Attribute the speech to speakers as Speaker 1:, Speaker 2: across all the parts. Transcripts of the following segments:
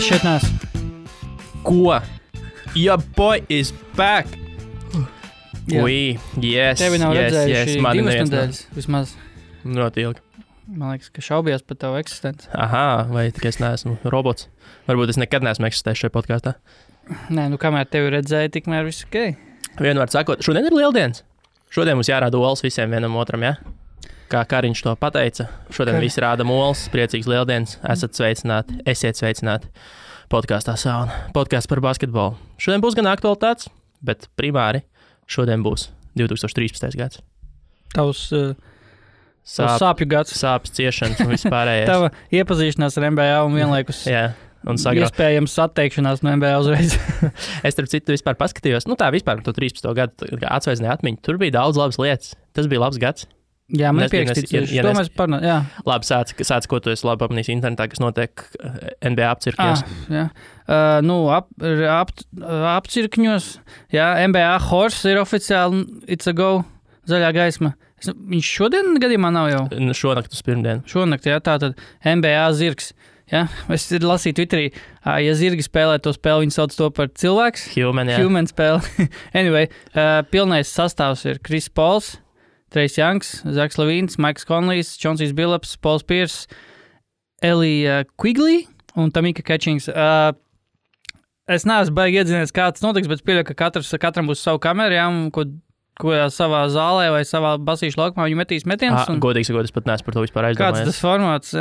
Speaker 1: Es šeit neesmu.
Speaker 2: Ko? Your boy is back!
Speaker 1: Jā.
Speaker 2: Ui, yes,
Speaker 1: Tevi nav redzējuši
Speaker 2: mani
Speaker 1: 2
Speaker 2: neviens
Speaker 1: nedēļas vismaz.
Speaker 2: Ļoti ilgi.
Speaker 1: Man liekas, ka šaubījās par tavu eksistenci.
Speaker 2: Aha, vai tikai es neesmu robots? Varbūt es nekad neesmu eksistējis šajā podkāstā.
Speaker 1: Nē, nu kamēr tevi redzēju, tikmēr viss ok.
Speaker 2: Vienmēr sakot, šodien ir lieldienas. Šodien mums jārāda olas visiem vienam otram, ja? Kā Kariņš to pateica. Šodien visi rāda olas, priecīgs lieldienas. Esat sveicināti, esiet sveicināti. Podkāstā Sauna. Podkāsts par basketbolu. Šodien būs gan aktualitātes, bet primāri šodien būs 2013. gads.
Speaker 1: Tavs sāpju gads.
Speaker 2: Sāpes, ciešanas un vispārējais.
Speaker 1: Tava iepazīšanās ar NBA un vienlaikus
Speaker 2: Jā, un
Speaker 1: iespējams atteikšanās no NBA uzreiz.
Speaker 2: Es, starp citu, vispār paskatījos, nu tā vispār to 13. gadu atsveidzināju atmiņu. Tur bija daudz labas lietas. Tas bija labs gads.
Speaker 1: Jā, man pierakstīts. To mēs parunājam, jā.
Speaker 2: Labi, sāc, ko tu esi labi apmanījis internetā, kas notiek NBA apcirkņos.
Speaker 1: Jā. Apcirkņos, jā, NBA horse ir oficiāli, it's a go, zaļā gaisma. Viņš šodien gadījumā nav jau?
Speaker 2: Šonakt uz pirmdienu.
Speaker 1: Šonakt, jā, tātad NBA zirgs. Ja? Es lasīju Twitterī, ja zirgi spēlē to spēli, viņi sauc to par cilvēks. Human spēli. Anyway, pilnais sastāvs ir Chris Pauls, Trejs Youngs, Zaks Lavīns, Maiks Konlijs, Čonsijs Billups, Pauls Pierce, Elija Quigley un Tamika Catchings. Es neesmu baigi iedzinies, kā tas notiks, bet pieļauju, ka katram būs savu kameru, jā, ko savā zālē vai savā basīšu laukumā viņi metīs metienus.
Speaker 2: Godīgi sakot, es pat neesmu par to vispār aizdomājies.
Speaker 1: Kāds tas formāts?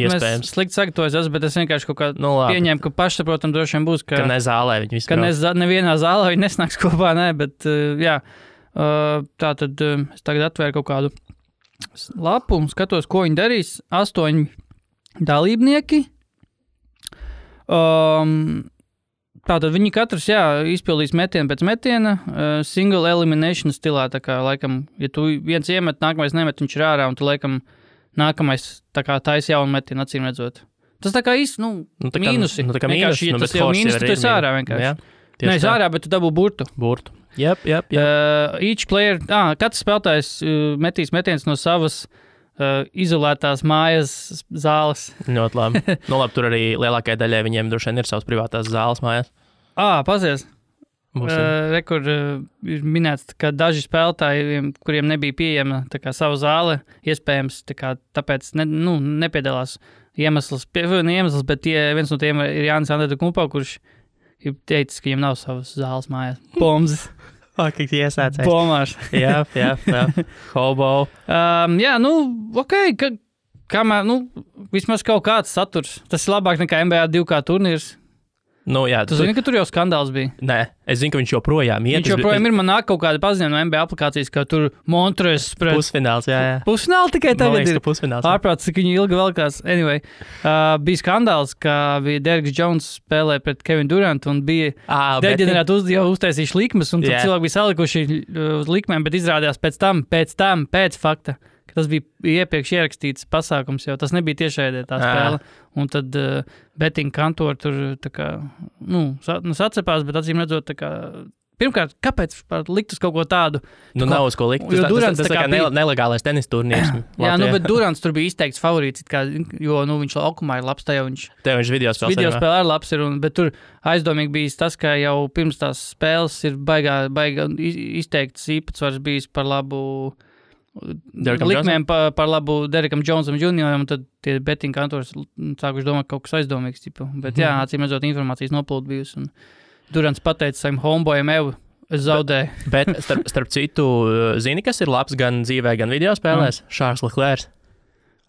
Speaker 2: Iespējams.
Speaker 1: Es slikti sagatavojos, bet es vienkārši kaut kā pieņēmu, ka pašsaprotam droši vien būs,
Speaker 2: ka ne zālē viņi vispār.
Speaker 1: Ka nevienā zālē viņi nesnāks kopā, ne, bet jā. Tātad es tagad atvēru kaut kādu lapu un skatos, ko viņi darīs. 8 dalībnieki. Tātad viņi katrs, izpildīs metienu pēc metiena, single elimination stilā, tā kā, laikam, ja tu viens iemet, nākamais nemet, viņš ir ārā, un tu, laikam, nākamais, tā kā taisa jaunu metienu, acīm redzot. Tas tā kā mīnusi.
Speaker 2: Tā kā mīnusi,
Speaker 1: tas jau mīnusi, tu esi ārā vienkārši.
Speaker 2: Jā,
Speaker 1: ne, es ārā, bet tu dabū burtu.
Speaker 2: Yep.
Speaker 1: Each player, katrs spēlētājs metīs metiens no savas izolētās mājas zāles.
Speaker 2: Ļoti labi. Labi, tur arī lielākajai daļai viņiem droši vien ir savas privātās zāles mājās.
Speaker 1: Pazies. Rekur ir minēts, ka daži spēlētāji, kuriem nebija pieejama tā kā sava zāle, iespējams, tā kā, tāpēc nepiedalās iemesls, bet viens no tiem ir Jānis Antetokounmpo, kurš ir teicis, ka viņam nav savas zāles mājās. Bombs.
Speaker 2: Faktiski iesācējs.
Speaker 1: Bomārs.
Speaker 2: Jā. Hobo.
Speaker 1: Ok, kamēr, vismaz kaut kāds saturs. Tas ir labāk nekā NBA 2K turnīrs. Jā. Tu zini, ka tur jau skandāls bija?
Speaker 2: Nē, es zinu, ka viņš joprojām ir.
Speaker 1: Viņš joprojām ir, man nāk kaut kāda paziņojuma no NBA aplikācijas, ka tur Montres pret...
Speaker 2: Pusfināls, jā.
Speaker 1: Pusfināli tikai tagad ir.
Speaker 2: Pusfināls.
Speaker 1: Ārprāts, cik viņi ilgi velkās. Anyway, bija skandāls, ka bija Derriks Jones spēlē pret Kevin Durant un bija deģenerēti jau uztaisījuši likmes, un tad cilvēki bija salikuši uz likmēm, bet izrādījās pēc fakta, ka tas bija iepriekš ierakstīts pasākums, jau tas nebija tiešraidē tā spēle. Un tad betting kantori tur tā kā, sacepās, bet acīm redzot, tā kā, pirmkārt, kāpēc likt uz kaut ko tādu?
Speaker 2: Nav uz ko likt. Tas tā kā nelegālais tenis turnīrs.
Speaker 1: Jā, bet Durants tur bija izteikts favorīts, jo viņš laukumā ir labs, tajā viņš
Speaker 2: video
Speaker 1: spēlē ir labs, bet tur aizdomīgi bijis tas, ka jau pirms tās spēles ir baigā izteikts īpatsvars bijis par labu likmēm par labu Derrikam Jonesam junioram, un tad tie betting kantori sākuši domāt kaut kas aizdomīgs. Bet acīm redzot, informācijas noplūda bijusi. Un Durants pateica saviem homeboyiem, es zaudēju.
Speaker 2: Bet starp citu, zini, kas ir labs gan dzīvē, gan video spēlēs? Charles Leclerc.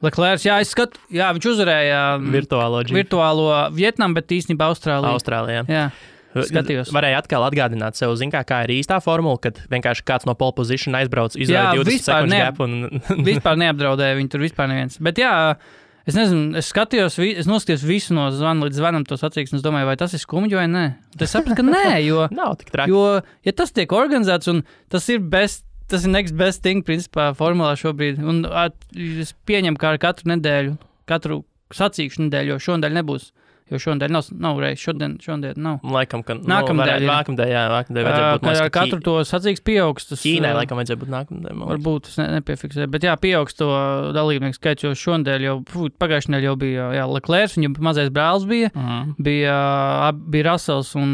Speaker 1: Leclerc, es skatu, viņš uzvarēja virtuālo Vietnamu, bet īstenībā Austrālijā. Jā. Skatījos.
Speaker 2: Varēja atkal atgādināt sev, kā ir īstā formula, kad vienkārši kāds no pole position aizbrauc, izvēlēja 20 sekundžu gap un...
Speaker 1: Vispār neapdraudēja viņu tur vispār neviens. Bet es nezinu, es noskatījos visu no zvana līdz zvanam to sacīksni, es domāju, vai tas ir skumji vai nē. Es sapratu, ka nē, jo...
Speaker 2: Nav tik traki.
Speaker 1: Jo, ja tas tiek organizēts un tas ir next best thing, principā, formulā šobrīd, un es pieņemu, kā ar katru nedēļu, katru sacīkšu nedēļu, jo šonedēļ nebūs. Jo šodien nav reizes, šodien nav.
Speaker 2: Laikam, ka
Speaker 1: nākamdēļ
Speaker 2: vajadzētu būt
Speaker 1: ar katru to sacīks pieaugs.
Speaker 2: Ķīnai laikam vajadzētu būt nākamdēļ.
Speaker 1: Varbūt es nepiefiksēju, bet pieaugs to dalībnieku skaits, jo šodien jau pagājušajā nedēļā jau bija Leclerc, viņam mazais brālis bija Russells un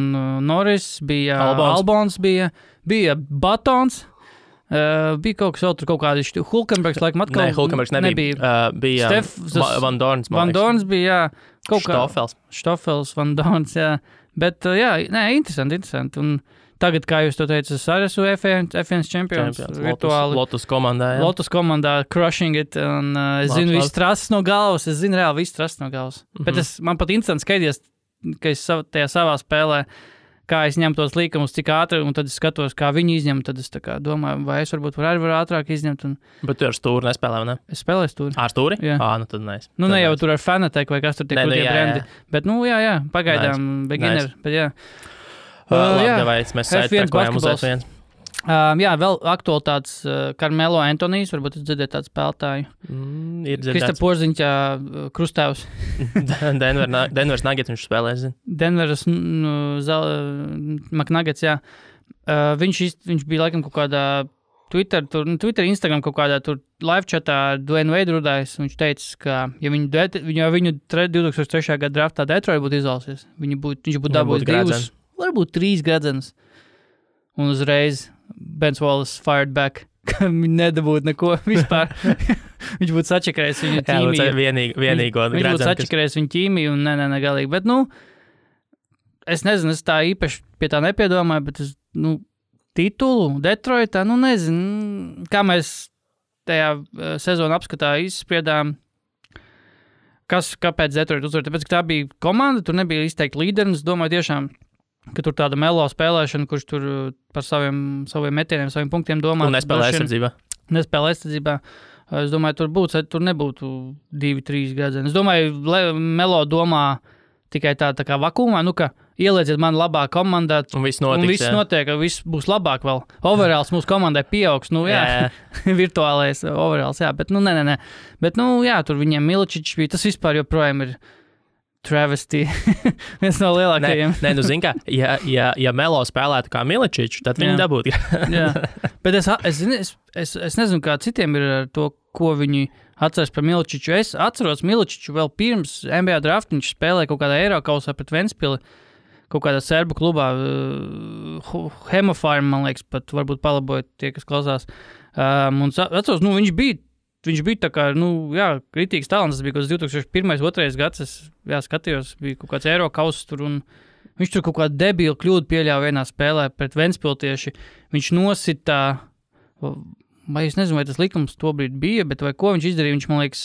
Speaker 1: Norris, bija Albons, bija Batons. Bija kaut kas vēl tur, kaut kādi Hulkenbergs, laikam atkal.
Speaker 2: Nē, Hulkenbergs nebija. Bija Van Dorns.
Speaker 1: Van Dorns bija, kaut kā.
Speaker 2: Štofels,
Speaker 1: Van Dorns, jā. Bet, interesanti. Un tagad, kā jūs to teicat, es arī esmu F1 čempions.
Speaker 2: Lotus komandā, jā.
Speaker 1: Lotus komandā, crushing it. Un es zinu visu trases no galvas. Bet man pat interesanti skaidrs, ka es tajā savā spēlē, kā es ņemu tos līkumus, cik ātri, un tad es skatos, kā viņi izņem, tad es tā kā domāju, vai es varbūt varu ātrāk izņemt.
Speaker 2: Bet tu ar stūri nespēlē, vai ne?
Speaker 1: Es spēlēju stūri.
Speaker 2: Ar stūri?
Speaker 1: Jā.
Speaker 2: Nu tad nē.
Speaker 1: Nu ne jau tur ar Fanatec vai kas tur tiek tie brendi. Bet, jā, pagaidām beginner. Bet, jā.
Speaker 2: Labi, mēs saitpēkojām uz F1.
Speaker 1: Jā, vēl aktualitātes Carmelo Antonijs, varbūt es dzirdēju tādu spēlētāju.
Speaker 2: Ir dzirdēts.
Speaker 1: Krista Porziņķa krustāvs.
Speaker 2: Denvers Nuggets viņš spēlē, zin.
Speaker 1: Denvers McNuggets, jā. Viņš bija laikam kaut kādā Twitter, Instagram kaut kādā tur live chatā ar Dwayne Wade rudājis. Viņš teica, ka ja viņu 2003. gada draftā Detroit būtu izvalsies, viņš būtu dabūjis 2, varbūt 3 gradzenus. Un uzreiz Bens Wallace fired back, ka viņi nedabūtu neko vispār. Viņš būtu sačakarējis viņu ķīmiju.
Speaker 2: Vienīgo
Speaker 1: viņš būtu sačakarējis viņu ķīmiju un ne galīgi. Bet, es nezinu, es tā īpaši pie tā nepiedomāju, bet titulu Detroitā, nezinu, kā mēs tajā sezonu apskatā izspriedām, kāpēc Detroit uzvar. Tāpēc, ka tā bija komanda, tur nebija izteikti līderi, un es domāju tiešām, ka tur tāda Melo spēlēšana, kurš tur par saviem metieniem, saviem punktiem domā.
Speaker 2: Un nespēlē
Speaker 1: aizsardzībā. Es domāju, tur nebūtu 2-3 gadzeni. Es domāju, Melo domā tikai tā kā vakumā, ka ielieciet mani labā komandā.
Speaker 2: Un viss notiek,
Speaker 1: ka viss būs labāk vēl. Overalls mūsu komandai pieaugs, virtuālais overalls, jā, bet nē. Bet, tur viņiem Miličičs bija, tas vispār joprojām ir travesty, viens no lielākajiem.
Speaker 2: Zin kā, ja Melo spēlētu kā Miličičs, tad viņi dabūtu.
Speaker 1: Jā, bet es nezinu, kā citiem ir ar to, ko viņi atceras par Miličiču. Es atceros Miličiču vēl pirms NBA draft, viņš spēlēja kaut kādā Eirokausā pret Ventspili, kaut kādā serbu klubā, Hemofarm, man liekas, pat varbūt palabojot tie, kas klausās. Un atceros, viņš bija tā kā, kritīgs talants, tas bija kaut 2001-2002 gads, es skatījos, bija kaut kāds Eirokaus tur, un viņš tur kaut kādu debilu kļūdu pieļāva vienā spēlē pret Ventspiltieši. Viņš nosita, vai es nezinu, vai tas likums tobrīd bija, bet vai ko viņš izdarīja, viņš, man liekas,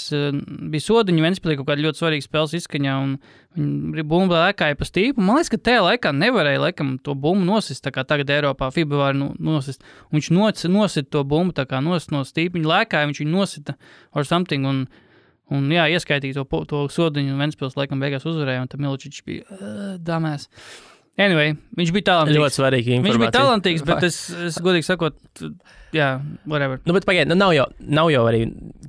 Speaker 1: bija sodiņi Ventspilī kaut kāda ļoti svarīga spēles izskaņā, un viņa bumba lēkāja pa stīpu. Man liekas, ka tajā laikā nevarēja, laikam, to bumbu nosist, tā kā tagad Eiropā FIBA var nosist. Un viņš nosita to bumbu, tā kā nosist no stīpa, viņa lēkāja, viņš viņu nosita or something, un ieskaitīja to sodiņu, un Ventspils laikam beigās uzvarēja, un tad Miličičs bija damēs. Anyway, viņš bija talantīgs.
Speaker 2: Ļoti svarīga informācija.
Speaker 1: Viņš bija talantīgs, bet es godīgi sakot, whatever.
Speaker 2: Bet pagaidi, nav jau arī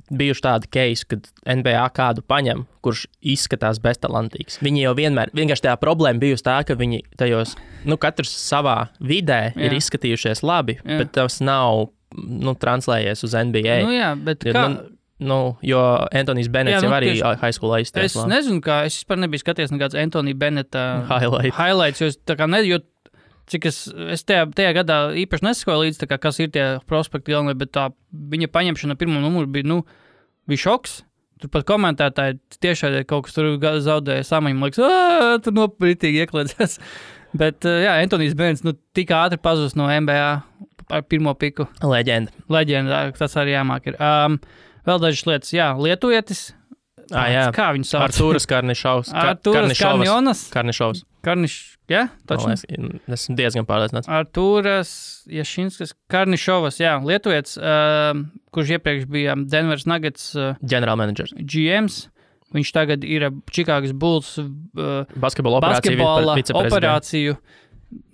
Speaker 2: bijuši tādi case, kad NBA kādu paņem, kurš izskatās beztalantīgs. Viņi jau vienkārši tajā problēma bijusi tā, ka viņi tajos, katrs savā vidē ir izskatījušies labi, bet tas nav, translējies uz NBA.
Speaker 1: Bet kā...
Speaker 2: jo Antonijs Benets jau arī high schoolā izties.
Speaker 1: Es nezinu, es vispār nebiju skaties nekāds Antonija Beneta highlights, jo tā kā cik es tajā gadā īpaši nesakoju līdz, kas ir tie prospekti galvenie, bet tā viņa paņemšana pirmo numuru bija šoks. Tur pat komentētāji tiešai kaut kas tur zaudēja samaņu, man liekas, tur nopritīgi iekliedzās. Bet, Antonijs Benets, tik ātri pazūs no NBA ar pirmo piku. Leģenda, tas arī jāmāk ir. Vēl dažas lietas, lietuvietis. Kā viņu sauc?
Speaker 2: Artūras Karnišovs.
Speaker 1: Taču?
Speaker 2: Esmu diezgan pārliecināts.
Speaker 1: Artūras Jašinskas Karnišovas, lietuvietis, kurš iepriekš bija Denvers Nuggets
Speaker 2: General Managers.
Speaker 1: GMs. Viņš tagad ir Čikāgas Bulls
Speaker 2: basketbola
Speaker 1: operāciju.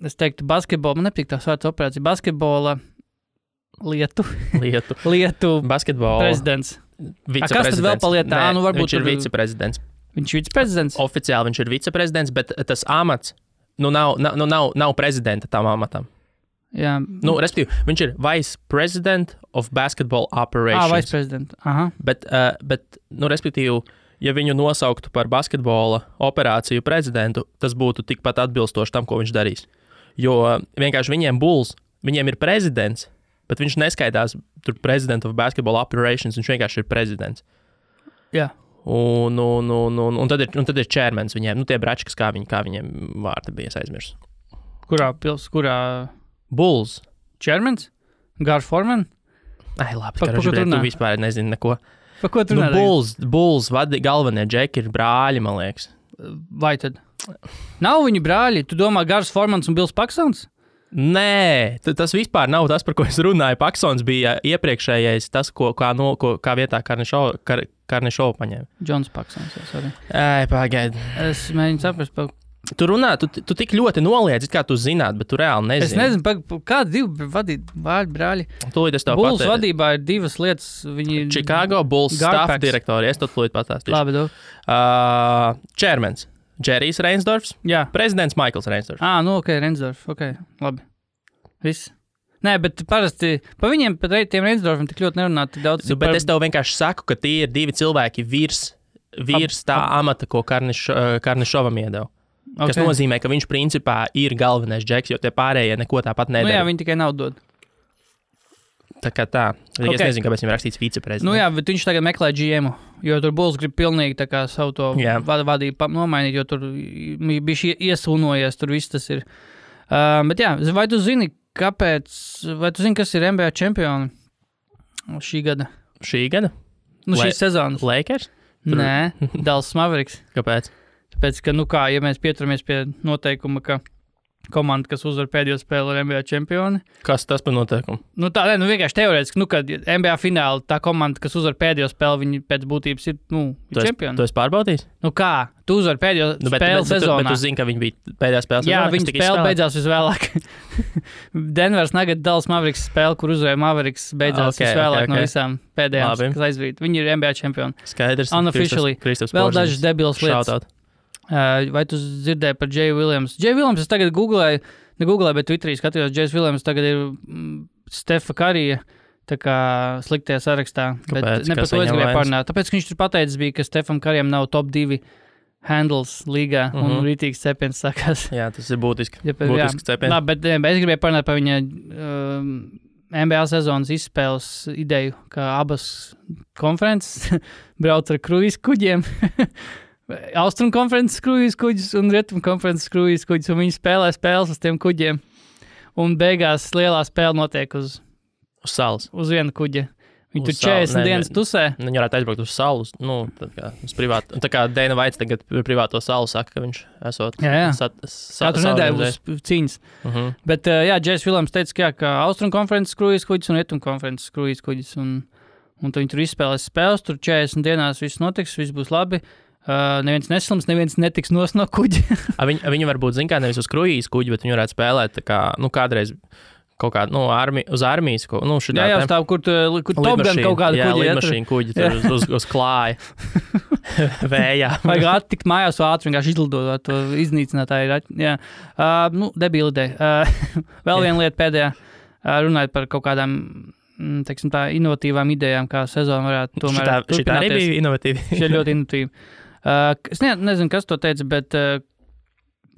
Speaker 1: Es teiktu basketbola, man nepatīk tās vārds operācija. Basketbola Lietu
Speaker 2: basketbola
Speaker 1: prezidents. Kas tad vēl palietā?
Speaker 2: Viņš ir viceprezidents.
Speaker 1: Viņš ir viceprezidents?
Speaker 2: Oficiāli viņš ir viceprezidents, bet tas amats nav prezidenta tam amatam.
Speaker 1: Jā.
Speaker 2: Respektīvi, viņš ir Vice President of Basketball Operations.
Speaker 1: Vice President. Aha.
Speaker 2: Bet respektīvi, ja viņu nosauktu par basketbola operāciju prezidentu, tas būtu tikpat atbilstoši tam, ko viņš darīs. Jo vienkārši viņiem ir prezidents, bet viņš neskaitās tur President of Basketball Operations, viņš vienkārši ir prezidents.
Speaker 1: Jā.
Speaker 2: Un tad ir chairmans viņiem, tie bračkas, kā viņiem vārdi bija aizmirsts.
Speaker 1: Kurā?
Speaker 2: Bulls.
Speaker 1: Chairmans? Gar Foreman?
Speaker 2: Labi, tu vispār nezini neko.
Speaker 1: Pa ko tu runā?
Speaker 2: Bulls galvenie džeki ir brāļi, man liekas.
Speaker 1: Vai tad? Nav viņu brāļi? Tu domā Gars Formans un Bills Paksons?
Speaker 2: Nē, tas vispār nav tas, par ko es runāju. Paksons bija iepriekšējais, tas, kā vietā Karnišovu paņēma.
Speaker 1: Džons Paksons, sorry.
Speaker 2: Pagaidi.
Speaker 1: Es mēģinu saprast,
Speaker 2: Tu runā, tu tik ļoti noliedz, kā tu zināt, bet tu reāli nezini.
Speaker 1: Es nezinu, kādi divi brāļi.
Speaker 2: Tūlīt es tev
Speaker 1: pateikšu. Bulls vadībā ir divas lietas.
Speaker 2: Chicago Bulls staff direktori. Es to tūlīt pastāstīšu.
Speaker 1: Labi,
Speaker 2: Chairmans. Džerijs Reinsdorfs.
Speaker 1: Jā.
Speaker 2: Prezidents Maikls Reinsdorfs.
Speaker 1: Ok, Reinsdorfs. Ok, labi. Viss. Nē, bet parasti pa viņiem, pat tiem Reinsdorfiem tik ļoti nerunā tik daudz.
Speaker 2: Bet es tev vienkārši saku, ka tie ir divi cilvēki virs tā amata, ko Karnišovam iedeva. Okay. Kas nozīmē, ka viņš principā ir galvenais džeks, jo tie pārējie neko tāpat nedara.
Speaker 1: Jā, viņi tikai naudu dod.
Speaker 2: Tā kā tā. Okay. Es nezinu, kāpēc viņam rakstīts viceprezidents.
Speaker 1: Jā, bet viņš tagad meklē GM-u, jo tur Bulls grib pilnīgi tā kā savu to vadību nomainīt, jo tur bija iesūnojies, tur viss tas ir. Bet jā, vai tu zini, kas ir NBA čempioni šī gada?
Speaker 2: Šī gada?
Speaker 1: Šīs sezonas.
Speaker 2: Lakers?
Speaker 1: Nē, Dallas Mavericks.
Speaker 2: Kāpēc?
Speaker 1: Tāpēc, ka, ja mēs pieturamies pie noteikuma, ka komanda, kas uzvar pēdējo spēli, ir NBA čempioni.
Speaker 2: Kas tas par noteikumu?
Speaker 1: Vienkārši teorētiski, kad NBA fināli tā komanda, kas uzvar pēdējo spēli, viņi pēc būtības ir čempioni.
Speaker 2: Tu esi pārbaudījis?
Speaker 1: Kā? Tu uzvar pēdējo spēli sezonā.
Speaker 2: Bet tu zini, ka viņi bija pēdējā spēlē sezonā?
Speaker 1: Jā, viņa spēle beidzās visvēlāk. Denvers Nuggets Dallas Mavericks spēle, kur uzvarēja Mavericks, beidzās visvēlāk no visām pēdējām, kas aizvīt. Viņi ir NBA čempioni.
Speaker 2: Skaidrs.
Speaker 1: Unofficially. Vēl dažas debilas lietas. Vai tu dzirdēji par Jay Williams? Jay Williams es tagad negooglēju, bet Twitterī skatījos, Jay Williams tagad ir Stefa Karija tā kā sliktajā sarakstā.
Speaker 2: Kāpēc?
Speaker 1: Bet ne par to es gribēju parunāt. Tāpēc, ka viņš tur pateicis bija, ka Stefam Karijam nav top 2 handles līgā un rītīgs cepiens sākās.
Speaker 2: Jā, tas ir būtisks cepiens.
Speaker 1: Labi, bet es gribēju parunāt par viņa NBA sezonas izspēles ideju, ka abas konferences brauc ar kruīz kuģiem. Austrum konferences kruīz kuģis un Rietum konferences kruīz kuģis, un viņi spēlē spēles uz tiem kuģiem. Un beigās lielā spēle notiek uz
Speaker 2: salas.
Speaker 1: Uz viena kuģa. Viņi tur 40 dienas tusē.
Speaker 2: Viņi varētu aizbraukt uz salu, uz privātu. Tā kā Dana Vaits tagad privāto salu saka, ka viņš esot
Speaker 1: katru nedēļu būs cīņas. Bet, Jais Williams teica, ka Austrum konferences kruīz kuģis un Rietum konferences kruīz kuģis. Un viņi tur izspēlēs spēles, tur 40 dienās viss notiks, viss būs labi. Neviens neslims, neviens netiks no kuģa.
Speaker 2: Viņi varbūt zina, kā nevis uz kruīzes kuģi, bet viņi varētu spēlēt tā kā, kādreiz kaut kādu, uz armijas,
Speaker 1: jā, stāv, kur Top Gun kaut kādu kuģi.
Speaker 2: Jā, lidmašīnu kuģi tur uz klāja. Vējā.
Speaker 1: Vajag attikt mājās ātri, vienkārši izlidot to iznīcinātāju. Jā. Debīla ideja. Vēl viena lieta pēdējā, runājot par kaut kādām, teiksim tā, inovatīvām idejām, kā sezona varētu tomēr turpināties.
Speaker 2: Šitā arī bija inovatīva.
Speaker 1: Šī ir ļoti inovatīva. Es nezinu, kas to teica, bet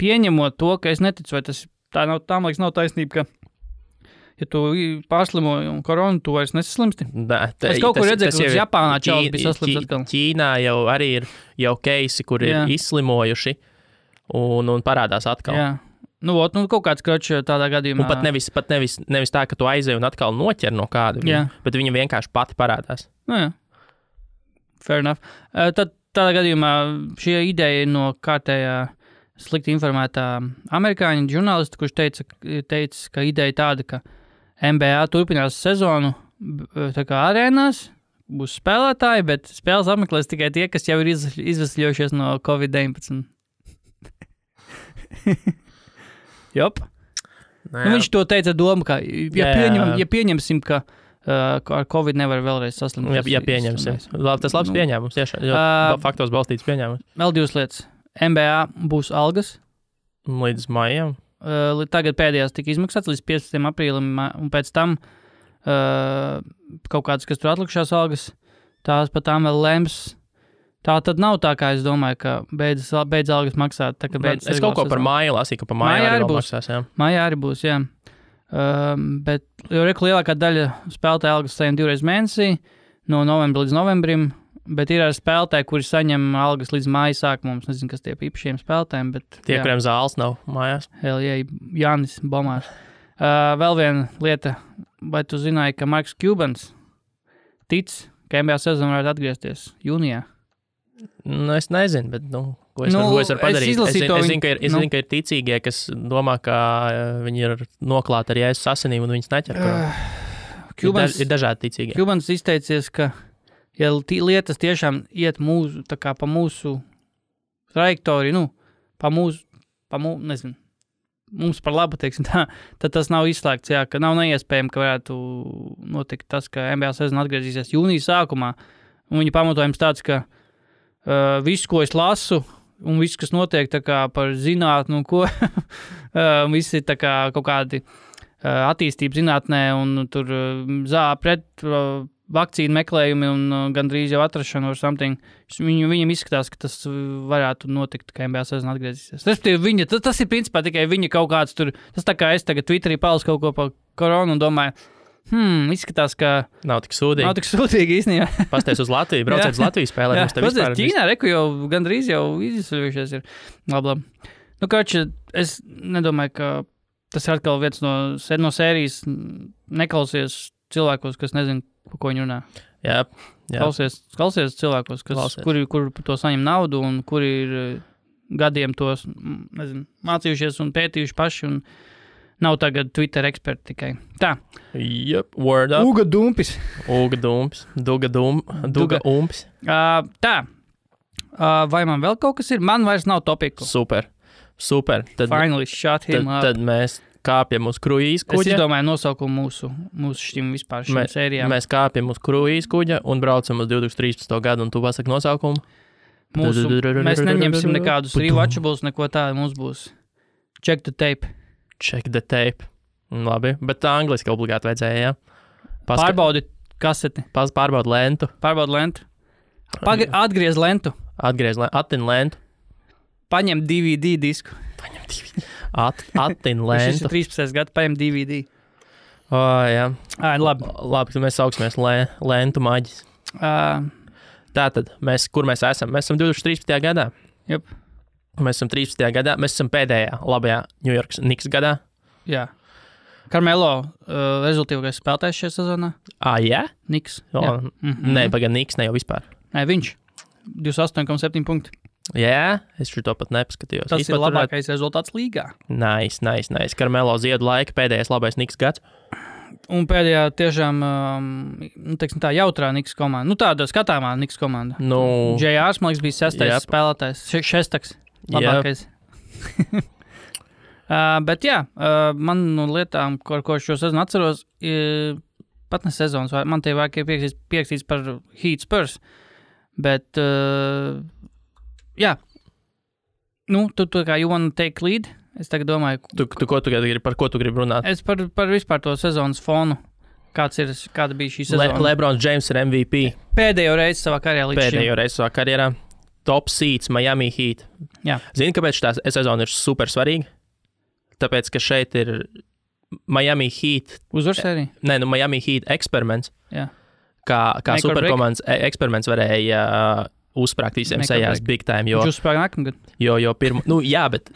Speaker 1: pieņemot to, ka es neticu, vai tas tā liekas nav taisnība, ka ja tu pārslimoji un koronu, tu vairs nesaslimsti. Es kaut kur redzēju, ka Japānā čauli bija saslimts atkal.
Speaker 2: Ķīnā jau arī ir keisi, kur ir izslimojuši un parādās atkal.
Speaker 1: Jā. Kaut kāds kročs tādā gadījumā.
Speaker 2: Un pat nevis tā, ka tu aizēji un atkal noķer no kāda, bet viņa vienkārši pati parādās.
Speaker 1: Jā. Fair enough. Tad tādā gadījumā šī ideja ir no kārtējā slikti informētā amerikāņu žurnālista, kurš teica, ka ideja tāda, ka NBA turpinās sezonu tā kā arēnās, būs spēlētāji, bet spēles apmeklēs tikai tie, kas jau ir izvesļojušies no COVID-19. Jop. Viņš to teica doma, ka ja pieņemsim, ka ar Covid nevar vēlreiz saslimt.
Speaker 2: Jā, pieņemsim. Tas labs pieņēmums, tiešām. Faktos balstīts pieņēmums.
Speaker 1: Vēl 2 lietas. NBA būs algas.
Speaker 2: Līdz maijam.
Speaker 1: Tagad pēdējās tika izmaksāts līdz 15. aprīlim, un pēc tam kaut kādas, kas tur atlikušās algas, tās pat tām vēl lems. Tā tad nav tā, kā es domāju, ka beidz algas maksāt. Tā,
Speaker 2: es kaut ko par māju lasīju, ka par māju arī būs. Maksās, jā.
Speaker 1: Mājā arī būs, jā. Bet jau lielākā daļa spēlētāju algas saņem 2 reizes mēnesī, no novembra līdz novembrim, bet ir arī spēlētāji, kuri saņem algas līdz māja sākumam. Es nezinu, kas tie īpašiem spēlētājiem, bet...
Speaker 2: Tie, kuriem zāles nav mājās.
Speaker 1: Jānis Bomārs. Vēl viena lieta, vai tu zināji, ka Marks Cubans tic, ka NBA sezona varētu atgriezties jūnijā?
Speaker 2: Es nezinu, bet, ko es varu padarīt? Es zinu, ka ir ticīgie, kas domā, ka viņi ir noklāti ar Jēzus asinīm un viņas neķer. Ir dažādi ticīgie.
Speaker 1: Cubans izteicies, ka ja lietas tiešām iet pa mūsu trajektoriju, nezinu, mums par labu, teiksim tā, tad tas nav izslēgts, jā, ka nav neiespējami, ka varētu notikt tas, ka NBA sezona atgriezīsies jūnijas sākumā, un viņa pamatojums tāds, ka viss, ko es lasu, un viss, kas notiek tā kā par zinātnu, visi tā kā kaut kādi attīstība zinātnē, un tur pret vakcīnu meklējumi un gandrīz jau atrašana or something. Viņam izskatās, ka tas varētu notikt, ka NBA sezona atgriezīsies. Respektīvi, tas ir principā tikai viņa kaut kāds tur, tas tā kā es tagad Twitterī palasu kaut ko par koronu un domāju, izskatās, ka
Speaker 2: nav tik sūdīgi
Speaker 1: īstenībā.
Speaker 2: Pasties uz Latviju, brauciet uz Latviju spēlēt.
Speaker 1: Pasties Ķīnā, jau gandrīz jau izceļušies ir. Labi. Kača, es nedomāju, ka tas ir atkal viens no sērijas neklausies cilvēkos, kas nezin, par ko viņi runā.
Speaker 2: Jā.
Speaker 1: Klausies cilvēkos, kuri par to saņem naudu un kuri ir gadiem tos, mācījušies un pētījuši paši un nav tagad Twitter eksperti tikai. Tā.
Speaker 2: Yep, word up.
Speaker 1: Uga Dumpis.
Speaker 2: Duga Umpis.
Speaker 1: Tā. Vai man vēl kaut kas ir? Man vairs nav topiku.
Speaker 2: Super.
Speaker 1: Finally shut him up.
Speaker 2: Tad mēs kāpjam uz kruīz kuģa.
Speaker 1: Es izdomāju nosaukumu mūsu šim sērijām.
Speaker 2: Mēs kāpjam uz kruīz kuģa un braucam uz 2013. gadu, un tu pasaki nosaukumu?
Speaker 1: Mēs neņemsim nekādus rewatchables, neko tādu mums būs. Check the tape.
Speaker 2: Labi, bet tā angliski obligāti vajadzēja, jā?
Speaker 1: Pārbaudi kaseti.
Speaker 2: Pārbaudi lentu.
Speaker 1: Atgriez lentu.
Speaker 2: Attin lentu.
Speaker 1: Paņem DVD disku.
Speaker 2: Attin lentu.
Speaker 1: Šis ir 13. gadu, paņem DVD.
Speaker 2: Jā.
Speaker 1: Labi,
Speaker 2: tad mēs sauksimies lentu maģis. Tātad, kur mēs esam? Mēs esam 2013. gadā.
Speaker 1: Jep.
Speaker 2: Mēs esam 13. gadā, mēs esam pēdējā labajā New York Knicks gadā.
Speaker 1: Jā. Carmelo rezultīvākais spēlētājs šajā sezonā.
Speaker 2: Jā?
Speaker 1: Knicks.
Speaker 2: Nē, pagaid Knicks ne jau vispār.
Speaker 1: Nē, viņš. 28,7 punkti.
Speaker 2: Jā, es šo pat nepaskatījos.
Speaker 1: Tas ir labākais rezultāts līgā.
Speaker 2: Nice. Carmelo ziedu laika pēdējais labais Knicks gads.
Speaker 1: Un pēdējā tiešām, teiksim tā, jautrā Knicks komanda. Tāda skatāmā Knicks komanda. J.R. man liekas bija 6. spēlētājs. Šestaks. Labākais. Bet jā, man no lietām, ko šo sezonu atceros, pat ne sezonas, man tie vajag pierakstīts par Heat Spurs, bet jā, tu kā you wanna take lead, es tagad domāju.
Speaker 2: Par ko tu gribi runāt?
Speaker 1: Es par vispār to sezonas fonu, kāda bija šī sezona.
Speaker 2: LeBron James ir MVP.
Speaker 1: Pēdējo reizi savā karjerā.
Speaker 2: Top seeds Miami Heat.
Speaker 1: Jā.
Speaker 2: Zini, kāpēc šī sezona ir super svarīga? Tāpēc, ka šeit ir Miami Heat.
Speaker 1: Uzvaru sērija?
Speaker 2: Nē, Miami Heat eksperiments.
Speaker 1: Jā.
Speaker 2: Kā superkomandas eksperiments varēja uzsprāgt visiem sejās big time.
Speaker 1: Viņš uzsprāga nākamgad?
Speaker 2: Jā, bet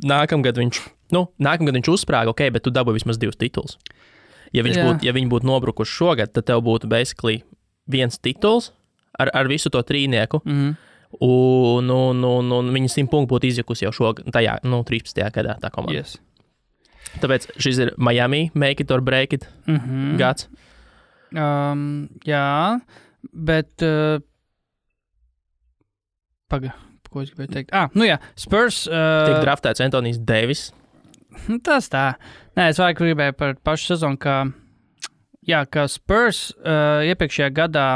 Speaker 2: nākamgad viņš uzsprāga, ok, bet tu dabūji vismaz 2 tituls. Ja viņi būtu nobrukuši šogad, tad tev būtu basically 1 tituls ar visu to trīnieku. Un viņa 100 punktu būtu izjukusi jau šogad, tajā 13. gadā tā komanda.
Speaker 1: Yes.
Speaker 2: Tāpēc šis ir Miami make it or break it gads.
Speaker 1: Jā, bet ko es gribēju teikt? Spurs
Speaker 2: tik draftēts Anthonijs Davis.
Speaker 1: Tas tā. Nē, es vairāk gribēju par pašu sezonu, ka ka Spurs iepriekšējā gadā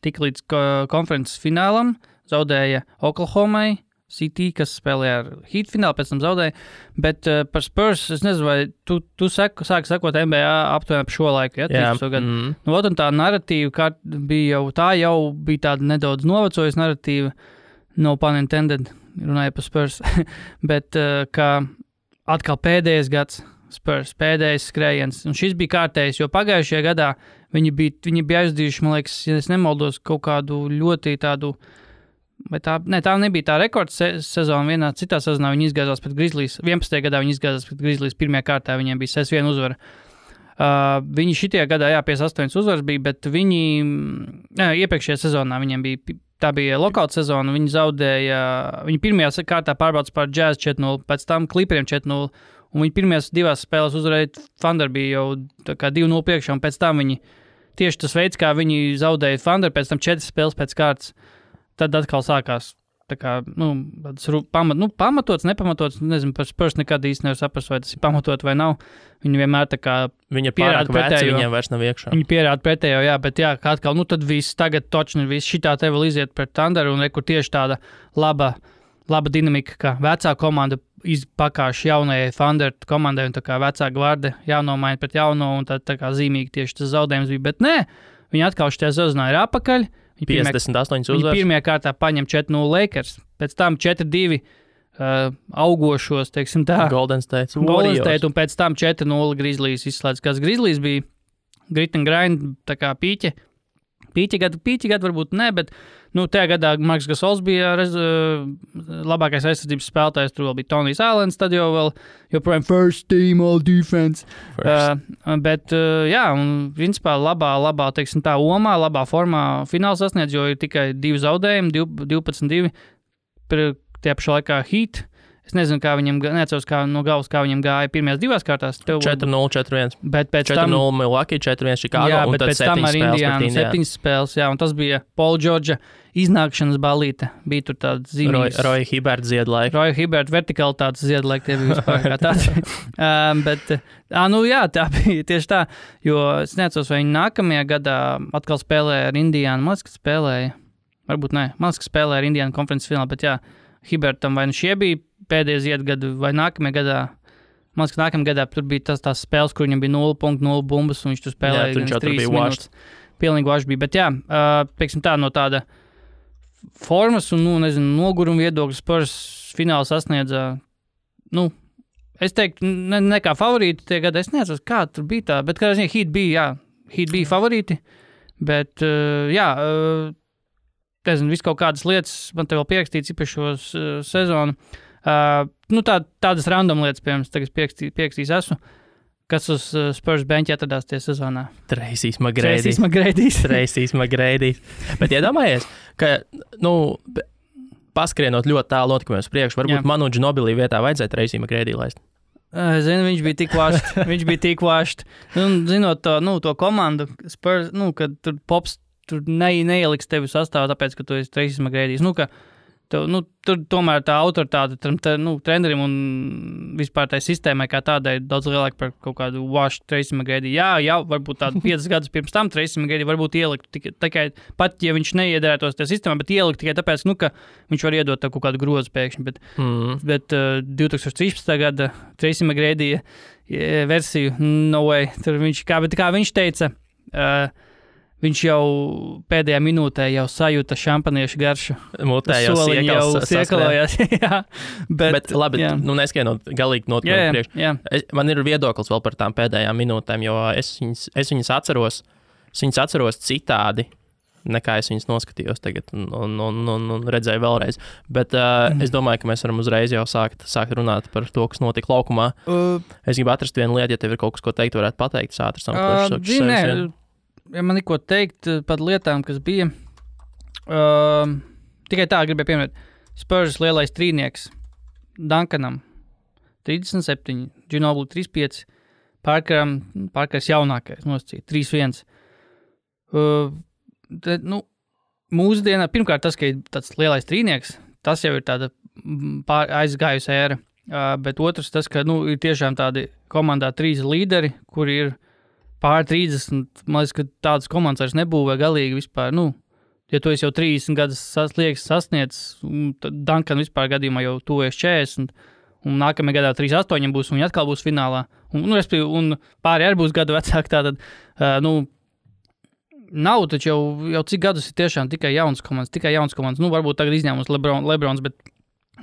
Speaker 1: tika līdz konferences finālam, zaudēja Oklahomai, City, kas spēlēja ar Heat finālu, pēc tam zaudēja, bet par Spurs, es nezinu, vai tu sāki sakot NBA aptuveni par šo laiku, ja?
Speaker 2: Jā.
Speaker 1: Nu, un tā narratīva bija jau bija tāda nedaudz novecojusi narratīva, no pun intended, runāja par Spurs, bet ka atkal pēdējais gads Spurs, pēdējais skrējiens, un šis bija kārtējs, jo pagājušajā gadā viņi bija aizdījuši, man liekas, ja es nemaldos, kaut kādu ļoti tādu. Vai tā nebija tā rekords sezona. Vienā citā sezonā viņi izgāzās pret Grizzlies. 11. gadā viņi izgāzās pret Grizzlies. Pirmajā kārtā viņiem bija 6-1 uzvara. Viņi šitajā gadā, 58 uzvaras bija, bet viņi iepriekšējā sezonā viņiem bija, tā bija lockout sezona, viņi zaudēja, viņi pirmajā kārtā pārbaudas par Jazz 4-0, pēc tam Clipperiem 4-0, un viņi pirmajās divās spēlēs uzvarēja Thunder bija jau tā kā 2-0 priekšā, un pēc tam viņi, tieši tas veids, kā viņi zaudēja Thunder, pēc tam 4 spēles pēc kārtas, tad atkal sākās tā kā, pamatots, nepamatots, nezinu, par Spurs nekad īsti nevar saprast, vai tas ir pamatot vai nav. Viņi vienmēr tā kā
Speaker 2: Viņa ir pārāk veci, viņiem vairs nav iekšā.
Speaker 1: Viņi pierāda pretējo, jā, bet jā, kā atkal, tad viss tagad točni, viss šitā te vēl iziet pret Thunder, un kur tieši tāda laba dinamika, ka vecā komanda pakāš jaunajai Thunder komandai, un tā kā vecā gvarde jānomaina pret jauno, un tā kā zīmīgi tieši tas zaudējums bija, bet nē, viņi atkal šitajā sezonā ir apakaļ.
Speaker 2: 58 uzvaras.
Speaker 1: Viņi pirmajā kārtā paņem 4-0 Lakers, pēc tam 4-2 augošos, teiksim tā.
Speaker 2: Golden State,
Speaker 1: un pēc tam 4-0 Grizzlies izslēdz, kas Grizzlies bija grit and grind, tā kā pīķi gadu varbūt ne, bet tajā gadā Marks Gasols bija labākais aizsardzības spēlētājs, tur vēl bija Tonijs Allens, tad jau vēl joprojām first team all defense. Bet jā, un principā labā, teiksim tā, omā, labā formā fināls sasniedz, jo ir tikai 2 zaudējumi, 12-2, tie pašā laikā Heat. Es nezinu, kā viņam, neatceros no galvas, kā viņam gāja pirmajās 2 kārtās.
Speaker 2: 4-0, 4-1.
Speaker 1: Bet pēc tam
Speaker 2: 4-0 Milwaukee, 4-1 Chicago,
Speaker 1: jā,
Speaker 2: un tad
Speaker 1: pēc tam ar Indiānu 7 spēles, jā, un tas bija Paul George'a iznākšanas balīte. Bija tur tāds zīmīgs.
Speaker 2: Roy Hibbert ziedlaika.
Speaker 1: Roy Hibbert vertikalitātes ziedlaika, tie bija vispār kā tāds. Jā, tā bija tieši tā, jo es neatceros, vai viņi nākamajā gadā atkal spēlēja ar Indiānu. Man liekas, ka spēlēja, varbūt ne, man liekas, ka spēlēja ar Indiānu konferences finālā, bet jā, Hibbertam vai šie bija pēdējie ziedgadu, vai nākamajā gadā, man liekas, ka nākamajā gadā tur bija tās spēles, kur viņam bija 0 punktu, 0 bumbas, un viņš tur spēlēja 3 minūtes. Pilnīgi vašs bija, bet jā, teiksim tā, no tāda formas un, noguruma viedokļa Spurs fināls sasniedza, es teiktu, ne kā favorīti tie gadi, es neatceros, kā tur bija tā, bet kā Heat bija favorīti, bet jā, nezinu, visu kaut kādas lietas, man te vēl pierakstīts īpašos sezonu. Tādas random lietas, piemēram, tagad pierakstīs esmu, kas uz Spurs benča atradās tie sezonā.
Speaker 2: Tracy's McGrady. Bet iedomājies, ka, paskrienot ļoti tālu notikumiem uz priekšu, varbūt Manu Ginobili vietā vajadzēja Tracy McGrady laist.
Speaker 1: Zinu, viņš bija tik vašs. Zinot to komandu, Spurs, kad tur Pops tur neieliks tevi sastāvā, tāpēc, ka tu esi Tracy McGrady. Tur tomēr tā autoritāte trenerim un vispār tai sistēmai kā tādai daudz lielāka par kaut kādu wash Tracy McGrady. Jā, varbūt tādu 5 gadus pirms tam Tracy McGrady varbūt ielikt tikai, pat ja viņš neiederētos tajā sistēmā, bet ielikt tikai tāpēc, ka viņš var iedot tev kaut kādu grozu pēkšņi. Bet 2013. gada Tracy McGrady versiju, no way, tur kā viņš teica, viņš jau pēdējā minūtē jau sajūta šampaniešu garšu.
Speaker 2: Mutē jau
Speaker 1: siekalojās.
Speaker 2: bet labi, neskainot galīgi notikumiem priekš. Man ir viedoklis vēl par tām pēdējām minūtēm, jo es viņas atceros citādi, nekā es viņas noskatījos tagad un redzēju vēlreiz. Bet es domāju, ka mēs varam uzreiz jau sākt runāt par to, kas notika laukumā. Es gribu atrast vienu lietu, ja tev ir kaut kas, ko teikt, varētu pateikt.
Speaker 1: Ja man ir ko teikt par lietām, kas bija, tikai tā gribēju pieminēt. Spurs lielais trīnieks Duncanam 37, Ginobili 35, Parkers jaunākais nosacīja 3-1. Mūsdienā, pirmkārt tas, ka ir tāds lielais trīnieks, tas jau ir tāda aizgājusi ēra, bet otrs tas, ka ir tiešām tādi komandā 3 līderi, kuri ir pār 30, man liekas, ka tādas komandas vairs nebūvē galīgi vispār, ja tu esi jau 30 gadus sasniedzis, tad Duncan vispār gadījumā jau tuvies 40, un nākamajā gadā 38 būs, un viņi atkal būs finālā, un pāri arī būs gadu vecāki, tātad, nav taču jau cik gadus ir tiešām tikai jaunas komandas, varbūt tagad izņēmums Lebrons, bet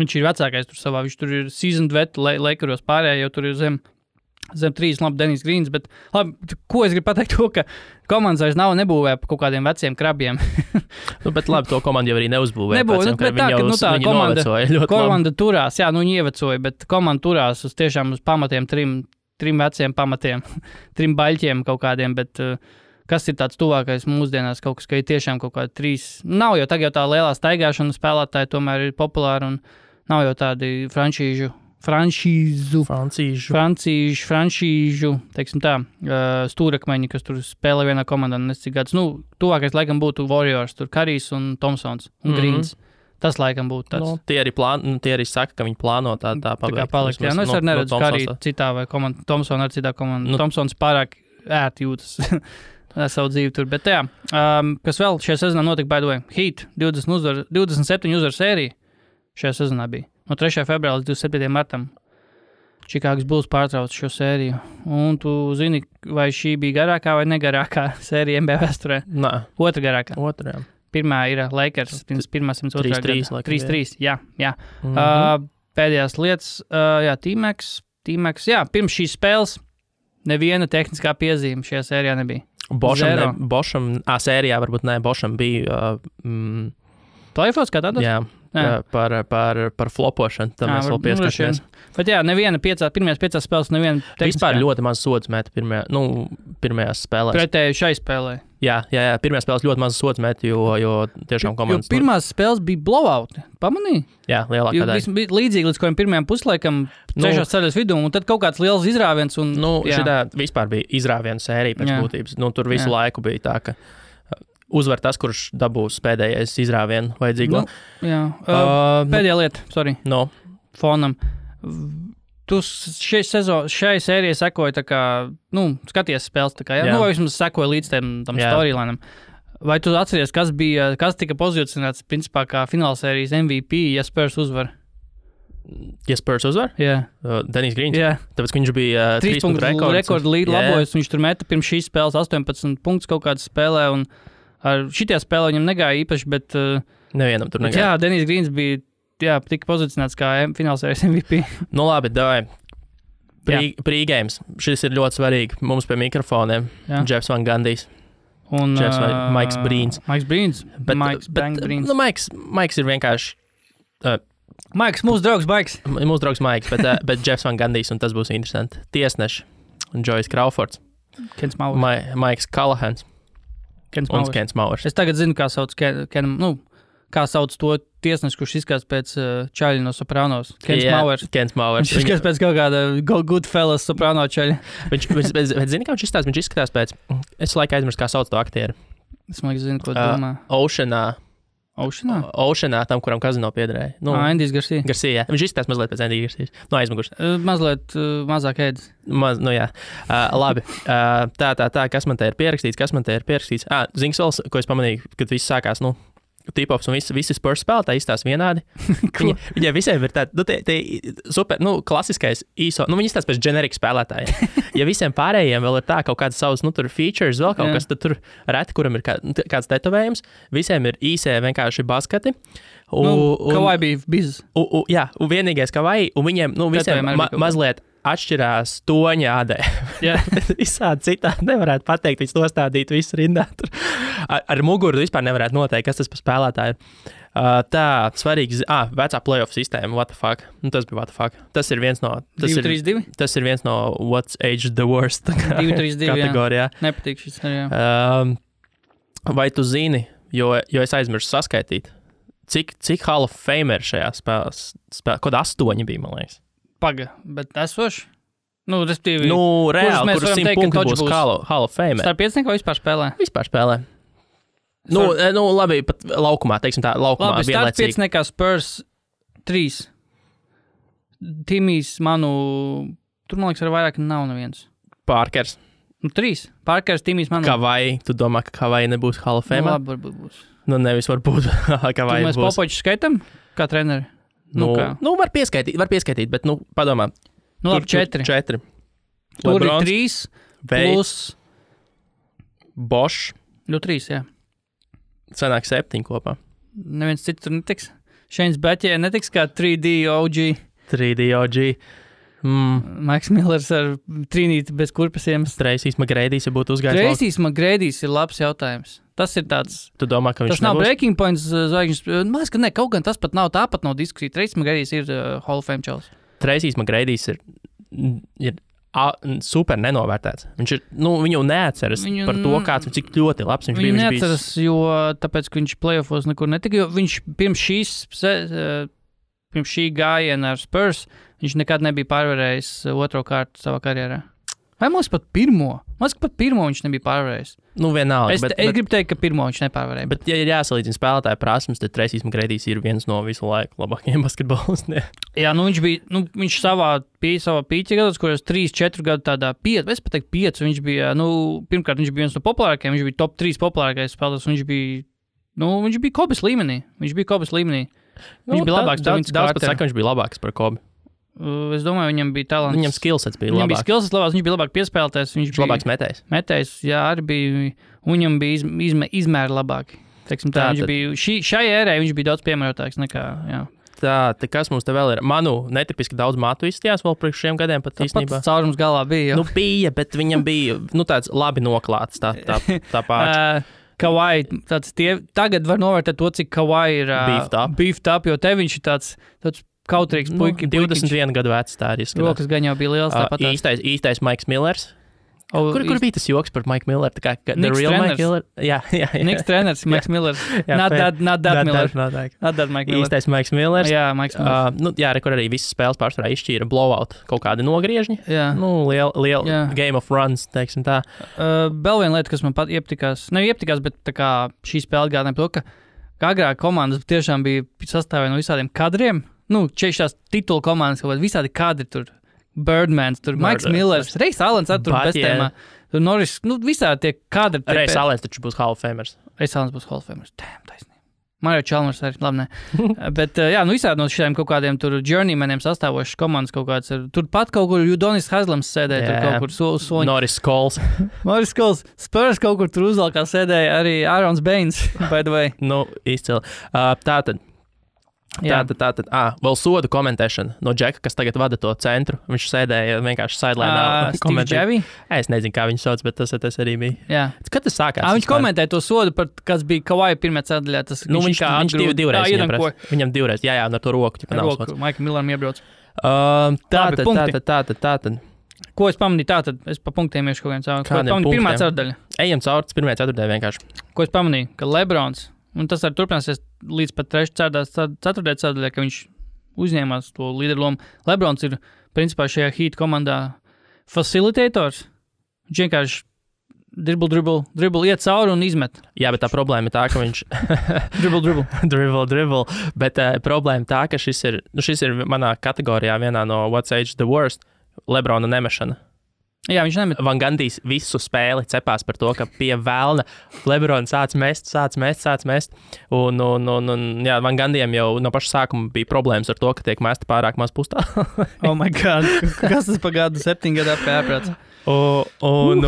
Speaker 1: viņš ir vecākais tur savā, viņš tur ir seasoned vet, Lakeros pārējā, jau tur ir zem 3, labi, Denis Greens, bet labi, ko es gribu pateikt to, ka komandas vairs nebūvē pa kaut kādiem veciem krabiem.
Speaker 2: Bet labi, to komandu jau arī neuzbūvēja.
Speaker 1: Komanda turās, viņi ievecoja, bet komanda turās uz tiešām uz pamatiem, trim veciem pamatiem, 3 baļķiem kaut kādiem, bet kas ir tāds tuvākais mūsdienās, kaut kas, ka ir tiešām kaut kādi 3, nav jau tagad tā lielā staigāšana spēlētāji tomēr ir populāri un nav jau tādi francīžu, teiksim tā, stūrakmeņi, kas tur spēlē vienā komandā, nescik gadus. Tuvākais laikam būtu Warriors, tur Karijs un Thompsons un Greens. Tas laikam būtu tāds.
Speaker 2: Tie arī saka, ka viņi plāno tā
Speaker 1: palikt. Jā, es arī neredzu Kariju citā vai komandā, Thompsonu ar citā komandā. Thompsons pārāk ērti jūtas savu dzīvi tur, bet jā. Kas vēl šajā sezonā notika, by the way? Heat, 27 uzvaru sērija šajā sezonā bija. No 3. februāra līdz 27. martam Čikāgas Bulls pārtrauca šo sēriju. Un tu zini, vai šī bija garākā vai negarākā sērija NBA vēsturē?
Speaker 2: Nē.
Speaker 1: Otra garākā.
Speaker 2: Otrā.
Speaker 1: Pirmā ir Lakers, pirmā 102.
Speaker 2: 3-3.
Speaker 1: Jā. Pēdējās lietas, T-Max, pirms šīs spēles neviena tehniskā piezīme šajā sērijā nebija.
Speaker 2: Bošam, sērijā varbūt ne, Bošam bija...
Speaker 1: Playoffs kā tādos?
Speaker 2: Jā. Par flopošanu, tam mēs vēl pieskarsimies.
Speaker 1: Bet neviena pirmajās 5 spēles, neviena tehniskā.
Speaker 2: Vispār ļoti maz sods meta pirmajās spēlēs.
Speaker 1: Pretēji šai spēlē.
Speaker 2: Jā, pirmajās spēles ļoti maz sods meta, jo tiešām komandas...
Speaker 1: Jo pirmās spēles bija blowouti, pamanīji?
Speaker 2: Jā, lielākā daļa.
Speaker 1: Bija līdzīgi līdz kādiem pirmajām puslaikam, trešās ceļas vidū, un tad kaut kāds liels izrāviens.
Speaker 2: Šitā vispār bija izrāviena sērija pēc būtības. Tur visu laiku bija tā, ka... Uzvar tas, kurš dabūs pēdējais izrāvienu vajadzīgo.
Speaker 1: Pēdējā lieta, fonam. Tu šai sērijai sekoji tā kā, skaties spēles tā kā, vai vismaz sekoji līdz tam storylinam. Vai tu atceries, kas tika pozicionēts, principā, kā finālsērijas MVP, ja Spurs uzvar?
Speaker 2: Ja Spurs uzvar?
Speaker 1: Jā.
Speaker 2: Denis Greens?
Speaker 1: Jā.
Speaker 2: Tāpēc, ka viņš bija 3 punktu
Speaker 1: rekordu līdz labojas, viņš tur meta pirms šīs spēles 18 punktus kaut kādas spēlē, un ar šitie spēlē viņam negāja īpaši, bet...
Speaker 2: Nevienam tur negāja.
Speaker 1: Jā, Denis Greens bija tika pozicionēts kā finālsērijas MVP.
Speaker 2: Labi, davai. Pre-games. Šis ir ļoti svarīgi. Mums pie mikrofoniem. Jeffs Van Gandijs.
Speaker 1: Un
Speaker 2: Maiks Brīns.
Speaker 1: Maiks Brīns.
Speaker 2: Maiks ir vienkārši...
Speaker 1: Maiks, mūsu draugs Maiks.
Speaker 2: Mūsu draugs Maiks, bet Jeffs Van Gandijs, un tas būs interesanti. Tiesneši. Joyce Crawfords.
Speaker 1: Kens Mauers.
Speaker 2: Maiks Kalahans. Un Kens Mauers.
Speaker 1: Es tagad zinu, kā sauc kā sauc to tiesnesi, kurš izskatās pēc čaļa no Sopranos. Kens Mauers. Viņš izskatās pēc kaut kāda Goodfellas Soprano čaļa.
Speaker 2: Bet zini, kā viņš izskatās? Viņš izskatās pēc... Es laikā aizmirstu, kā sauc to aktieru.
Speaker 1: Es man zinu, ko domā.
Speaker 2: Oceanā, tam, kuram kazino piederēja.
Speaker 1: Andijs Garcia.
Speaker 2: Garcia, jā. Viņš izskatās mazliet pēc Andija Garcijas. Aizmugurs.
Speaker 1: Mazliet mazāk ēdis.
Speaker 2: Jā. Labi. Tā, kas man te ir pierakstīts? Zini, vēl, ko es pamanīju, kad viss sākās, T-pops un visi Spurs spēlētāji izstās vienādi. Viņiem visiem ir tāda, super, klasiskais īso, viņi izstās pēc generika spēlētājiem. Ja visiem pārējiem vēl ir tā kaut kādas savas, tur features, vēl kaut kas, tad tur reti, kuram ir kāds tetovējums, visiem ir īsē vienkārši basketi.
Speaker 1: Kavai bija bizes.
Speaker 2: Jā, un vienīgais Kavai, un viņiem, visiem mazliet atšķirās toņa ādē. Visādi citādi nevarētu pateikt, viņš nostādīt visu rindā. Ar muguru vispār nevarētu noteikt, kas tas par spēlētāju. Tā, svarīgi, vecā playoff sistēma, what the fuck. Tas bija what the fuck. Tas ir viens no...
Speaker 1: 2-3-2?
Speaker 2: Tas ir viens no what's age the worst
Speaker 1: 2-3-2,
Speaker 2: kategorijā.
Speaker 1: Nepatīk šis, jā.
Speaker 2: Vai tu zini, jo es aizmirsu saskaitīt, cik Hall of Fame ir šajā spēlē? Kod 8 bija, man liekas.
Speaker 1: Paga, bet esoši? Respektīvi,
Speaker 2: reāli, kurus 100 punktu būs Hall of Fame.
Speaker 1: Starp 5 vai vispār spēlē?
Speaker 2: Vispār spēlē. Labi, pat laukumā, teiksim tā, laukumā
Speaker 1: vienlaicīgi. Labi, starp 5 nekā Spurs 3. Timijs tur, man liekas, ar vairāk nav neviens.
Speaker 2: Parkers.
Speaker 1: 3. Parkers, Timmijs, man.
Speaker 2: Kavai, tu domā, ka Kavai nebūs Hall of Fame?
Speaker 1: Labi, varbūt būs.
Speaker 2: Nevis varbūt Kavai
Speaker 1: mēs
Speaker 2: būs.
Speaker 1: Mēs Popoviču skaitam kā treneri?
Speaker 2: Var pieskaitīt, bet, padomā.
Speaker 1: Labi, 4.
Speaker 2: Tur
Speaker 1: ir 3, plus...
Speaker 2: Bosch.
Speaker 1: 3, jā.
Speaker 2: Sanāk 7 kopā.
Speaker 1: Neviens cits tur netiks. Šeins Beķē netiks kā 3D OG.
Speaker 2: 3D OG.
Speaker 1: Maiks Millers ar trīnīti bez kurpesiem.
Speaker 2: Tracy's McGradys, ja būtu uzgājis.
Speaker 1: Tracy's McGradys ir labs jautājums. Tas ir tāds...
Speaker 2: Tu domā, ka viņš
Speaker 1: tas nav breaking points zvaigžņas. Man liekas, ka ne, kaut gan tas pat nav, tāpat nav diskusija. Tracy's McGradys ir Hall of Fame čels.
Speaker 2: Tracy's McGradys ir super nenovērtēts. Viņš ir, viņu neatceras par to, kāds un cik ļoti labs viņš bija.
Speaker 1: Viņu neatceras, jo tāpēc, ka viņš playoffos nekur netika, jo viņš pirms šī gājiena ar Spurs, viņš nekad nebija pārvarējis otro kārtu savā karjerā. Vai mums pat pirmo? Mums pat pirmo viņš nebija pārvarējis.
Speaker 2: Vienalga.
Speaker 1: Es gribu teikt, ka pirmo viņš nepārvarēja.
Speaker 2: Bet ja ir jāsalīdzina spēlētāju prasmes, tad Tracy's McGradys ir viens no visu laiku labākajiem basketbolistiem.
Speaker 1: Jā, viņš savā pīķa gados, kuros 3-4 gadu tādā 5, es pat teiktu 5, viņš bija, pirmkārt viņš bija viens no populārākajiem, viņš bija top 3 populārākais spēlētājs, viņš bija Kobes līmenī. Viņš bija labāks.
Speaker 2: Daudz pat saka, viņš bija labāks par Kobi.
Speaker 1: Es domāju, viņam bija talants.
Speaker 2: Viņam skillsets bija labāks.
Speaker 1: Viņš bija labāk piespēlētājs. Viņš bija
Speaker 2: labāks metējs.
Speaker 1: Metējs, jā, arī bija. Viņam bija izmēri labāki. Teiksim, viņš bija, šai ērē viņš bija daudz piemērotāks nekā, jā.
Speaker 2: Tā, kas mums te vēl ir? Manu netipiski daudz matu izstījās vēl priekš šiem gadiem pat īstenībā.
Speaker 1: Pats caurums galā bija.
Speaker 2: Bija, bet viņam bija, tāds labi noklāts tā pārts.
Speaker 1: Kawhi, tagad var novērtēt to, cik Kawhi ir beefed up, jo te viņš ir tāds kautrīgs puikiņš.
Speaker 2: 21 gadu vecs tā arī izskatās.
Speaker 1: Rokas gan jau bija liels tāpat.
Speaker 2: Īstais Maiks Millers. Kur bija tas joks par Mike Milleru? Tā kā the real Mike Miller? Jā.
Speaker 1: Niks treneris, Maiks Millers. Not that Miller. Not that Mike Miller.
Speaker 2: Īstais Maiks Millers.
Speaker 1: Jā, Maiks Millers.
Speaker 2: Kur arī visas spēles pārsvarā izšķīra blowout, kaut kādi nogriežņi.
Speaker 1: Jā.
Speaker 2: Liela game of runs, teiksim tā.
Speaker 1: Vēl viena lieta, kas man pat iepatikās, bet tā kā šī spēle gādināja to, ka agrāk komandas tiešām bija sastāvē no visādiem kadriem. Šīs titulu komandas, kaut kādi visādi kadri tur. Birdmans, tur Maiks Millers, Reis Alens ar tur bestēmā. Tur Norris, visādi tie kadri.
Speaker 2: Reis Alens taču būs Hall of Famers.
Speaker 1: Reis Alens būs Hall of Famers. Taisnība. Mario Chalmers arī, labi, ne. Bet, visādi no šiem kaut kādiem tur journeymaniem sastāvošas komandas kaut kāds. Tur pat kaut kur Udonis Haslams sēdēja, tur kaut kur soņi.
Speaker 2: Norris Coles.
Speaker 1: Spurs kaut kur tur uzvalkā sēdēja arī Aaron's Baines, by the way.
Speaker 2: Izcili. Tātad. Vēl sodu komentēšana no Džeka, kas tagad vada to centru. Viņš sēdēja vienkārši sidelinā. Es nezinu, kā viņu sauc, bet tas arī bija.
Speaker 1: Jā.
Speaker 2: Kad tas sākās?
Speaker 1: Viņš komentēja to sodu, kas bija Kawhi pirmajā ceturdaļā.
Speaker 2: Viņš divreiz viņam divreiz. Jā, un ar to roku.
Speaker 1: Roku, Maikam Milleram iebrauc.
Speaker 2: Tātad.
Speaker 1: Ko es pamanīju? Tātad es pa punktiem iešu kaut viens savu. Ko es pamanīju? Pirmā ceturdaļa.
Speaker 2: Ejam cauri pirmajā ceturdaļā vienkārši.
Speaker 1: Ko es pamanīju? Ka Lebrons, un tas arī turpināsies līdz pat ceturtajā ceturdaļā, ka viņš uzņēmās to līderu lomu. Lebrons ir, principā, šajā Heat komandā facilitators. Viņš vienkārši dribble, iet cauri un izmet.
Speaker 2: Jā, bet tā problēma ir tā, ka viņš... dribble. Bet problēma tā, ka šis ir manā kategorijā vienā no What's Age the Worst. Lebrona nemešana.
Speaker 1: Jā, viņš nemet.
Speaker 2: Van Gandijs visu spēli cepās par to, ka pie velna Lebrons sāc mest. Un Van Gandijam jau no paša sākuma bija problēmas ar to, ka tiek mesti pārāk maz pustā.
Speaker 1: Oh my God, kas tas pa gadu 7 gadā pēprāts?
Speaker 2: Un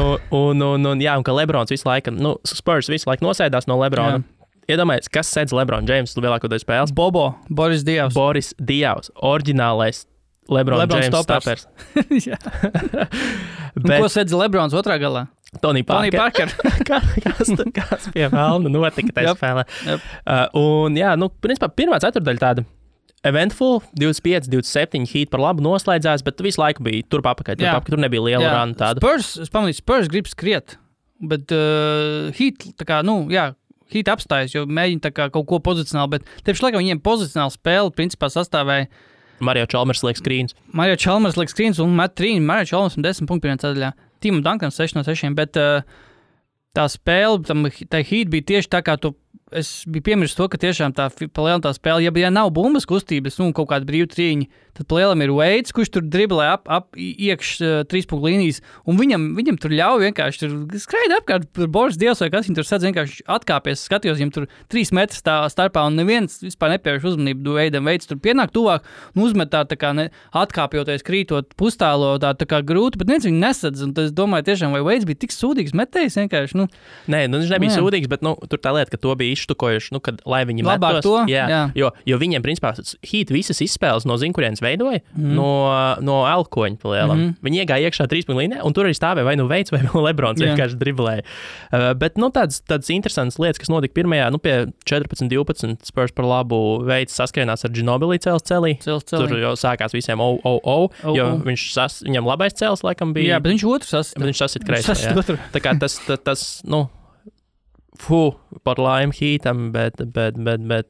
Speaker 2: ka Lebrons visu laiku, Spurs visu laiku nosēdās no Lebrona. Iedomājies, kas sēdz Lebron James lielāko daļu spēles?
Speaker 1: Boris
Speaker 2: Dievs, oriģinālais Lebron James stoppers.
Speaker 1: Jā. Ko sēdz Lebrons otrā galā?
Speaker 2: Tony Parker. Kas pie velna notika tajā spēlē. Principā pirmā ceturdaļa tāda eventful, 25, 27 Heat par labu noslēdzās, bet visu laiku bija turp apakaļ, tur nebija liela runa tāda.
Speaker 1: Spurs grib skriet, bet Heat, Heat apstājas, jo mēģina tā kā kaut ko pozicionāli, bet tieši laikam viņiem pozicionāli spēle principā sastāvēja
Speaker 2: Mario Chalmers liek screens.
Speaker 1: Un met 3. Mario Chalmers 10 punktu pirmajā ceturdaļā. Timam Dunkam 6 no 6, bet tā spēle, tā Heat bija tieši tā, kā tu es biju piemirsis to, ka tiešām tā palielam tā spēle, ja nav bumbas kustības, kaut kāda brīva trīņa, tad palielam ir Veids, kurš tur driblē ap iekš 3 punktu līnijas, un viņam tur ļauj vienkārši tur skraida apkārt par Boris Dievs, vai kas viņam tur sadz vienkārši atkāpies, skatījos, viņam tur 3 metri starpā, un neviens vispār nepievērš uzmanību Veidam. Veids tur pienāk tuvāk un uzmet tā kā atkāpjoties, krītot pustālo, tā kā grūti, bet neviens viņu nesadz, un es domāju tiešām, vai Veids bija tik sūdīgs metējs vienkārši,
Speaker 2: Nē, viņš nebija sūdīgs, bet, tur tā lieta, ka to bija izštukojuši, kad, lai viņi
Speaker 1: labāk
Speaker 2: metos.
Speaker 1: Jā.
Speaker 2: Jo viņiem, principā, Heat visas izspēles no kurienes veidoja, no elkoņa palielam. Viņi iegāja iekšā 3 punktu līnijā, un tur arī stāvēja vai Veids vai Lebrons vienkārši driblēja. Bet, tādas interesantas lietas, kas notika pirmajā, pie 14-12 Spurs par labu Veids saskrienās ar Ginobili celī. Tur jau sākās visiem jo viņam labais cels, laikam, bija.
Speaker 1: Jā, bet viņš otru
Speaker 2: sasit kreisā. Tā kā tas par laimi Heatam, bet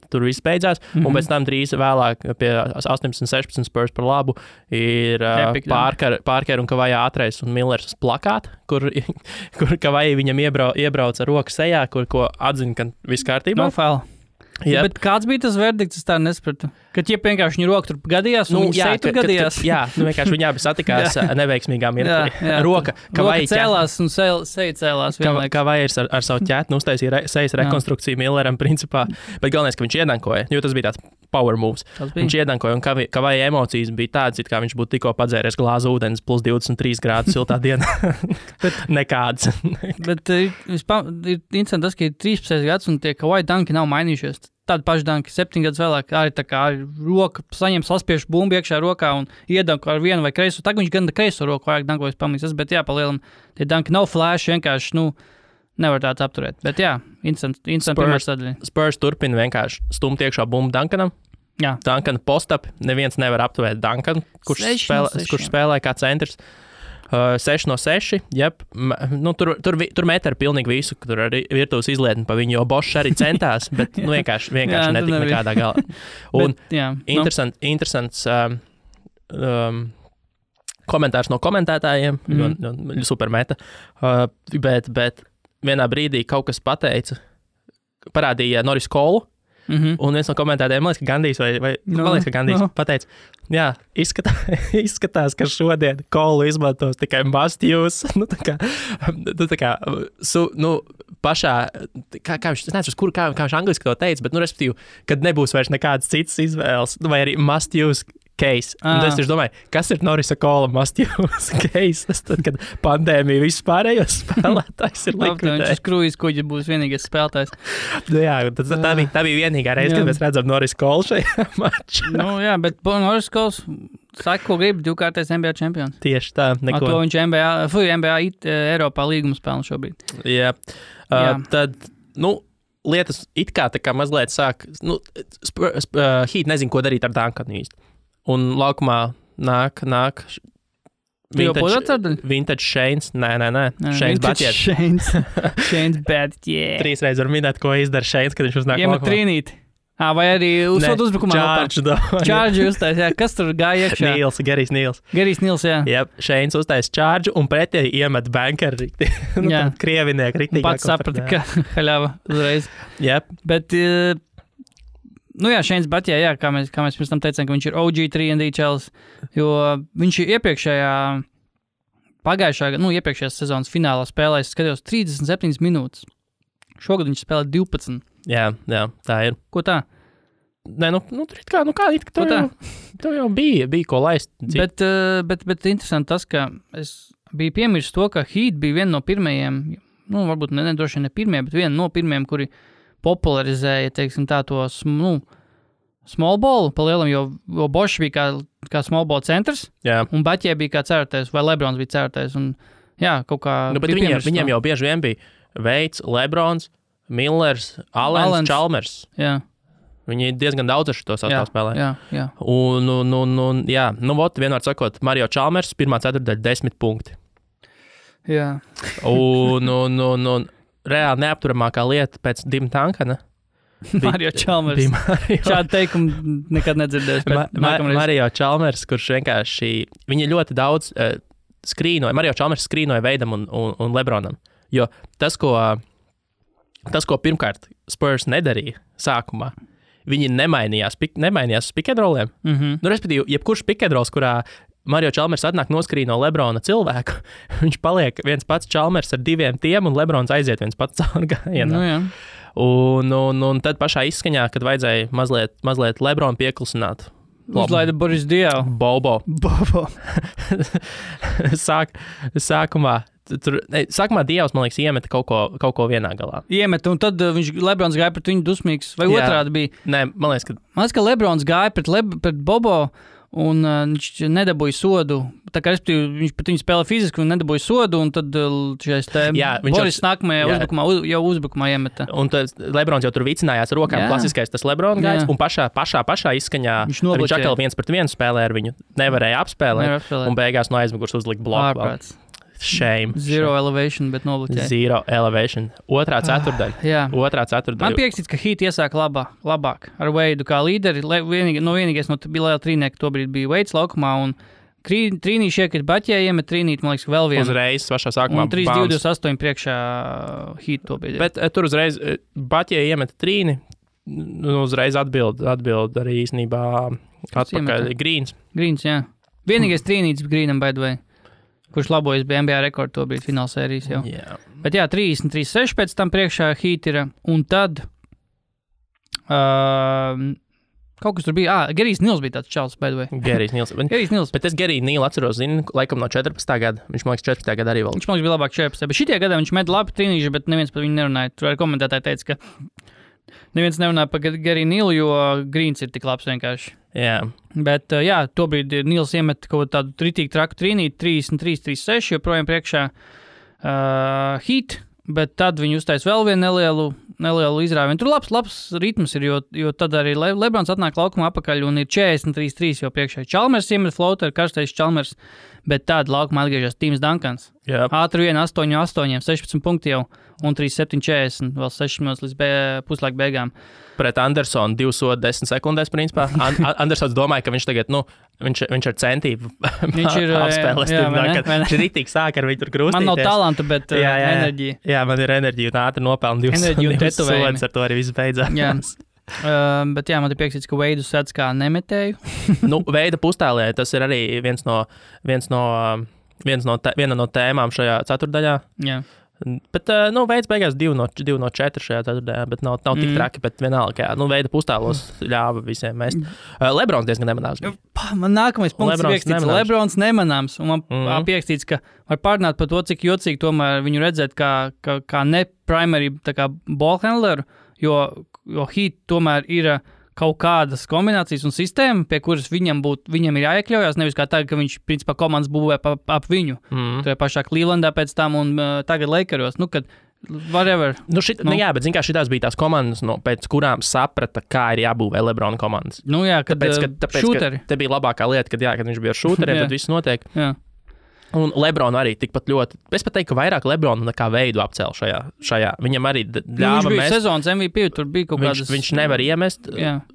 Speaker 2: tur viss beidzās. Un pēc tam drīz vēlāk pie 18-16 Spurs par labu ir Parker un Kavajā Atreis un Millers plakāti, kur Kavajā viņam iebrauc ar roku sejā, ko atzina, ka viss kārtībā.
Speaker 1: No foul. Yep. Bet kāds bija tas verdikts, es tā nespratu? Kad vienkārši viņa roka tur gadījās, un viņa seja tur gadījās?
Speaker 2: Vienkārši viņi abi satikās neveiksmīgā mirklī. Roka
Speaker 1: cēlās un seja cēlās vienlaikus.
Speaker 2: Kavajs ar savu ķētni uztaisīja sejas rekonstrukciju Milleram principā, bet galvenais, ka viņš iedankoja, jo tas bija tāds power moves. Viņš iedankoja, un Kavajā emocijas bija tādas, it kā viņš būtu tikko padzēries glāzu ūdens plus 23 grādu siltā dienā. Nekāds.
Speaker 1: Bet ir interesanti tas, ka ir 13 gads, un tie Kavajā danki nav mainījušies. Tāda paša danka 7 gadus vēlāk arī tā kā roka saņem saspiešu bumbu iekšā rokā un iedanko ar vienu vai kreiso. Tagad viņš gan kreiso roku vairāk dankojas pamanīs, bet palielam tie danki nav flash, vienkārši, nevar tāds apturēt. Bet interesanti pirmā sadaļa.
Speaker 2: Spurs turpina vienkārši stumt iekšā bumbu Duncanam.
Speaker 1: Jā.
Speaker 2: Duncana post-up, neviens nevar apturēt Duncanu, kurš spēlē kā centrs. 6 no 6, tur met ar pilnīgi visu, tur arī virtuves izlietni pa viņu, jo Bošs arī centās, bet vienkārši netika nekādā galā. Un interesants komentārs no komentētājiem, super meta, bet vienā brīdī kaut kas parādīja Norris Colu, un viens no komentētājiem, man liekas, ka Gandijs pateica, izskatās, ka šodien Kolu izmantos tikai must use. Pašā, kā viņš, es nezinu, kā viņš angliski to teica, bet, respektīvi, kad nebūs vairs nekādas citas izvēles, vai arī must use case. Un es domāju, kas ir Norisa Kola must use case? Tad, kad pandēmija vispārējos spēlētājs ir likvidējis.
Speaker 1: Viņš krūjas kuģi būs vienīgais spēlētājs.
Speaker 2: Tā bija vienīgā reize, kad mēs redzam Norisa Kolu šajā mačā.
Speaker 1: Bet Norris Kols saka, ko grib, 2-kārtais NBA čempions.
Speaker 2: Tieši tā, neko.
Speaker 1: To viņš NBA Eiropā līgumu spēlē šobrīd.
Speaker 2: Jā. Tad, lietas it kā mazliet sāk, Heat nezin, ko darīt ar Duncanu īsti. Un laukumā nāk vintage Shanes. Nē. Shanes Batjets.
Speaker 1: Shanes Batjets.
Speaker 2: 3 reizes var minēt, ko izdara Shanes, kad viņš uznāk laukumā.
Speaker 1: Iemet trīnīti. Vai arī uzbrukumā. Charge uztais, Kas tur gāja iekšā?
Speaker 2: Gerijs Nils. Shanes uztais charge un pretēji iemet banker rikti. Krieviniek rikti.
Speaker 1: Pats saprata, ka haļava uzreiz. Bet... Shanes Batjē, kā mēs pirms tam teicām, ka viņš ir OG 3&D čels, jo viņš iepriekšējās sezonas finālā spēlēs, skatījos 37 minūtes. Šogad viņš spēlē 12.
Speaker 2: Jā, tā ir.
Speaker 1: Ko tā?
Speaker 2: Nē, tev jau bija ko laist.
Speaker 1: Bet interesanti tas, ka es biju piemirsis to, ka Heat bija viena no pirmajiem, varbūt droši ne pirmie, bet viena no pirmajiem, kuri popularizēja, teiksim tā, to small ball palielam, jo Bošs bija kā small ball centrs, un Batjē bija kā cērtais, vai Lebrons bija cērtais, un kaut kā...
Speaker 2: Bet viņiem jau bieži vien bija Veids, Lebrons, Millers, Allens, Chalmers.
Speaker 1: Jā.
Speaker 2: Viņi diezgan daudz ar šo savu spēlē.
Speaker 1: Jā.
Speaker 2: Vienmēr sakot, Mario Chalmers, pirmā ceturtdaļa 10 punkti.
Speaker 1: Jā.
Speaker 2: Un reāli neapturamākā lieta pēc Dim Duncana.
Speaker 1: Mario Chalmers. Šādu teikumu nekad nedzirdēs.
Speaker 2: Mario Chalmers, kurš vienkārši... Viņi ļoti daudz skrīnoja. Mario Chalmers skrīnoja Veidam un Lebronam. Jo tas, ko pirmkārt Spurs nedarīja sākumā. Viņi nemainījās uz pick-and-rolliem. Nu, respektīvi, jebkurš pick-and-rolls, kurā Mario Chalmers atnāk noskrīt no Lebrona cilvēku, viņš paliek viens pats Chalmers ar diviem tiem, un Lebrons aiziet viens pats caur gājienā.
Speaker 1: Nu, jā.
Speaker 2: Un tad pašā izskaņā, kad vajadzēja mazliet Lebronu pieklusināt.
Speaker 1: Uzlaida Boris Diaw.
Speaker 2: Bobo. Sākumā Dievs, man liekas, iemeta kaut ko vienā galā.
Speaker 1: Iemeta, un tad Lebrons gāja pret viņu dusmīgs, vai otrādi bija?
Speaker 2: Nē, man liekas,
Speaker 1: ka Lebrons gāja pret Bobo, un viņš nedabūja sodu. Tā kā viņš pat viņu spēlē fiziski un nedabūja sodu, un tad šais Boris nākamajā uzbrukumā iemeta.
Speaker 2: Un tad Lebrons jau tur vicinājās rokām, klasiskais tas Lebrona gājs, un pašā izskaņā viņš atkal 1-1 spēlē ar viņu, nevarēja apspēlēt, un beigās no aizmugurs uzlikt bloku. Shame.
Speaker 1: Zero elevation, bet nobloķēja.
Speaker 2: Zero elevation. Otrā ceturdaļa.
Speaker 1: Man piekstīts, ka Heat iesāk labāk ar Veidu kā līderi. Vienīgais no bija trīnieki, tobrīd bija Veids laukumā, un trīnīši iekrit Baķē, iemet trīnīt, man liekas, vēl vienu.
Speaker 2: Uzreiz pašā sākumā.
Speaker 1: Un 3-2-28 priekšā Heat tobrīd.
Speaker 2: Bet tur uzreiz Baķē iemet trīni, uzreiz atbild arī īstenībā atpakaļ Greens.
Speaker 1: Greens, jā. Vienīgais trīnītis Greenam, by the way. Kurš labojas bija NBA rekordu tobrīd finālsērijas jau.
Speaker 2: Yeah.
Speaker 1: Bet jā, 33-6 pēc tam priekšā Heat ir, un tad kaut kas tur bija, Gerijs Nils bija tāds čals, by the way.
Speaker 2: Gerijs Nils. Bet es Geriju Nilu atceros, laikam no 14. gada. Viņš, man liekas, 14. gada arī vēl.
Speaker 1: Viņš, man liekas, bija labāk 14. Bet šitie gadā viņš met labi trīnīši, bet neviens par viņu nerunāja. Tur arī komentētāji teica, ka neviens nerunāja par Geriju Nilu, jo Greens ir tik labs vienkārši.
Speaker 2: Jā.
Speaker 1: Bet, tobrīd Nils iemet kaut tādu ritīgi traku trīnīt, 33-36, joprojām priekšā Heat, bet tad viņi uztais vēl vienu nelielu izrāvienu. Tur labs ritms ir, jo tad arī Lebrons atnāk laukumā apakaļ un ir 43-3 jau priekšā. Chalmers iemet floater, karstais Chalmers, bet tad laukumā atgriežas Tims Duncans. Ātri 1-8-8, 16 punkti jau un 3-7-40, vēl 6 minūtes līdz puslaika beigām.
Speaker 2: Pret Andersonu 2 sodi 10 sekundēs, principā. Andersons domāja, ka viņš tagad, viņš ar centību apspēlēs. Viņš ritīgi sāk ar viņu tur krustīties.
Speaker 1: Man nav talanta, bet enerģija.
Speaker 2: Jā, man ir enerģija un ātri nopelna 2 sodus, ar to arī viss beidzās.
Speaker 1: Jā. Bet jā, man ir piekstīts, ka Veidu sēdz kā nemetēju.
Speaker 2: Veida pustēlē, tas ir arī viena no tēmām šajā ceturdaļā.
Speaker 1: Jā.
Speaker 2: Bet, Veids beigās 2 no 4 šajā ceturtajā, bet nav tik traki, bet vienalga, Veida pustālos ļāva visiem mest. Lebrons diezgan nemanāms.
Speaker 1: Man nākamais punkts ir piekstīts, Lebrons nemanāms, un man piekstīts, ka var pārnāt par to, cik jocīgi tomēr viņu redzēt kā ne primary ball handleru, jo Heat tomēr ir kaut kādas kombinācijas un sistēma, pie kuras viņam ir jāiekļaujās, nevis kā tagad, ka viņš, principā, komandas būvē ap viņu. Tajā pašā Clevelandā pēc tam un tagad Lakeros, kad whatever.
Speaker 2: Jā, bet zin kā šitās bija tās komandas, pēc kurām saprata, kā ir jābūvē Lebrona komandas.
Speaker 1: Jā, tāpēc, šūteri.
Speaker 2: Te bija labākā lieta, kad viņš bija ar šūteriem, tad viss notiek.
Speaker 1: Jā.
Speaker 2: Un Lebronu arī tikpat ļoti. Es pat teiktu, ka vairāk Lebronu nekā Veidu apcēla šajā. Viņam arī ļāva
Speaker 1: viņš bija sezonas MVP, tur bija kaut kādas...
Speaker 2: Viņš nevar iemest.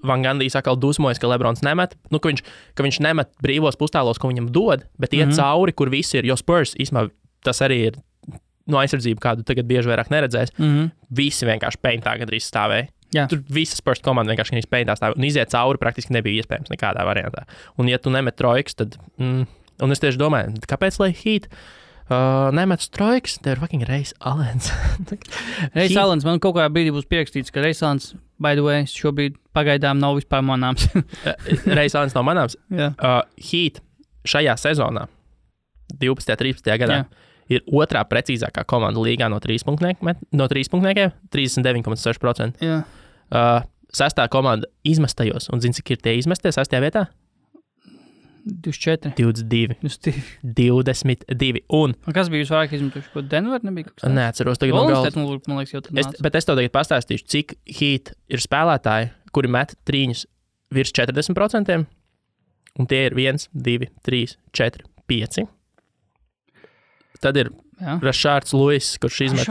Speaker 2: Van Gandijs atkal dusmojas, ka Lebrons nemet. Ka viņš nemet brīvos pustālos, ko viņam dod, bet iet cauri, kur visi ir. Jo Spurs, īstumā, tas arī ir aizsardzība, kādu tagad bieži vairāk neredzēs. Visi vienkārši peintā gandrīz stāvēja. Jā. Tur visas Spurs komanda vienkārši peintā stāvēja. Un iziet cauri praktiski nebija iespējams nekādā variantā. Un ja tu nemet trojkas, tad... Un es tieši domāju, kāpēc lai Heat nemet trojkas, tev ir fucking Reis Alens.
Speaker 1: Reis Alens, man kaut kādā brīdī būs pierakstīts, ka Reis Alens, by the way, šobrīd pagaidām nav vispār manāms.
Speaker 2: Reis Alens nav manāms?
Speaker 1: Jā.
Speaker 2: Heat šajā sezonā, 12. 13. gadā, ir otrā precīzākā komanda līgā no 3 punktniekiem, 39,6%.
Speaker 1: Jā.
Speaker 2: Sestā komanda izmestajos, un zini, cik ir tie izmestie sestajā vietā?
Speaker 1: 24.
Speaker 2: 22. Un
Speaker 1: kas bija visvairāk izmetuši? Ko Denver nebija?
Speaker 2: Neatceros tagad no galvas.
Speaker 1: Man liekas, jau tad nāca.
Speaker 2: Bet es tev tagad pastāstīšu, cik Heat ir spēlētāji, kuri met trīņus virs 40%, un tie ir 1, 2, 3, 4, 5. Tad ir Rashārds Lewis, kurš izmet,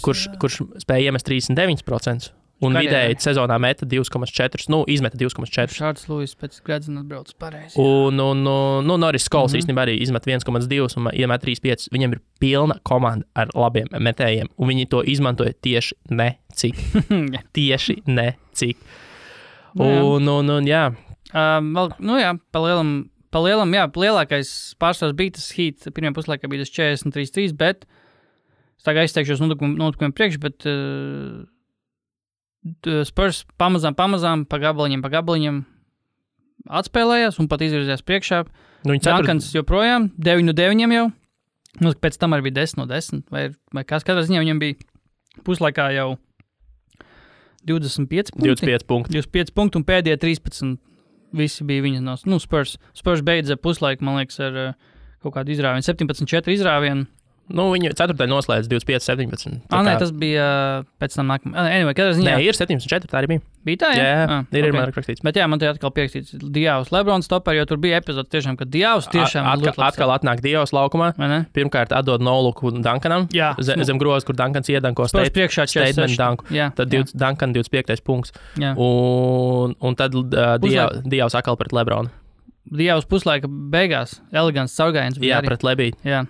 Speaker 2: kurš spēja iemest 39%, Un vidēji sezonā meta 2,4, izmeta 2,4.
Speaker 1: Šārds Lūis pēc Gredzena atbrauc pareizi.
Speaker 2: Un Norris Skols īstenībā arī izmet 1,2 un iemet 3,5. Viņam ir pilna komanda ar labiem metējiem, un viņi to izmantoja tieši necik. Tieši necik. Un jā.
Speaker 1: Pa lielam, lielākais pārsvars bija tas Heat, pirmajā puslaikā bija tas 43-3, bet es tagad aizteikšos notikumiem priekš, bet Spurs pamazām, pa gabaliņam atspēlējās un pat izvirzījās priekšā. Dunkans joprojām, 9-9 jau. Pēc tam arī bija 10-10, vai kas katrā ziņā viņam bija puslaikā jau 25 punkti. 25 punkti un pēdējie 13 visi bija viņa no Spurs. Spurs beidza puslaiku, man liekas, ar kaut kādu izrāvienu. 17-4 izrāvienu.
Speaker 2: Viņu ceturtajā noslēdz 25-17.
Speaker 1: Nē, tas bija pēc tam nākamā. Anyway, ziņā...
Speaker 2: Nē, ir 17-4, tā arī bija.
Speaker 1: Bija tā, jā?
Speaker 2: Jā, ir man rakstīts.
Speaker 1: Bet jā, man te atkal pierakstīts Diavs Lebrons topper, jo tur bija epizodes tiešām, ka Diavs tiešām...
Speaker 2: Atkal atnāk Diavs laukumā. Pirmkārt atdod noluku Duncanam. Jā. Zem grozas, kur Duncans iedanko statement dunku. Tad Duncan 25. punkts. Jā. Un tad Diavs atkal pret Lebronu.
Speaker 1: Diavs puslaika beigās. Elegants caurgājiens.
Speaker 2: Jā, pret Lebīdu.
Speaker 1: Jā.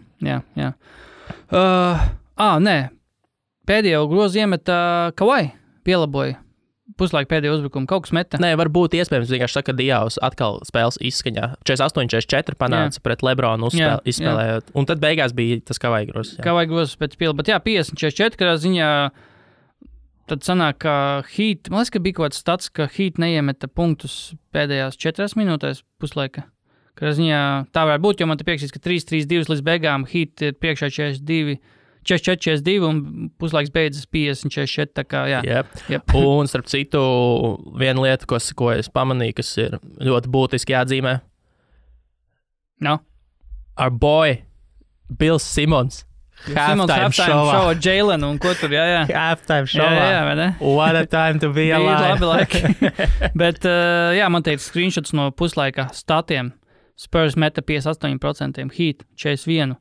Speaker 1: Nē. Pēdējo grozu iemeta Kawhi. Pielaboja. Puslaika pēdējo uzbrukumu. Kaut kas meta.
Speaker 2: Nē, varbūt iespējams vienkārši saka, ka Diavs atkal spēles izskaņā. 48-44 panāca pret Lebronu izspēlējot. Un tad beigās bija tas Kawhi grozs.
Speaker 1: Kawhi grozs pēc piela. Bet jā, 50-44, kādā ziņā tad sanāk, ka Heat, man liekas, ka bija kaut kāds stats, ka Heat neiemeta punktus pēdējās 4 minūtēs puslaika. Kādā ziņā tā varētu būt, jo man te piekšķīs, ka 3-3-2 līdz beigām Heat ir priekšā 44-42 un puslaiks beidzas 50-44, tā kā jā.
Speaker 2: Yep. Un starp citu, viena lieta, ko es pamanīju, kas ir ļoti būtiski jāatzīmē. Our boy, Bills Simons. Halftime show
Speaker 1: ar Jailenu un ko tur, jā.
Speaker 2: Halftime show.
Speaker 1: Jā, vai ne?
Speaker 2: What a time to be alive.
Speaker 1: Labi laiki. Bet, man teica screenshots no puslaika statiem. Spurs meta 58%, Heat 41%.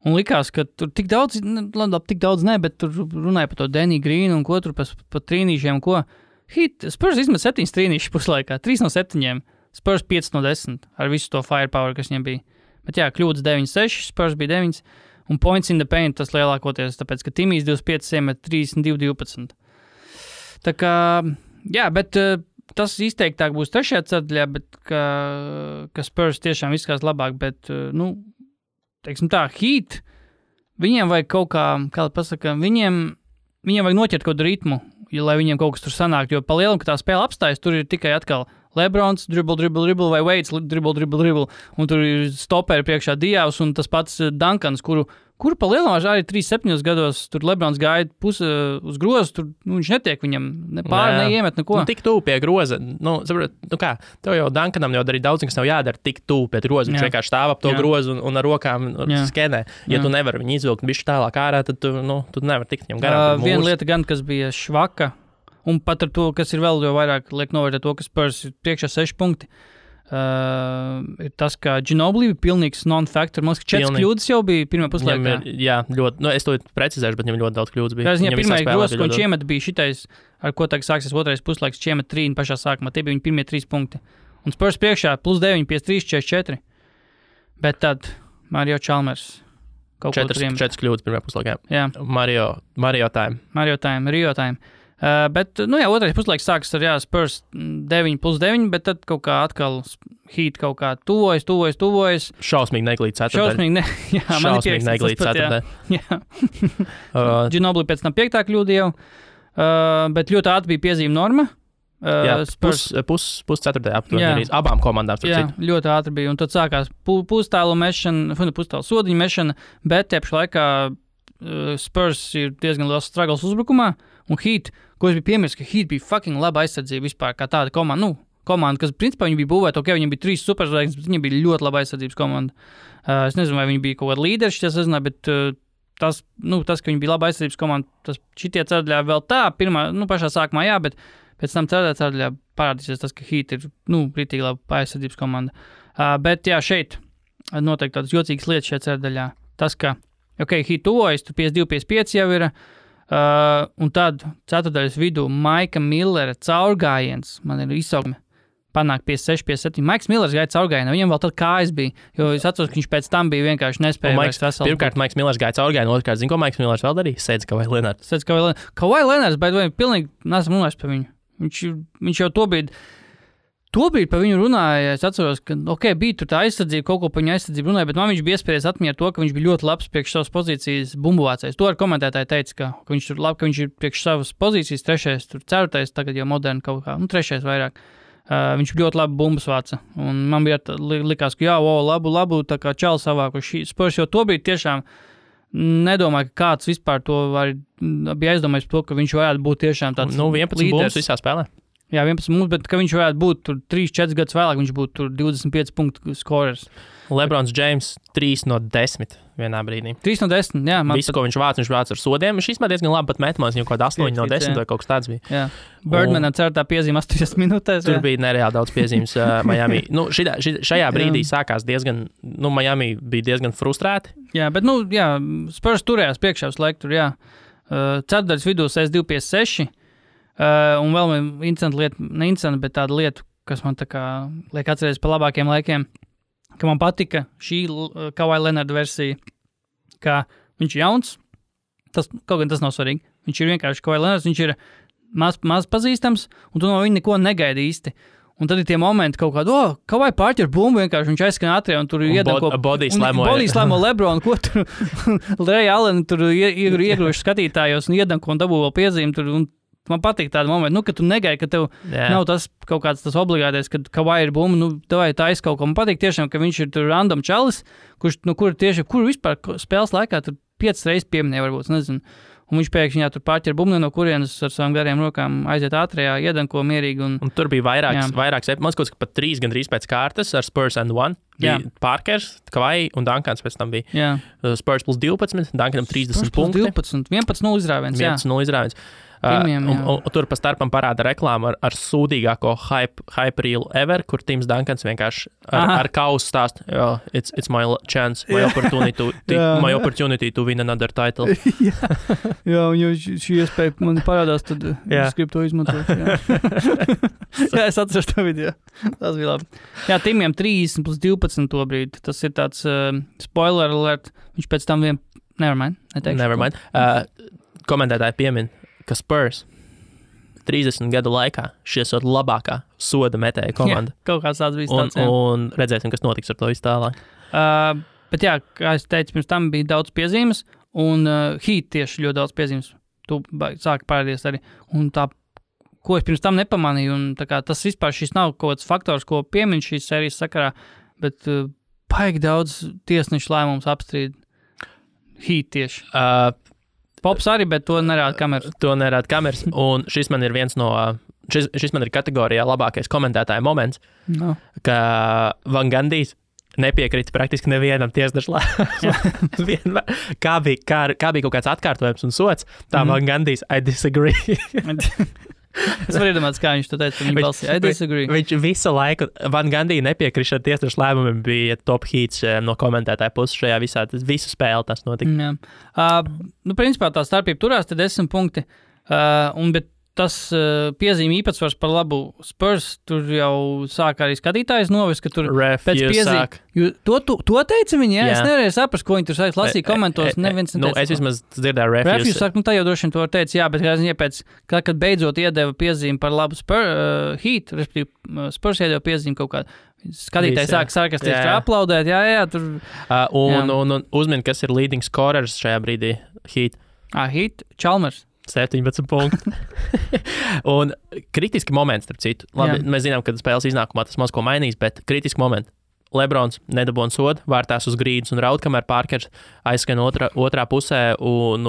Speaker 1: Un likās, ka tur tik daudz ne, bet tur runāja par to Danny Green un ko tur pa trīnīšiem, ko. Heat, Spurs izmet 7 trīnīši puslaikā, 3 no 7, Spurs 5 no 10, ar visu to firepower, kas viņam bija. Bet jā, kļūdas 9-6, Spurs bija 9, un points in the paint tas lielākoties, tāpēc, ka Timijs 25 iemet 32-12. Tā kā, jā, bet tas izteiktāk būs trešajā ceturdaļā, bet ka Spurs tiešām izskatās labāk, bet, teiksim tā, Heat, viņiem vajag kaut kā pasaka, viņiem vajag noķert kaut kādu ritmu, lai viņiem kaut kas tur sanāk, jo pa lielam, ka tā spēle apstājas, tur ir tikai atkal Lebrons, dribble, vai Waits, dribble, un tur ir stoperi priekšā Diavs, un tas pats Duncans, kuru pa lielam arī 37 gados, tur Lebrons gāja uz grozu, tur viņš netiek viņam neiemet neko.
Speaker 2: Tik tuvu pie groza, tev jau Duncanam jau arī daudz, kas nav jādara tik tuvu pie groza, viņš vienkārši stāv ap to grozu un ar rokām skenē. Ja tu nevari viņu izvilkt bišķi tālāk ārā, tad tu nevari tikt viņam garām.
Speaker 1: Viena lieta gan, kas bija švaka, un pat ar to, kas ir vēl jau vairāk liek novērtēt to, ka Spurs ir priekšā 6 punkti, ir tas, ka Ginobili bija pilnīgs non-factor. Man liekas, ka 4 kļūdas jau bija pirmā puslaikā.
Speaker 2: Jā, ļoti, es to precizēšu, bet viņam ļoti daudz kļūdas bija.
Speaker 1: Viņam pirmais grozs, ko viņš iemet, bija šitais, ar ko tagad sāksies otrais puslaiks, viņš iemet 3 pašā sākumā. Tie bija viņa pirmie 3 punkti. Un Spurs priekšā plus 9, 53-44. Bet tad Mario Chalmers kaut ko
Speaker 2: 4 kļūdas pirmajā puslaikā.
Speaker 1: Jā.
Speaker 2: Mario time.
Speaker 1: Rio time. Bet, otrais puslaiks sākas ar Spurs 9 plus 9, bet tad kaut kā atkal Heat kaut kā tuvojas.
Speaker 2: Šausmīgi neglīt ceturtdaļ. Šausmīgi neglīt ceturtdaļ.
Speaker 1: Jā. Ginobili pēc tam 5. kļūda jau, bet ļoti ātri bija piezīme norma.
Speaker 2: Pusceturtajā aptuveni arī abām komandām.
Speaker 1: Jā, ļoti ātri bija, un tad sākās pustālu mešana, pustālu sodiņu mešana, bet tiepši laikā Spurs ir diezgan liels struggles uzbrukumā, un Heat, ko es biju piemirst, ka Heat bija fucking laba aizsardzība vispār, kā tāda komanda, kas principā viņi bija būvēta, viņiem bija 3 superzvaigznes, bet viņiem bija ļoti laba aizsardzības komanda. Es nezinu, vai viņi bija kaut kāda līderi, es nezinu, bet tas, ka viņi bija laba aizsardzības komanda, tas šitie ceturdaļā vēl tā, pašā sākumā jā, bet pēc tam ceturdaļā parādīsies tas, ka Heat ir, rītīgi laba aizsardzības komanda. Bet jā, šeit noteikti tādas jocīgas lietas šajā ceturdaļā. Tas, ka Heat tuvojas, tur 52-55 jau ir. Un tad ceturtdaļas vidū Maika Millera caurgājiens, man ir izsaukme, panāk 56, 57. Maiks Millers gāja caurgājienā, viņam vēl tad kājas bija, jo es atceros, ka viņš pēc tam bija vienkārši nespējis.
Speaker 2: Pirmkārt, Maiks Millers gāja caurgājienā, otrkārt, zinu, ko Maiks Millers vēl darīja? Sēdz Kawhi Leonards.
Speaker 1: Kawhi Leonards, bet vai pilnīgi nesam runājis par viņu. Viņš jau tobrīd par viņu runāja, es atceros, ka, bija tur tā aizsardzība, kaut ko par viņu aizsardzību runāja, bet man viņš bija iespējas atmiņā to, ka viņš bija ļoti labs priekš savas pozīcijas bumbuvācējs. To ar komentētāju teica, ka viņš tur labi, ka viņš ir priekš savas pozīcijas, 3., tur 4., tagad jau moderni kaut kā, 3. vairāk. Viņš ļoti labi bumbas vāca, un man bija likās, ka labu, tā kā čali savāku Spurs, jo tobrīd tiešām nedomāju, ka kāds vispār to bija aizdomājis par to, ka viņš varētu būt tiešām tāds
Speaker 2: 11 bumbas visā spēlē.
Speaker 1: Jā, 11 mums, bet ka viņš varētu būt tur 3-4 gadus vēlāk, viņš būtu tur 25 punktu skorers.
Speaker 2: Lebrons James 3 no 10 vienā brīdī.
Speaker 1: 3 no 10, jā.
Speaker 2: Visu, ko viņš vāc ar sodiem, viņš īstenībā diezgan labi pat metmās, viņam kaut kāda 8 no 10 vai kaut kas tāds bija.
Speaker 1: Jā. Birdmanam certā piezīme 8 minūtēs.
Speaker 2: Tur bija nereāli daudz piezīmes Miami. Šajā brīdī sākās diezgan, Miami bija diezgan frustrēti.
Speaker 1: Jā, bet, Spurs turējās priekšā uz laiku tur, jā. Ceturtdaļas vidū 62-56. Un vēl interesanta lieta, ne interesanta, bet tāda lieta, kas man tā kā liek atcerēties par labākiem laikiem, ka man patika šī Kawhi Leonarda versija, ka viņš ir jauns, kaut gan tas nav svarīgi, viņš ir vienkārši Kawhi Leonards, viņš ir maz pazīstams, un tu no viņa neko negaidi īsti. Un tad ir tie momenti kaut kādi, Kawhi pārķer bumbu, vienkārši viņš aizskan ātrie, un tur iedanko...
Speaker 2: Body slamo
Speaker 1: Lebron, ko tur Ray Allen tur iegruši skatītājos un iedanko un dabū vēl piezīmi tur, un man patīk tāda momenta, ka tu negaidi, ka tev nav tas kaut kāds tas obligātais, kad Kawhi ir bumba, tev tā aizkaut ko. Man patīk tiešām, ka viņš ir tur random čalis, kur vispār spēles laikā tur 5 reizes pieminēja, varbūt, nezinu. Un viņš pēkšņi tur pārķer bumbu no kurienes ar savām gariem rokām aiziet ātrajā, iedanko mierīgi. Un
Speaker 2: tur bija vairāks, man skots, ka pat 3 gandrīz pēc kārtas ar Spurs and 1. Bija Parkers, Kawhi un Dunkans pēc tam bija.
Speaker 1: Jā.
Speaker 2: Spurs plus 12, Dunkanam 30 punkti.
Speaker 1: 11-0 izrāviens, jā.
Speaker 2: 11-0 izrāviens. Un tur pa starpam parāda reklāmu ar sūdīgāko hype reel ever, kur Tims Dunkans vienkārši ar kausu stāst, it's my chance, my opportunity to win another title.
Speaker 1: Jā, un jau šī iespēja man parādās, tad es gribu to izmantot. Jā, es atceros to video. Tas bija labi. Jā, Timiem 30 plus 12 to brīdi. Tas ir tāds spoiler alert. Viņš pēc tam nevermind.
Speaker 2: Komentētāji piemin, ka Spurs 30 gadu laikā šī esot labākā soda metēja komanda.
Speaker 1: Jā, kaut kāds tāds bija tāds,
Speaker 2: un redzēsim, kas notiks ar to visu tālāk.
Speaker 1: Bet jā, kā es teicu, pirms tam bija daudz piezīmes, un Heat tieši ļoti daudz piezīmes. Tu sāki parādīties arī. Un tā, ko es pirms tam nepamanīju, un tā kā tas vispār šis nav kaut kāds faktors, ko piemin šīs sērijas sakarā, bet paigi daudz tiesnešu lēmums apstrīd Heat tieši. Pops arī, bet to nerāda kameras. Un šis man ir viens no, šis man ir kategorijā labākais komentētāja moments, ka Van Gandijs nepiekrita praktiski nevienam tiesnešu lēmumam. Kā bija kaut kāds atkārtojums un sots, tā Van Gandijs, I disagree. Es varu iedomāties, kā viņš to teica viņa balsī. I disagree.
Speaker 2: Viņš visu laiku, Van Gandija nepiekrišana tiesnešu lēmumiem bija top hits no komentētāja puses šajā visā, visu spēli tas notika.
Speaker 1: Jā. Principā tā starpība turās, te 10 punkti, bet tas piezīme īpatsvars par labu Spurs, tur jau sāk arī skatītājs novest, ka tur pēc piezīme. To teica viņi, jā? Es nevarēju saprast, ko viņi tur sāk lasīt komentos.
Speaker 2: Es vismaz dzirdēju
Speaker 1: refuse saka, tā jau droši vien to teica, jā, bet kad beidzot iedeva piezīme par labu Heat, respektīvi Spurs iedeva piezīme kaut kādu. Skatītāji sāk sarkastiski aplaudēt, jā, tur.
Speaker 2: Un uzmini, kas ir leading scorers šajā brīdī Heat.
Speaker 1: Heat, Chalmers.
Speaker 2: 17 punkti. Un kritiski moments, starp citu. Labi, mēs zinām, ka spēles iznākumā tas maz ko mainīs, bet kritiski momenti. Lebrons nedabūna sodu, vārtās uz grīdas un raud, kamēr Parkers aizskan otrā pusē un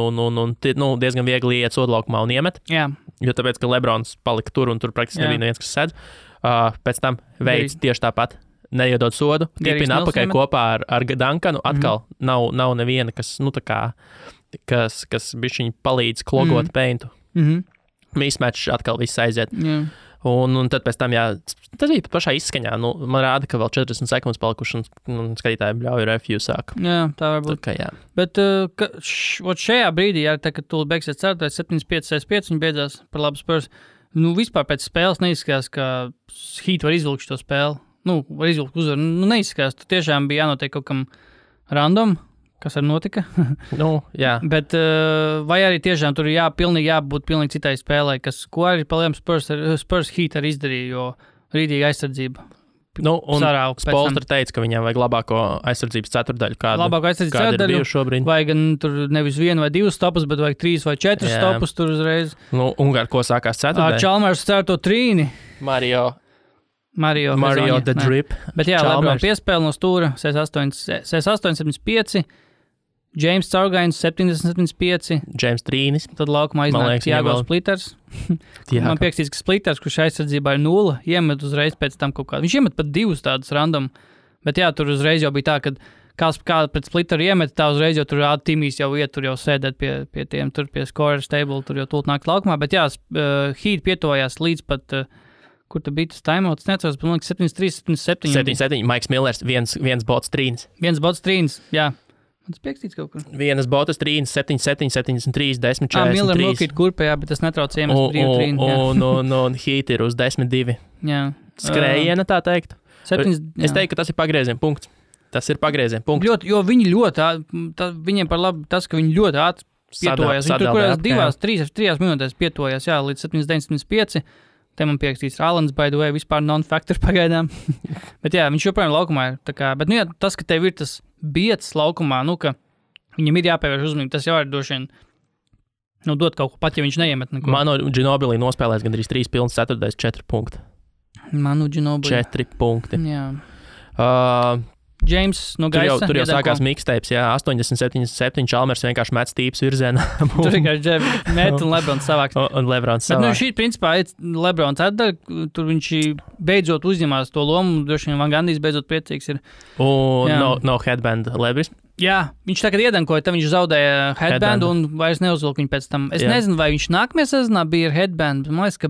Speaker 2: diezgan viegli iet sodu laukumā un iemet.
Speaker 1: Jā.
Speaker 2: Jo tāpēc, ka Lebrons palika tur un tur praktiski nebija neviens, kas sedz. Pēc tam veids tieši tāpat. Neiedod sodu, tipina apakaļ kopā ar Dunkanu. Atkal nav neviena, kas, kas bišķiņ palīdz klogot peintu. Mismatch atkal viss aiziet. Un tad pēc tam, tas bija pat pašā izskaņā. Man rāda, ka vēl 40 sekundes palikuši, un skatītāji bļauj refuse sāk.
Speaker 1: Jā, tā var būt.
Speaker 2: Tā kā, jā.
Speaker 1: Bet šajā brīdī, tā, kad tu beigsies 7-5, viņi beidzās par labu Spurs. Vispār pēc spēles neizskatās, ka Heat var izvilkt šo spēli. Var izvilkt uzvaru. Neizskatās, tu tiešām bija jānotiek kaut kam random. Kas arī notika.
Speaker 2: Jā.
Speaker 1: Bet vai arī tiešām tur jābūt pilnīgi citai spēlē, ko arī palielam Spurs Heat arī izdarīja, jo rītīgi aizsardzība.
Speaker 2: Un Spolstra teica, ka viņam vajag labāko aizsardzības ceturdaļu.
Speaker 1: Labāko aizsardzības ceturdaļu. Vai gan tur nevis 1 vai 2 stopus, bet vajag 3 vai 4 stopus tur uzreiz.
Speaker 2: Un ar ko sākās ceturdaļa?
Speaker 1: Chalmers cer to trīni.
Speaker 2: Mario
Speaker 1: the
Speaker 2: Drip.
Speaker 1: Bet LeBron piespēle no stūra 68-75. James Caurgains 70-75.
Speaker 2: James Trīnis.
Speaker 1: Tad laukumā iznāk Tiago Splitters. Man piekstīts, ka Splitters, kurš aizsardzībā ir 0, iemet uzreiz pēc tam kaut kādu. Viņš iemet pat 2 tādus random. Bet tur uzreiz jau bija tā, ka kā pret Splitteru iemet, tā uzreiz jau tur Timijs jau iet, tur jau sēdēt pie tiem, tur pie scorers table, tur jau tūlīt nāk laukumā. Bet Heat pietuvojās līdz pat, kur tu bija tas timeouts, neatceros, bet man liekas 73-77.
Speaker 2: 77, Maiks Millers, viens bots trīnis.
Speaker 1: Viens bots trīnis, jā. Tas piekstīts kaut kur.
Speaker 2: Vienas botas trīnis, 77, 73, 10, 43.
Speaker 1: Miller nokīt kurpējā, bet tas netrauc iemest brīvu trīni.
Speaker 2: Un Heat ir uz 10-2.
Speaker 1: Jā.
Speaker 2: Skrējiena, tā teikt.
Speaker 1: 7,
Speaker 2: es teiktu, ka tas ir pagrieziena punkts.
Speaker 1: Jo viņi ļoti, viņiem par labu tas, ka viņi ļoti ātri pietojās. Viņi tur kurās 3 minūtēs pietojās, līdz 79-75. Te man piekstīts Alans, by the way, vispār non-factor pagaidām. Bet viņš joprojām laukumā ir. Bet tas, ka tev ir tas biets laukumā, ka viņam ir jāpievērš uzmanība, tas jau ir droši vien dot kaut ko pat, ja viņš neiemet neko.
Speaker 2: Manu Ginobili nospēlēs gandrīz 3 pilns ceturtais 4 punkti.
Speaker 1: Manu Ginobili.
Speaker 2: 4 punkti.
Speaker 1: Jā. James no gaisa.
Speaker 2: Tur jau sākās mixtapes, 80-77, Chalmers vienkārši met stīps virzienā.
Speaker 1: Tur vienkārši met un Lebrons savāks.
Speaker 2: Un Lebrons savāks.
Speaker 1: Bet šī, principā, Lebrons atdara, tur viņš beidzot uzņemās to lomu, droši vien Van Gandijs beidzot priecīgs ir.
Speaker 2: Un no headband Lebris.
Speaker 1: Jā, viņš tagad iedankoja, tad viņš zaudēja headband un vairs neuzvilka viņu pēc tam. Es nezinu, vai viņš nākamajā sezonā bija ar headband, man liekas, ka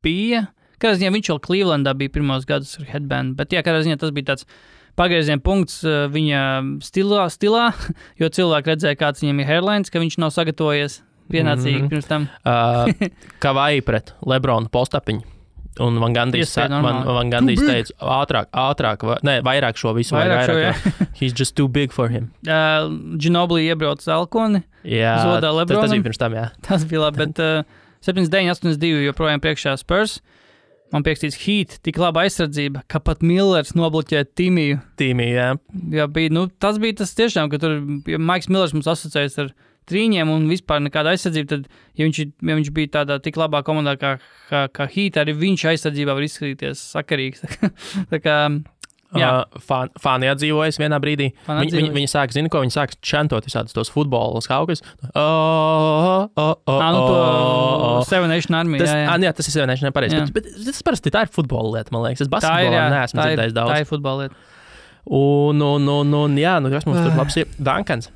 Speaker 1: bija. Kādā ziņā viņš vēl Clevelandā bija pirmos gadus ar headband, bet kādā ziņā tas bija tāds pagrieziena punkts viņa stilā, jo cilvēki redzēja, kāds viņam ir hairlines, ka viņš nav sagatavojies pienācīgi pirms tam.
Speaker 2: Kavai pret Lebronu postapiņu. Un Van Gandijs teica, ātrāk, vairāk šo visu. Vairāk. He's just too big for him.
Speaker 1: Ginobili iebrauc Alkoni.
Speaker 2: Jā,
Speaker 1: zodā Lebronam.
Speaker 2: Tas bija pirms tam, jā.
Speaker 1: Tas bija labi, bet 79-82 joprojām priekšā Spurs. Man piekstīts Heat, tik laba aizsardzība, ka pat Millers nobloķēja Timiju.
Speaker 2: Jā.
Speaker 1: Jā, bija, tas bija tas tiešām, ka tur Maiks Millers mums asociējas ar trīņiem un vispār nekāda aizsardzība, tad, ja viņš bija tādā tik labā komandā kā Heat, arī viņš aizsardzībā var izskatīties sakarīgs. Tā kā,
Speaker 2: fani atdzīvojas vienā brīdī. Viņi sāk, zini, ko viņi sāk čantot visādus tos futbola skaukus.
Speaker 1: To Seven Nation Army.
Speaker 2: Jā, tas ir Seven Nation, nepareizi. Bet tas parasti tā ir futbola lieta, man liekas. Es basketbolā neesmu dzirdējis daudz.
Speaker 1: Tā ir futbola lieta.
Speaker 2: Kas mums tur labs ir? Duncans.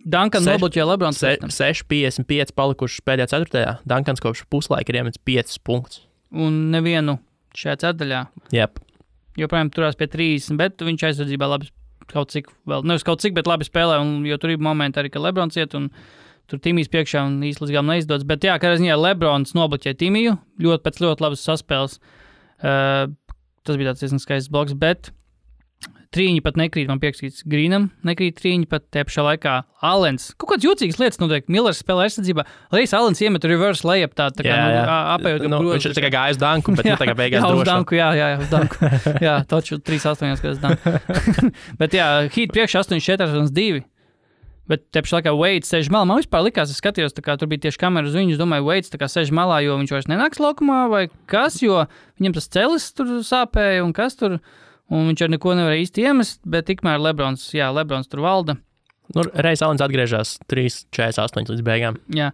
Speaker 1: Duncans nobloķēja Lebrons.
Speaker 2: 6-55 palikuši pēdējā ceturtajā. Duncans kopš puslaika ir iemetis 5 punktus.
Speaker 1: Un nevienu šajā ceturtajā.
Speaker 2: Jep.
Speaker 1: Joprojām turās pie 30, bet viņš aizsardzībā labi kaut cik, bet labi spēlē, jo tur ir momenti arī, ka Lebrons iet un tur Timijs priekšā un īsti līdz galam neizdodas. Bet kādā ziņā Lebrons nobloķēja Timiju, pēc ļoti labas saspēles. Tas bija tāds diezgan skaists bloks, bet trīņi pat nekrīt, man piekstīts Grīnam, nekrīt trīņi pat te pašā laikā. Alens, kaut kāds jūtīgas lietas notiek, Millers spēlē aizsardzībā, Lejs Alens iemet reverse layup tā kā apējot.
Speaker 2: Viņš ir tā kā gāja uz danku, bet tā kā beigās
Speaker 1: droši. Uz danku, jā, uz danku. Jā, taču 3-8, kad es danku. Bet Heat priekš 8-4-2. Bet te pašā laikā Waits sēž malā. Man vispār likās, es skatījos, tā kā tur bija tieši kamera uz viņu, es domāju, Waits tā kā sēž malā, jo viņš vairs nenāks laukumā vai kas, jo viņam tas celis tur sāpēja un kas tur. Un viņš ar neko nevarēja īsti iemest, bet tikmēr Lebrons tur valda.
Speaker 2: Reiz Alens atgriežas 3-48 līdz beigām.
Speaker 1: Jā.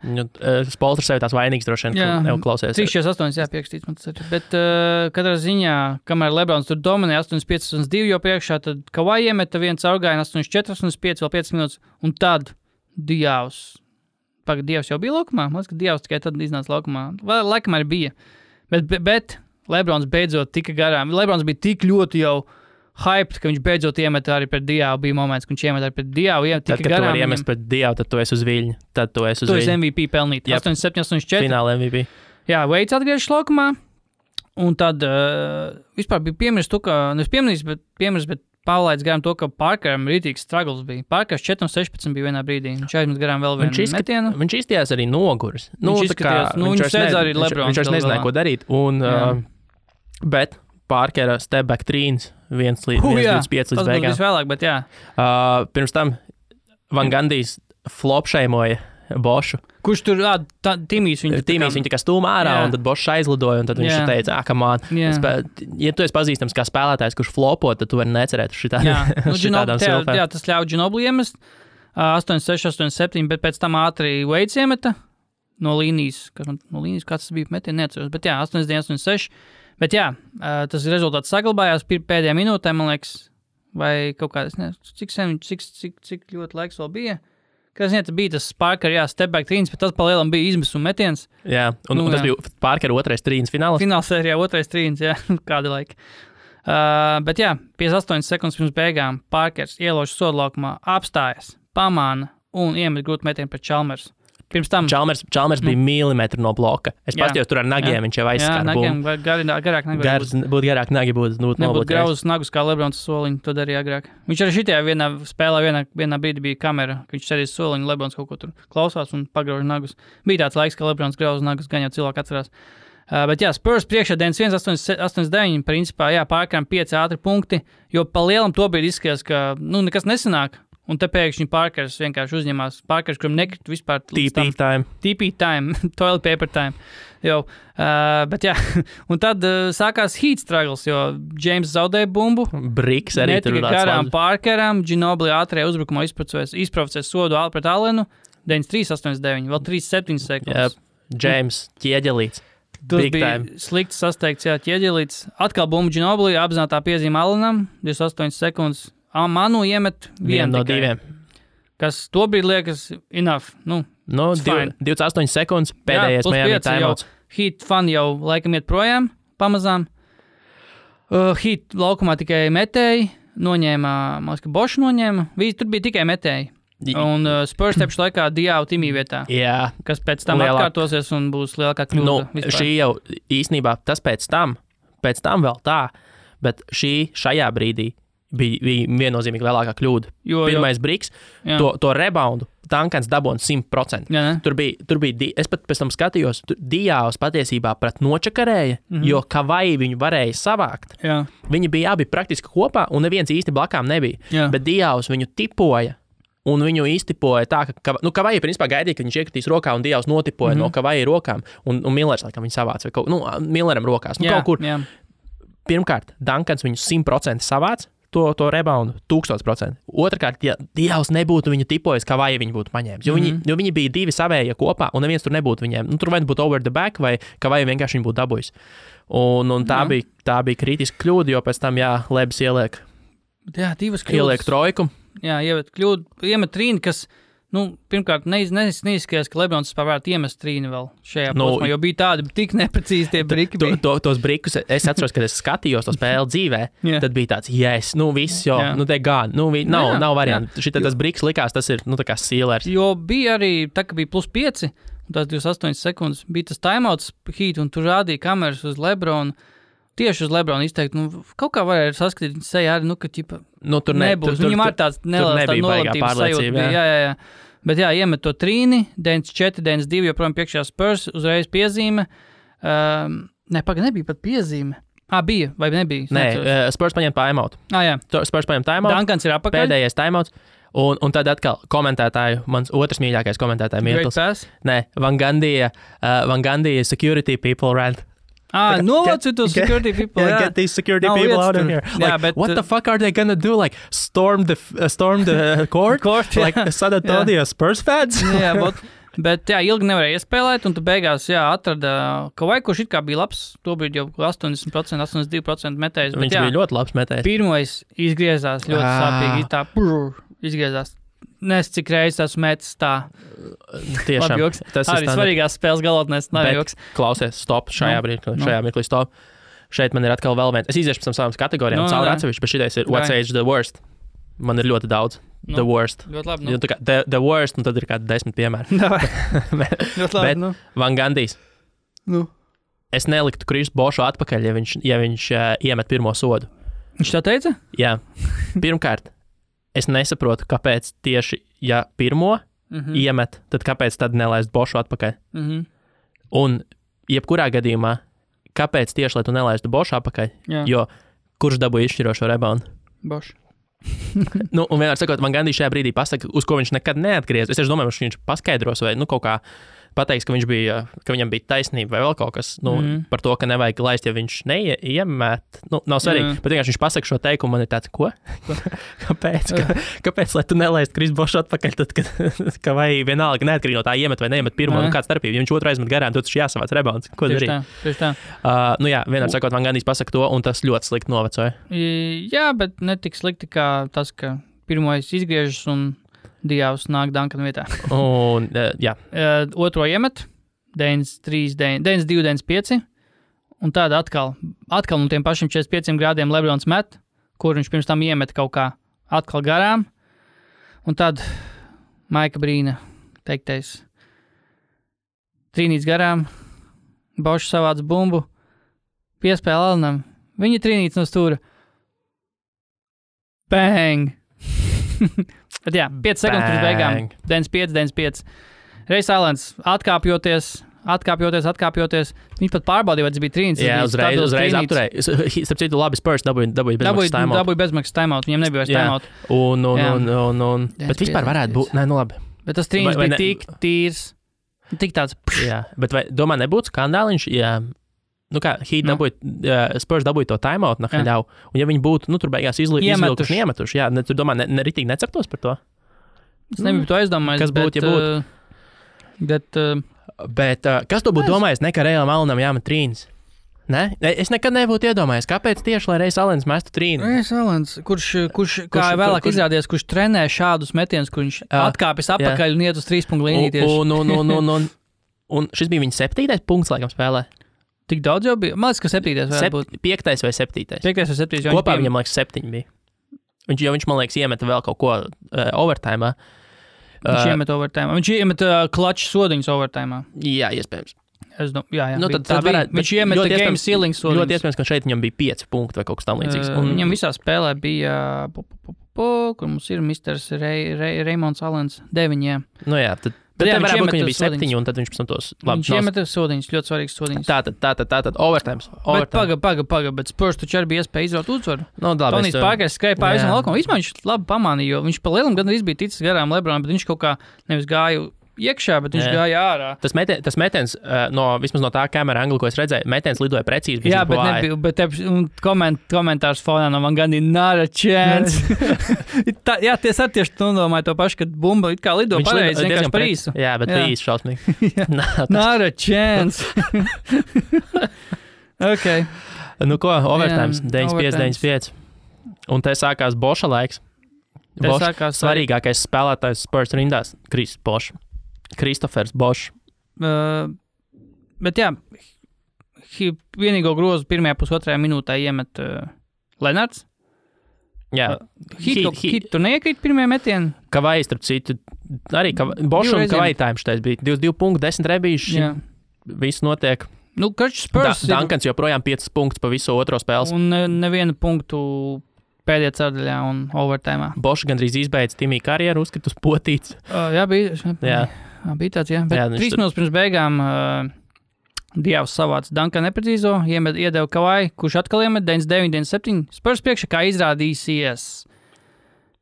Speaker 2: Spolters sevi tās vainīgs droši vien, neklausies.
Speaker 1: 3-48, piekstīts man tas arī. Bet katrā ziņā, kamēr Lebrons tur dominē 8-5-2 jau priekšā, tad Kawhi iemeta viens Caurgaina 8-4-5, vēl 5 minūtes. Un tad Dievs jau bija laukumā? Man liekas, ka Dievs tikai tad iznāca laukumā. Vai laikam arī bija. Bet Lebrons beidzot tika garām. Lebrons bija tik ļoti jau hyped, ka viņš beidzot iemet arī pret Diavu. Bija moments, ka viņš iemet arī pret Diavu.
Speaker 2: Tad, kad tu vari iemest pret Diavu, tad tu esi uz viļņa. Tu esi
Speaker 1: MVP pelnīt. 87, 84.
Speaker 2: Fināla MVP.
Speaker 1: Jā, Veids atgriežas laukumā. Un tad vispār bija piemirst to, ka, bet pavlaids garām to, ka Parkeram rītīgs struggles bija. Parkers 4-16 bija vienā brīdī. Viņš aizmet garām vēl vienu metienu.
Speaker 2: Viņš izskatījās arī noguris.
Speaker 1: Viņš sēdz arī Lebrons.
Speaker 2: Viņš nezināja, ko darīt. Bet Parkera step back trīns 1 līdz 5 līdz beigām.
Speaker 1: Tas būs vēlāk, bet jā.
Speaker 2: Pirms tam Van Gandijs flopšeimoja Bošu.
Speaker 1: Kurš tur Timijs viņu
Speaker 2: tā kā stūma ārā, un tad Bošs aizlidoja, un tad viņš teica, come on. Ja tu esi pazīstams kā spēlētājs, kurš flopo, tad tu vari necerēt uz šitādām silfēm.
Speaker 1: Jā, tas ļauj Ginobili iemest 8-6, 8-7, bet pēc tam ātri Veids iemeta no līnijas, kāds tas bija metiens, neatceros, bet jā, 8-9, 8-6. Bet jā, tas rezultāts saglabājās pēdējā minūtē, man liekas, vai kaut kā, cik ļoti laiks vēl bija. Kas bija tas Parker, step back trīns, bet tas palielam bija izmisuma metiens.
Speaker 2: Jā, un tas bija Parker otrais trīns fināls.
Speaker 1: Finālsērijā otrais trīns, jā, kāda laika. Bet jā, 58 sekundes pirms beigām Parkers ielauž sodlaukumā, apstājas, pamāna un iemet grūtu metienu pret Chalmers. Pirms tam
Speaker 2: Chalmers bija milimetru no bloka. Es paskatījos tur ar nagiem, viņš jau aizskata.
Speaker 1: Jā, nagiem, garāk nagi.
Speaker 2: Būtu garāk nagi, būtu noblokēts.
Speaker 1: Nebūtu grauzes nagus kā Lebrons soliņu, to darīja agrāk. Viņš arī šitajā vienā spēlē, vienā brīdī bija kamera, ka viņš sēdīs soliņu, Lebrons kaut ko tur klausās un pagrauž nagus. Bija tāds laiks, ka Lebrons grauz nagus, gan jau cilvēki atcerās. Bet jā, Spurs priekšā 91-89, principā, jā, Parkeram 5 ātri punkti, jo pa lielam to brīdi izskatījās, ka, nekas nesanāk. Un te pēkšņi Parkers vienkārši uzņemās. Parkers, kuram nekrit vispār... TP time, toilet paper time. Bet jā, un tad sākās heat struggles, jo James zaudēja bumbu.
Speaker 2: Briks arī tur
Speaker 1: netika garām Parkeram, Ginobili ātrajā uzbrukumā izprovocēs sodu pret Allenu, 93-89, vēl 3-7 sekundes.
Speaker 2: James ķieģelīts.
Speaker 1: Tas bija slikti sasteigts, ķieģelīts. Atkal bumbu Ginobili, apzinātā piezīme Allenam, 28 sekundes. Manu iemet vienu
Speaker 2: no diviem.
Speaker 1: Kas to brīdi liekas enough.
Speaker 2: 28 sekundes pēdējais Miami timeouts.
Speaker 1: Heat fan jau laikam iet projām pamazām. Heat laukumā tikai metēji. Noņēma, man liekas, ka Bošu noņēma. Tur bija tikai metēji. Un Spurs tepšu laikā Diavu Timī vietā.
Speaker 2: Jā.
Speaker 1: Kas pēc tam atkārtosies un būs lielākā kļūda.
Speaker 2: Šī jau īstenībā tas pēc tam vēl tā, bet šajā brīdī bija viennozīmīgi lielākā kļūda. Pirmais briks, to reboundu Duncans dabūna 100%. Tur bija, es pat pēc tam skatījos, Diavs patiesībā pret nočakarēja, jo Kavai viņu varēja savākt.
Speaker 1: Jā.
Speaker 2: Viņi bija abi praktiski kopā, un neviens īsti blakām nebija. Jā. Bet Diavs viņu tipoja, un viņu iztipoja tā, ka Kavai principā gaidīja, ka viņš iekritīs rokā, un Diavs notipoja no Kavai rokām, un Millers, laikam, viņu savāca, vai Milleram rokās, kaut kur. Jā. Pirmkārt, Duncans viņu 100% savāca, to reboundu 1000%. Otrakārt, ja Dievs nebūtu viņu tipojis, kā vai viņi būtu paņēmis. Jo viņi bija divi savējie kopā, un neviens tur nebūtu viņiem. Tur vai būtu over the back, vai kā vai vienkārši viņi būtu dabūjis. Un tā bija kritiska kļūda, jo pēc tam, Lebs ieliek.
Speaker 1: Jā, divas kļūdas.
Speaker 2: Ieliek trojku.
Speaker 1: Jā, iemet trīni, kas... pirmkārt, neizskatījās, ka Lebrons varētu iemest trīni vēl šajā posmā, jo bija tādi tik neprecīzi tie briki.
Speaker 2: Tos brikus, es atceros, kad es skatījos to spēli dzīvē, tad bija tāds, viss, te gan, nav variantu. Tas briks likās, tas ir, tā kā Steelers.
Speaker 1: Jo bija arī, tā kā bija +5, un tās 28 sekundes, bija tas timeouts Heat, un tur rādīja kameras uz Lebronu. Tieši uz Lebronu izteikt, kaut kā varēja saskatīt viņa sejā arī, ka ķipa nebūs. Viņam ar tāds neliels nolabtības sajūta. Jā. Bet iemet to trīni, 94, 92, joprojām priekšā Spurs, uzreiz piezīme. Nebija pat piezīme. Bija, vai nebija?
Speaker 2: Nē, Spurs paņem timeout.
Speaker 1: Jā.
Speaker 2: Spurs paņem timeout.
Speaker 1: Duncans ir apakaļ.
Speaker 2: Pēdējais timeouts. Un tad atkal komentētāju, mans otrs mīļākais komentētāju Mirtls. Nē, Van Gandija security people rant.
Speaker 1: Novācu to security people.
Speaker 2: Get these security people out of here. What the fuck are they gonna do? Storm the court? Like San Antonio Spurs fans?
Speaker 1: Bet ilgi nevarēja iespēlēt, un tu beigās atrada Kavai, kurš it kā bija labs, tobrīd jau 80%, 82% metējs.
Speaker 2: Viņš bija ļoti labs metējs.
Speaker 1: Pirmais izgriezās ļoti sāpīgi, izgriezās
Speaker 2: Nes
Speaker 1: cik reizes esmu metis tā.
Speaker 2: Tiešām.
Speaker 1: Tas arī svarīgās spēles galotnēs nav joks.
Speaker 2: Klausies, stop, šajā mirklī stop. Šeit man ir atkal vēl viens. Es iziešu pēc savām kategorijām cauri atsevišķi, bet šitais ir What's Age the Worst. Man ir ļoti daudz. The worst.
Speaker 1: Ļoti labi.
Speaker 2: The worst, un tad ir kādi 10 piemēri.
Speaker 1: Ļoti labi.
Speaker 2: Van Gandijs. Es neliktu Krisu Bošu atpakaļ, ja viņš iemet pirmo sodu.
Speaker 1: Viņš tā teica?
Speaker 2: Jā. Pirmkārt, es nesaprotu, kāpēc tieši, ja pirmo iemet, tad kāpēc tad nelaist Bošu atpakaļ. Un jebkurā gadījumā, kāpēc tieši, lai tu nelaistu Bošu atpakaļ, jo kurš dabūja izšķirošo reboundu?
Speaker 1: Bošu.
Speaker 2: Un vienmēr sakot, man Gandijs šajā brīdī pasaka, uz ko viņš nekad neatgriez. Es domāju, ka viņš paskaidros vai kaut kā pateiks, ka viņam bija taisnība vai vēl kaut kas par to, ka nevajag laist, ja viņš neiemet. Nav svarīgi, bet vienkārši viņš pasaka šo teikumu, man ir tāds, ko? Kāpēc, lai tu nelaist Krisu Bošu atpakaļ, tad, ka vai vienalga neatkarīgi no tā iemet vai neiemet pirmo, kāds starpība. Ja viņš otru aizmet garām, tad viņš jāsavāc rebounds. Ko darīt?
Speaker 1: Tieši tā.
Speaker 2: Vienmēr sakot, man Gandijs pasaka to, un tas ļoti slikti novecoja.
Speaker 1: Jā, bet ne tik slikti kā tas, ka pirmoais izgriežas un Dievs nāk Duncana vietā. Otro iemet, 92, 95, un tāda atkal no tiem pašiem 45 grādiem Lebrons met, kur viņš pirms tam iemet kaut kā atkal garām, un tad Maika Brīna teiktais trīnīts garām, Bošs savāc bumbu, piespēle Alanam, viņa trīnīts no stūra. Bang! Bet jā, 5 sekundes pirms beigām, 95. Reis Alens atkāpjoties, viņš pat pārbaudīja, vai tas bija trīnis.
Speaker 2: Jā, uzreiz apturēja. Starp citu, labi Spurs dabūja
Speaker 1: bezmaksas timeout, viņiem nebija vairs timeout.
Speaker 2: Bet vispār varētu būt, labi.
Speaker 1: Bet tas trīnis bija tik tīrs, tik tāds.
Speaker 2: Jā, bet vai domā nebūtu skandāliņš, ja... Spurs dabūja to timeout, ļauj. Un ja viņi būtu, tur beigās izvilkuši un iemetuši, tu domā, ritīgi neceptos par to?
Speaker 1: Es nebiju to aizdomājis.
Speaker 2: Kas būtu, ja būtu? Bet kas to būtu domājis, ka Reilam Alanam jāmet trīnis? Ne? Es nekad nebūtu iedomājies, kāpēc tieši, lai Reis Alens mestu trīni?
Speaker 1: Reis Alens, kurš kā vēlāk izrādījās, kurš trenē šādus metienus, kur viņš atkāpjas apakaļ un iet uz 3 punktu līniju tieši.
Speaker 2: Un šis bija viņa 7. punkts, laikam, spēlē.
Speaker 1: Tik daudz jau bija? Man liekas, ka 7. varētu būt.
Speaker 2: 5. vai 7.
Speaker 1: 5. vai 7.
Speaker 2: Kopā viņam, liekas, 7 bija. Viņš, man liekas, iemeta vēl kaut ko overtime.
Speaker 1: Viņš iemet overtime. Viņš iemet klaču sodiņus overtime.
Speaker 2: Jā, iespējams.
Speaker 1: Jā. Viņš iemet game ceiling sodiņus.
Speaker 2: Ļoti iespējams, ka šeit viņam bija 5 punkti vai kaut kas tam līdzīgs.
Speaker 1: Viņam visā spēlē bija, kur mums ir Misters Reimonds Alens 9. Jā.
Speaker 2: Jā, tad varētu būt, ka viņam bija 7, un tad viņš pēc tam tos labi.
Speaker 1: Viņš iemeta sodiņus, ļoti svarīgs sodiņus.
Speaker 2: Tātad, overtime.
Speaker 1: Bet Spurs taču arī bija iespēja izraut uzvaru.
Speaker 2: Tonijs
Speaker 1: Pārkais skrēja pāri visam laukumam. Vispār viņš labi pamanīja, jo viņš pa lielam gandrīz bija ticis garām Lebronam, bet viņš kaut kā nevis gāja iekšā, bet viņš gāja ārā.
Speaker 2: Tas metiens, vismaz no tā kamera angla, ko es redzēju, metiens lidoja precīzi.
Speaker 1: Jā, bet komentārs fonā no Van Gandija not a chance. Jā, tieši tu domāji to pašu, kad bumba it kā lido pareizi, vienkārši par īsu.
Speaker 2: Jā, bet bija īsi šausmīgi.
Speaker 1: Not a chance. Ok.
Speaker 2: Ko, overtimes, 95. Un te sākās Boša laiks. Svarīgākais spēlētājs Spurs rindās, Kristofers Bošs.
Speaker 1: Bet jā, vienīgo grozu pirmajā pusotrajā minūtē iemet Lenards.
Speaker 2: Jā.
Speaker 1: Hit tur neiekrīt pirmajā metienā.
Speaker 2: Kavai, starp citu, arī Bošs un Kavai time šitais bija 22 punkti, 10 rebīši. Viss notiek.
Speaker 1: Spurs
Speaker 2: Duncans joprojām 5 punktus pa visu otro spēles.
Speaker 1: Un nevienu punktu pēdējā ceturdaļā un overtime.
Speaker 2: Bošs gandrīz izbeidz Timija karjeru, uzskrit uz potīts.
Speaker 1: Jā, bija tāds, jā. Bet 3 minūtes pirms beigām Dievs savāca Duncanu neprecīzo, iedeva Kavai, kurš atkal iemet 99-97. Spurs priekšā kā izrādīsies.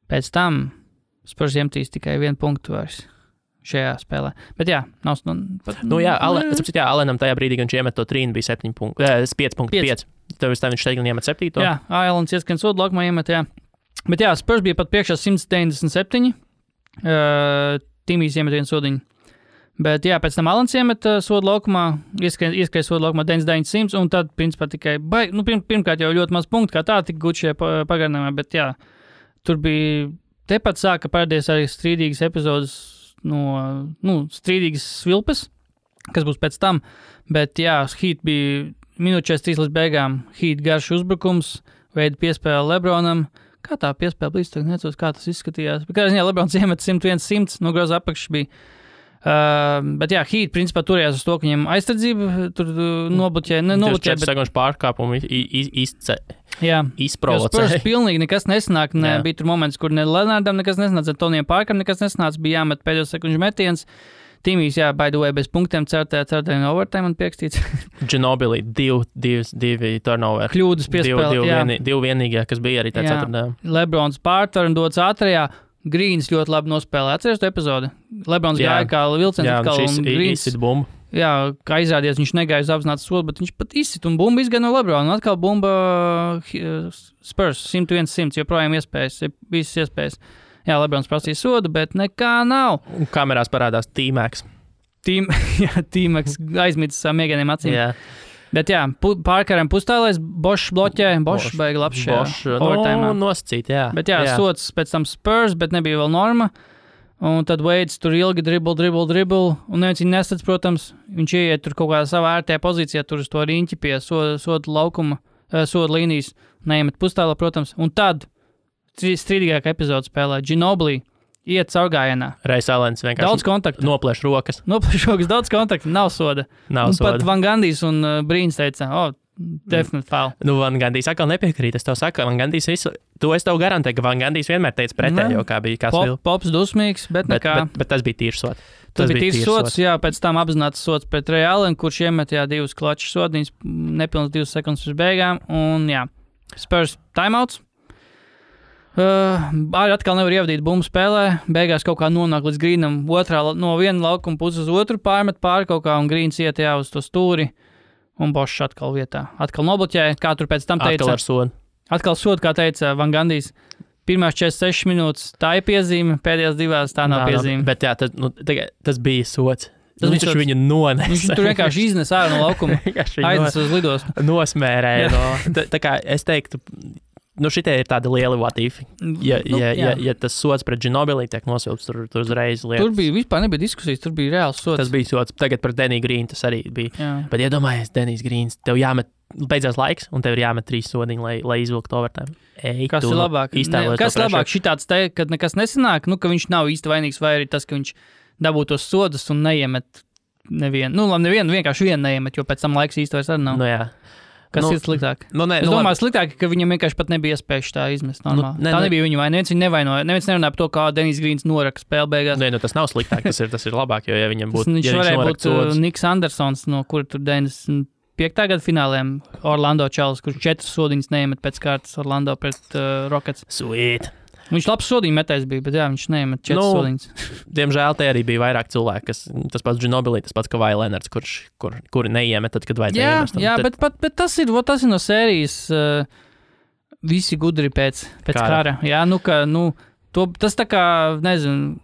Speaker 1: Pēc tam Spurs iemetīs tikai 1 punktu vairs šajā spēlē. Bet jā, nav... Alenam tajā brīdī, kad viņš iemet to trīnu, bija 5 punktu. Tev viņš teikt, iemet 7. Jā, Alens ieskrien sodu laukumā iemet, jā. Bet jā, Spurs bija pat priekšā 197. Timijs iemet 1 sodiņu. Bet jā, pēc tam Alens iemet sodu laukumā, ieskrien sodu laukumā 99-100, un tad, principā, tikai pirmkārt jau ļoti maz punktu, kā tā tika gūt šajā pagarinājumā, bet jā, tur bija Tepat sāka parādīties arī strīdīgas epizodes strīdīgas svilpes, kas būs pēc tam, bet jā, Heat bija minūte 43 līdz beigām, Heat garš uzbrukums, veida piespēle LeBronam. Kā tā piespēle bija, tagad necos, kā tas izskatījās. Bet kādā ziņā LeBrons iemet 101-100, no groza apakšas bija. Bet jā, Heat principā turējās uz to, ka viņiem aizstardzība tur nobloķē, bet...
Speaker 2: 4 sekundes pārkāpumu izprovocēja.
Speaker 1: Spurs pilnīgi nekas nesanāk, bija tur moments, kur ne Lenardam nekas nesanāca, Tonijam Parkam nekas nesanāca, bija jāmet pēdējo sekundžu metiens. Timijs, by the way, bez punktiem ceturtajā overtime un piekstīts.
Speaker 2: Ginobili, divi turnover.
Speaker 1: Kļūdas piespēle,
Speaker 2: divi vienīgie, kas bija arī tā ceturtajā.
Speaker 1: Lebrons pārtver un dots ātrajā. Grīns ļoti labi nospēlē. Atceries to epizodi? Lebrons gāja kā vilciens atkal un Grīns. Jā, kā izrādījās, viņš negāja uz apzinātu sodu, bet viņš pat izsit un bumba izgāja no Lebrona. Un atkal bumba Spurs 101-100, joprojām visas iespējas. Jā, Lebrons prasīja sodu, bet nekā nav.
Speaker 2: Un kamerās parādās T-Max.
Speaker 1: T-Max aizmitis savām miegainiem acīm.
Speaker 2: Jā.
Speaker 1: Bet jā, Parkeram pustālais, Bošs bloķē, Bošs beiga labs šajā overtime.
Speaker 2: Nosacīt, jā.
Speaker 1: Bet jā, sots pēc tam Spurs, bet nebija vēl norma. Un tad Veids tur ilgi dribble, un neviens viņu nesats, protams. Viņš ieiet tur kaut kādā savā ērtajā pozīcijā, tur uz to riņķi pie soda laukuma, soda līnijas, neiemet pustālā, protams. Un tad strīdīgākā epizode spēlē Ginobili iet caurgājienā.
Speaker 2: Ray Alens vienkārši
Speaker 1: daudz kontaktu.
Speaker 2: Noplēš rokas,
Speaker 1: daudz kontaktu, nav soda. Pat Van Gandijs un Brīns teica, definitely foul.
Speaker 2: Van Gandijs atkal nepiekrīt, es tev saku, Van Gandijs visu, to es tev garantēju, ka Van Gandijs vienmēr teica pretējo, kā bija kāds vēl.
Speaker 1: Pops dusmīgs, bet nekā.
Speaker 2: Bet tas bija tīrs sots.
Speaker 1: Tas bija tīrs sots, jā, pēc tam apzināts sots pret Ray Allen, kurš iemet, divus klačus sodiņus, nepilns 2 sekundes pirms beigām, un jā, Spurs timeouts. Arī atkal nevar ievadīt bumbu spēlē, beigās kaut kā nonāk līdz Grīnam, no viena laukuma puses uz otru pārmet pāri kaut kā, un Grīns iet uz to stūri, un Bošs atkal vietā. Atkal nobloķē, kā tur pēc tam teica.
Speaker 2: Atkal ar sodu.
Speaker 1: Atkal sodu, kā teica Van Gandijs. Pirmās 46 minūtes tā ir piezīme, pēdējās 2 tā nav piezīme.
Speaker 2: Bet jā, tas bija sods. Viņš viņu nonesa.
Speaker 1: Viņš tur vienkārši iznes ārā no laukuma, aiznes uz lidostu.
Speaker 2: Nosmērēja. Tā kā es teiktu, šitie ir tādi lieli vatīfi. Ja tas sods pret Ginobili tiek nosilps, tur uzreiz lietas.
Speaker 1: Tur bija vispār nebija diskusijas, tur bija reāls sods.
Speaker 2: Tas bija sods. Tagad pret Deniju Grīnu tas arī bija.
Speaker 1: Jā.
Speaker 2: Bet iedomājies, Denijs Grīns, tev jāmet, beidzās laiks, un tev ir jāmet 3 sodiņi, lai izvilktu overtime.
Speaker 1: Kas ir labāk? Kas labāk šitāds te, kad nekas nesanāk, ka viņš nav īsti vainīgs, vai arī tas, ka viņš dabūtu tos sodus un neiemet nevienu. Nevienu, vienkārši vienu neiemet, jo pēc tam laiks īsti vairs arī nav.
Speaker 2: Jā.
Speaker 1: Kas ir sliktāk? Es domāju, sliktāk, ka viņam vienkārši pat nebija iespējas tā izmest normāli. Tā nebija viņa vaina. Neviens viņu nevainoja. Neviens nerunāja par to, kā Denijs Grīns noraka spēle beigās.
Speaker 2: Tas nav sliktāk, tas ir labāk, jo ja viņam būtu...
Speaker 1: Viņš varēja būt Niks Andersons, no kura tur 95. gada fināliem Orlando Čalis, kurš 4 sodiņas neiemet pēc kārtas Orlando pret Rockets.
Speaker 2: Sweet!
Speaker 1: Viņš labs sodiņu metējs bija, bet viņš neiemet 4 sodiņas.
Speaker 2: Diemžēl te arī bija vairāk cilvēku, tas pats Ginobili, tas pats Kawhi Leonards, kuri neiemet tad, kad vajadzēja iemest.
Speaker 1: Jā, bet tas ir no sērijas visi gudri pēc kara. Jā, tas tā kā, nezinu,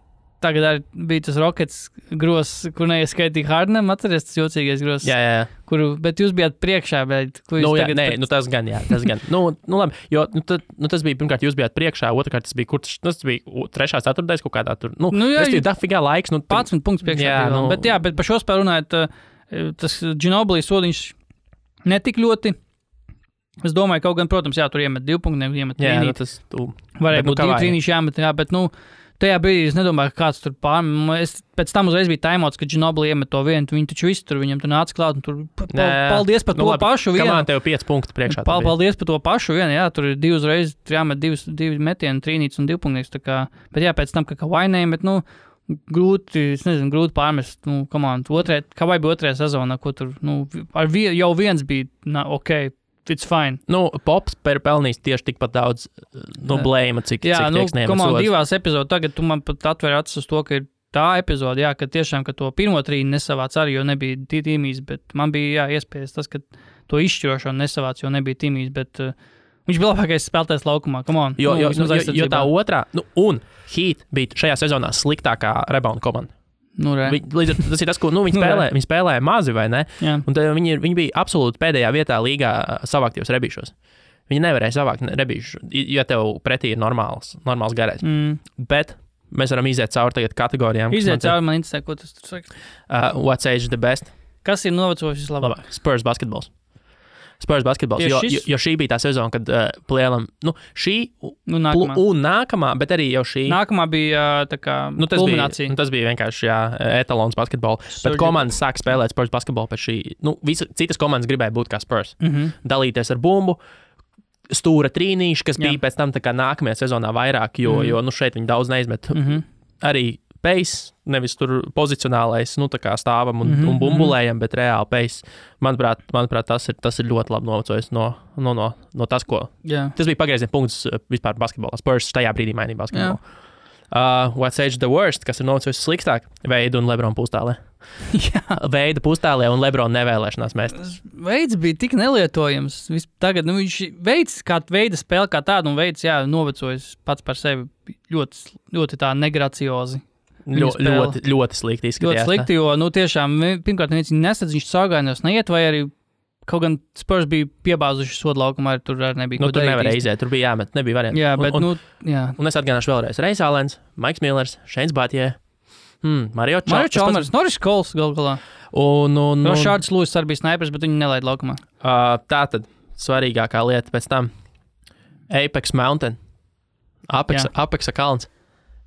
Speaker 1: tagad arī bija tas Rockets gros, kur neieskaitīja Hardenam, atceries tas jocīgais gros.
Speaker 2: Jā.
Speaker 1: Bet jūs bijāt priekšā, bet...
Speaker 2: tas gan. Labi, jo tas bija, pirmkārt, jūs bijāt priekšā, otrkārt, tas bija 3. ceturtais kaut kādā tur. Tas ir dafigā laiks.
Speaker 1: 15 punkts priekšā. Bet par šo spēlu runājot, tas Ginobili sodiņš netik ļoti. Es domāju, kaut gan, protams, tur iemet 2 punktus, iemet 3. Varēja būt 2 trīnīši jāmet, bet, tajā brīdī es nedomāju, ka kāds tur pēc tam uzreiz bija timeouts, kad Ginobili iemet to vienu, viņi taču visu tur, viņam tur nāca klāt, un tur paldies par to pašu vienu.
Speaker 2: Kamā tev 5 punktu priekšā.
Speaker 1: Paldies par to pašu vienu, tur ir 2 uzreiz, jāmet 2 metieni, trīnīts un 2 punktus, bet pēc tam, ka vainējumi, bet, grūti pārmest, Kawhi bija 2. sezonā, ko tur, jau viens bija, ok, it's fine.
Speaker 2: Pops pelnīs tieši tikpat daudz blēma, cik tieks neiemet sods.
Speaker 1: 2 epizodus, tagad tu man pat atver acis uz to, ka ir tā epizode, ka tiešām, ka to pirmo trīni nesavāc arī, jo nebija Timijs, bet man bija, iespējas tas, ka to izšķirošo nesavāc, jo nebija Timijs, bet viņš bija labākais spēlētājs laukumā, come on.
Speaker 2: Jo tā otrā, un Heat bija šajā sezonā sliktākā rebound komanda. Tas ir tas, ko viņi spēlēja mazi, vai ne?
Speaker 1: Jā.
Speaker 2: Un viņi bija absolūti pēdējā vietā līgā savāktajos rebīšos. Viņi nevarēja savākt rebīšu, ja tev pretī ir normāls garais. Bet mēs varam iziet cauri tagad kategorijām.
Speaker 1: Iziet cauri, man interesē, ko tas tur saka.
Speaker 2: What's age the best?
Speaker 1: Kas ir novecojis vislabāk?
Speaker 2: Spurs basketbols. Jo šī bija tā sezona, kad plēlam, nākamā. Un nākamā, bet arī jau šī.
Speaker 1: Nākamā bija tā kā kulminācija.
Speaker 2: Tas bija vienkārši etalons basketbola. Bet komandas sāk spēlēt Spurs basketbolu pēc šī. Citas komandas gribēja būt kā Spurs. Dalīties ar bumbu, stūra trīnīši, kas bija pēc tam tā kā nākamajā sezonā vairāk, jo šeit viņi daudz neizmet. Arī pace, nevis tur pozicionālais, tā kā stāvam un bumbulējam, bet reāli pace. Manuprāt, tas ir ļoti labi novecojis no tas, ko. Tas bija pagrieziena punkts vispār basketbolā. Spurs tajā brīdī mainīja basketbolu. What's age the worst, kas ir novecojis sliktāk? Veida un Lebron pustālē. Veida pustālē un Lebron nevēlēšanās mest.
Speaker 1: Veids bija tik nelietojams. Tagad viņš veids kā veida spēle kā tādu un veids, novecojis pats par sevi ļoti tā negraciozi.
Speaker 2: Ļoti slikti izskatījās.
Speaker 1: Ļoti slikti, jo, tiešām, pirmkārt, viņš nesadz, viņš saugājumos neiet, vai arī kaut gan Spurs bija piebāzuši sodu laukumā, tur arī nebija.
Speaker 2: Tur nevarēja iziet, tur bija jāmet, nebija varianti.
Speaker 1: Jā, bet,
Speaker 2: Un es atgādināšu vēlreiz. Reis Alens, Maiks Millers, Šeins Batjē, Mario
Speaker 1: Chalmers, Norris Coles galā.
Speaker 2: Un
Speaker 1: Šārds Lūis arī bija snaipers, bet viņi nelaid laukumā.
Speaker 2: Tātad, svarīgākā lieta pēc tam. Apex Mountain. Apexa kalns.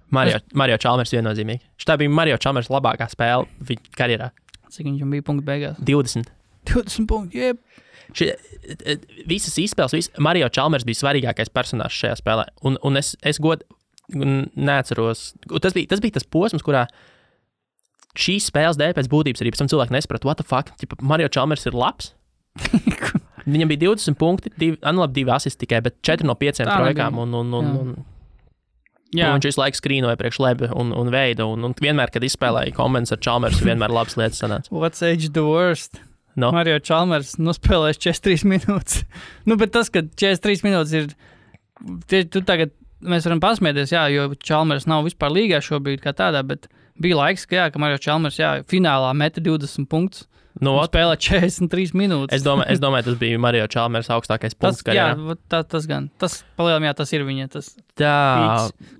Speaker 2: Mario Chalmers viennozīmīgi. Šitā bija Mario Chalmers labākā spēle viņa karjerā.
Speaker 1: Cik viņam bija punktu beigās?
Speaker 2: 20
Speaker 1: punkti, jeb.
Speaker 2: Visas izspēles, Mario Chalmers bija svarīgākais personāžs šajā spēlē. Un es neatceros. Tas bija tas posms, kurā šīs spēles dēļ pēc būtības arī pēc tam cilvēki nesaprata, what the fuck, Mario Chalmers ir labs. Viņam bija 20 punkti, 2 asisti tikai, bet 4 no 5 trojkām un viņš visu laiku skrīnoja priekš Leba un Veida, un vienmēr, kad izspēlēja komandas ar Chalmersu, vienmēr labas lietas sanāca.
Speaker 1: What's age the worst? No. Mario Chalmers nospēlēs 43 minūtes. Bet tas, ka 43 minūtes ir, tu tagad, mēs varam pasmieties, jo Chalmers nav vispār līgā šobrīd kā tādā, bet bija laiks, ka Mario Chalmers, finālā meta 20 punktus. Spēlē 43 minūtes.
Speaker 2: Es domāju, tas bija Mario Chalmers augstākais punkts karjerā.
Speaker 1: Tas gan. Tas palielam, tas ir viņa.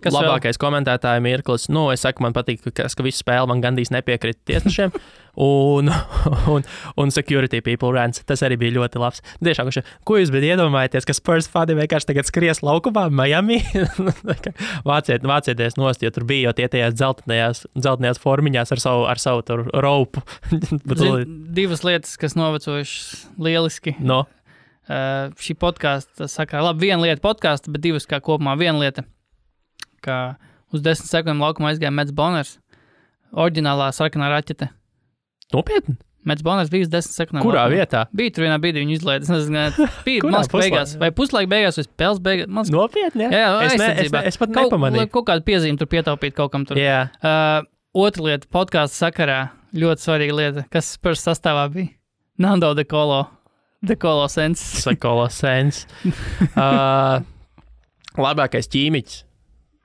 Speaker 2: Labākais komentētāja mirklis. Es saku, man patīk, ka visu spēli man gandrīz nepiekrita tiesnešiem. un security people rants. Tas arī bija ļoti labs. Tiešām, ko jūs iedomājaties, ka Spurs fani vienkārši tagad skries laukumā Miami? Vācieties nost, jo tur bija jau tie tajās dzeltenajās formiņās ar savu tur ropu.
Speaker 1: Divas lietas, kas novecojušas lieliski. Šī podkāsta sakarā, labi, viena lieta podkāsta, bet divas kā kopumā. Viena lieta, ka uz 10 sekundēm laukumā aizgāja Mets Boners, oriģinālā sarkanā raķete.
Speaker 2: Nopietni?
Speaker 1: Mets Boners bija uz 10 sekundēm.
Speaker 2: Kurā vietā?
Speaker 1: Bija tur vienā brīdī, viņu izlaida. Bija beigās, vai puslaika beigās, vai spēles beigās.
Speaker 2: Nopietni, jā? Es pat nepamanīju.
Speaker 1: Kaut kādu piezīmi tur pietaupīt kaut kam tur.
Speaker 2: Jā.
Speaker 1: Otra lieta podkāsta sakarā. Ļoti svarīga lieta, kas Spurs sastāvā bija. Nando De Colo Sens. Labākais ķīmiķis.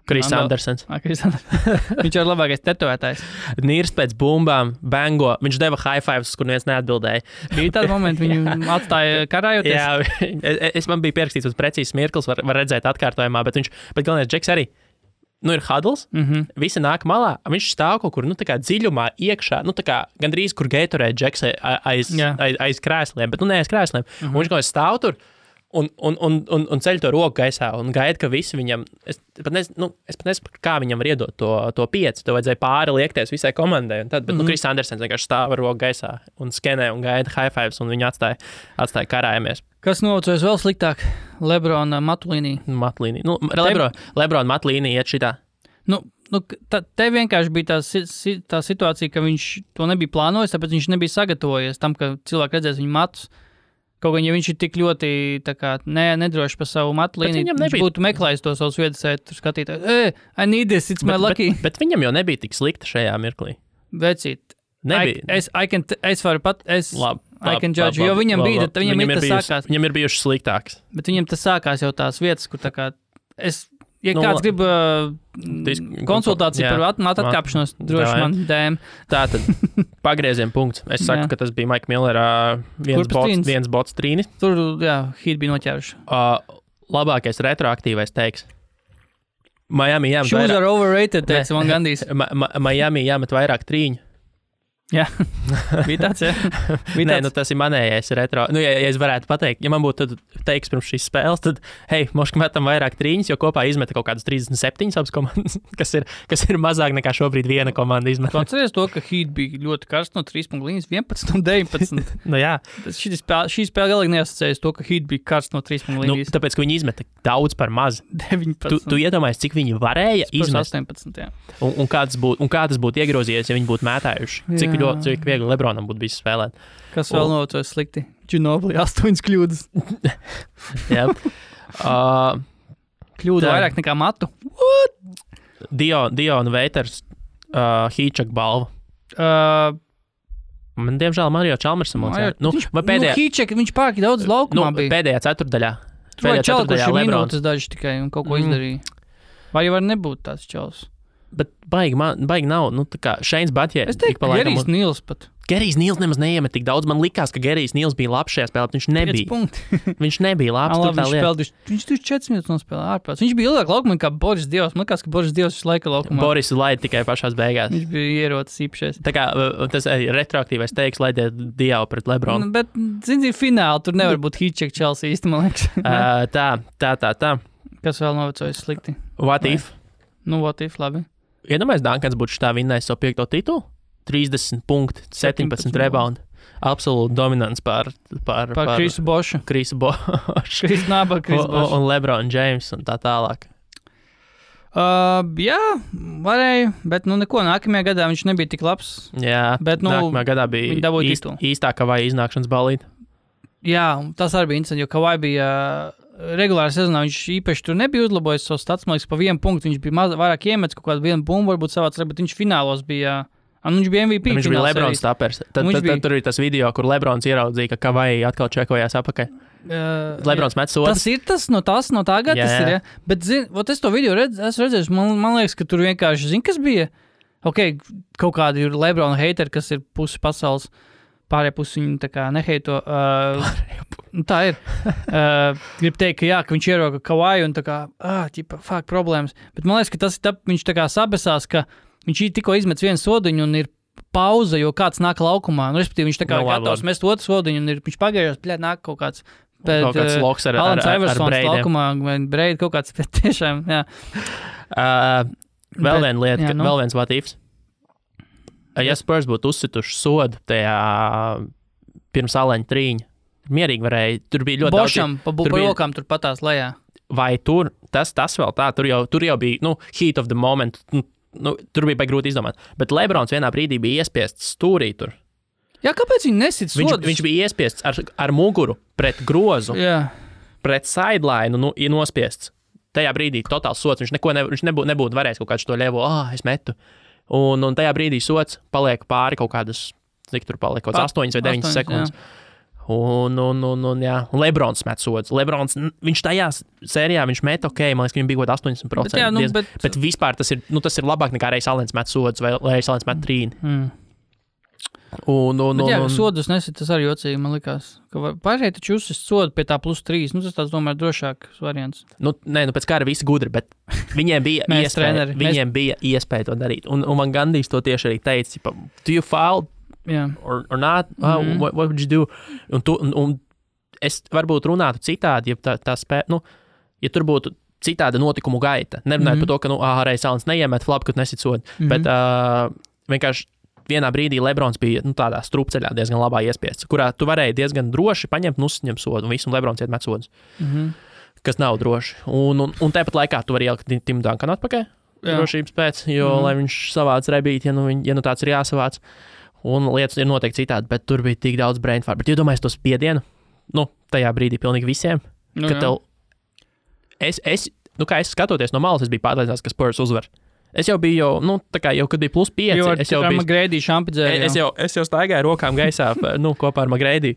Speaker 1: Chris Andersons. Viņš ir labākais tetovētājs.
Speaker 2: Nīrs pēc bumbām, bango. Viņš deva high fives, kur neviens neatbildēja.
Speaker 1: Bija tādi momenti, viņu atstāja karājoties.
Speaker 2: Jā, man bija pierakstīts uz precīzs mirklis, var redzēt atkārtojumā, bet galvenais Džeks arī. Ir huddles, visi nāk malā, viņš stāv kaut kur, tā kā dziļumā iekšā, tā kā gandrīz, kur Gatorade Džeks aiz krēsliem, bet, ne aiz krēsliem. Un viņš kaut kā stāv tur un ceļ to roku gaisā un gaida, ka visi viņam, es pat nesaprotu, kā viņam var iedot to 5, to vajadzēja pāri liekties visai komandai, un tad, bet, Chris Andersons vienkārši stāv ar roku gaisā un skenē un gaida high fives, un viņu atstāja karājamies.
Speaker 1: Kas novecojas vēl sliktāk? Lebrona Matlīnī.
Speaker 2: Lebrona Matlīnī iet šitā.
Speaker 1: Te vienkārši bija tā situācija, ka viņš to nebija plānojis, tāpēc viņš nebija sagatavojies tam, ka cilvēki redzēs viņu matus. Kaut gan, ja viņš ir tik ļoti nedrošs par savu Matlīni, viņš būtu meklējis to savus viedasētu skatītāju. I need this, it's my lucky.
Speaker 2: Bet viņam jau nebija tik slikta šajā mirklī.
Speaker 1: Vecīt.
Speaker 2: Nebija.
Speaker 1: Es varu pat... I can judge, jo viņam bija, viņam tas sākās.
Speaker 2: Viņam ir bijuši sliktāks.
Speaker 1: Bet viņam tas sākās jau tās vietas, kur tā kā, Ja kāds grib konsultāciju par atkāpšanos, droši man DM.
Speaker 2: Tātad pagrieziena punkts. Es saku, ka tas bija Maika Millera viens bots trīnis.
Speaker 1: Tur, Heat bija noķēruši.
Speaker 2: Labākais retroaktīvais teiks. Miami jāmet
Speaker 1: vairāk. Shoes are overrated, teica man gandīs.
Speaker 2: Miami jāmet vairāk trīņu.
Speaker 1: Jā, bija tāds, jā.
Speaker 2: Nē, tas ir manējais retro. Ja es varētu pateikt, ja man būtu teiks pirms šīs spēles, tad, moški metam vairāk trīņas, jo kopā izmeta kaut kādas 37 abas komandas, kas ir mazāk nekā šobrīd viena komanda izmeta.
Speaker 1: Tu atceries to, ka Heat bija ļoti karsts no 3 līnijas 11 un 19.
Speaker 2: Jā.
Speaker 1: Šī spēle galīgi neasociējas to, ka Heat bija karsts no 3 līnijas.
Speaker 2: Tāpēc, ka viņi izmeta daudz par maz.
Speaker 1: 19.
Speaker 2: Tu iedomājies, cik viņi varēja izmest.
Speaker 1: 18, jā.
Speaker 2: Un kā tas būtu iegrozījies, ja viņi būtu mētājuši. Cik viegli Lebronam būtu bijis spēlēt.
Speaker 1: Kas vēl notojas slikti? Ginobili 8 kļūdas.
Speaker 2: Jā.
Speaker 1: Kļūda vairāk nekā matu.
Speaker 2: What? Diona Veiters Hīčak balva. Man, diemžēl, Mario Čalmers samocēja.
Speaker 1: Hīčak, viņš pārāk daudz laukumā bija.
Speaker 2: Pēdējā ceturdaļā.
Speaker 1: Pēdējā ceturdaļā minūtes daži tikai un kaut ko izdarīja. Vai jau var nebūt tāds čals?
Speaker 2: Bet baigi nav, tā kā Šeins Batjē.
Speaker 1: Es teiktu, ka Gerijs Nils pat.
Speaker 2: Gerijs Nils nemaz neiemet tik daudz. Man likās, ka Gerijs Nils bija labs šajā spēlē, bet viņš nebija. Viņš nebija labs.
Speaker 1: Viņš 4 minūtes nospēlē ārpēc. Viņš bija ilgāk laukumā kā Boris Dievs. Man likās, ka Boris Dievs visu laiku laukumā.
Speaker 2: Boris laida tikai pašās beigās.
Speaker 1: Viņš bija ierocis īpašais.
Speaker 2: Tā kā tas retroaktīvais teiks, laidiet Dievu pret Lebronu.
Speaker 1: Bet, zini, fināli tur nevar būt Hīček Chelsea īsti, man liekas.
Speaker 2: Tā.
Speaker 1: Kas vēl novecojas slikti?
Speaker 2: What if?
Speaker 1: What if, labi.
Speaker 2: Iedomājies, Dankans būtu šitā vinnējis savu 5. titulu? 30 punkti, 17 rebound. Absolūti dominants pār
Speaker 1: Krisu Bošu.
Speaker 2: Krisu Bošu. Un LeBron James un tā tālāk.
Speaker 1: Jā, varēja, bet neko. Nākamajā gadā viņš nebija tik labs.
Speaker 2: Jā, bet nākamajā gadā bija īstā Kavai iznākšanas balīte.
Speaker 1: Jā, tas arī bija interesanti, jo Kavai bija regulāri sezonā, viņš īpaši tur nebija uzlabojis savu stats, man liekas, pa 1 punktu. Viņš bija vairāk iemetis kaut kādu 1 bumbu, varbūt savāc, bet viņš finālos bija... viņš bija MVP.
Speaker 2: Viņš bija Lebrons tapers. Tad tur ir tas video, kur Lebrons ieraudzīja, ka Kavai atkal čekojās apakaļ. Lebrons met sodu.
Speaker 1: Tas ir tas no tā gada, tas ir, ja? Bet, es to video esmu redzējis, man liekas, ka tur vienkārši, kas bija? Kaut kādi ir Lebrona hateri, kas ir pusi pasaules, pārējā pusi viņu tā kā neheito. Tā ir. Grib teikt, ka viņš ieroka Kavai un tā kā, problēmas. Bet man liekas, ka tas ir viņš tā kā sabesās, ka viņš tikko izmets vienu sodiņu un ir pauze, jo kāds nāk laukumā. Respektīvi, viņš tā kā gatavs mest otru sodiņu un viņš pagaidās, nāk kaut kāds.
Speaker 2: Kaut kāds loks ar breidiem.
Speaker 1: Laukumā, vai breidi kaut kāds, bet tiešām, jā.
Speaker 2: Vēl viena lieta, vēl viens what ifs. Ja Spurs būtu uzsituši sodu tajā pirms aleņa trīņa, mierīgi varēja, tur bija ļoti
Speaker 1: Bošam, daudz. Bošam, pa rokām tur patās lejā.
Speaker 2: Vai tur, tas vēl tā, tur jau bija, heat of the moment, tur bija grūti izdomāt. Bet Lebrons vienā brīdī bija iespiests stūrī tur.
Speaker 1: Jā, kāpēc viņi nesit sodus?
Speaker 2: Viņš bija iespiests ar muguru pret grozu, pret sideline, nospiests. Tajā brīdī totāls sods, viņš nebūtu varējis kaut kādu to ļevo, es metu. Un tajā brīdī sods paliek pāri kaut kādas, cik tur paliek, kaut kāds 8 vai 9 sekundes. Un Lebrons met sods. Lebrons, viņš tajā sērijā, viņš met man liekas, ka viņam bija kaut 80%. Bet vispār tas ir labāk nekā Reis Alens met sods vai Reis Alens met trīni.
Speaker 1: Sodus nesit, tas arī jocīgi, man likās. Pārējai taču uzsist sodu pie tā +3. Tas tāds, domāju, drošāks variants.
Speaker 2: Pēc kāra visi gudri, bet viņiem bija iespēja to darīt. Un man Gandijs to tieši arī teica, do you foul or not? What would you do? Un es varbūt runātu citādi, ja tā spēja, ja tur būtu citāda notikumu gaita. Nerunājot par to, ka, Reis Alens neiemet flapu, kad nesit sodu. Bet vienkārši vienā brīdī Lebrons bija tādā strupceļā diezgan labā iespiests, kurā tu varēji diezgan droši paņemt un uzņemt sodu, un visu Lebrons iet met sodus, kas nav droši. Un tāpat laikā tu vari ielikt Timu Dankanu atpakaļ drošības pēc, jo, lai viņš savāc rebīt, ja tāds ir jāsavāc, un lietas ir noteikti citādi, bet tur bija tik daudz brain fart. Bet iedomājies to spiedienu, tajā brīdī pilnīgi visiem, ka tev, kā es skatoties no malas, es biju pārliecināts, ka Spurs uzvar. Es jau biju, kad bija +5, es jau biju
Speaker 1: Magrēdī šampidzēju.
Speaker 2: Es jau staigāju rokām gaisā, kopā ar Magrēdī.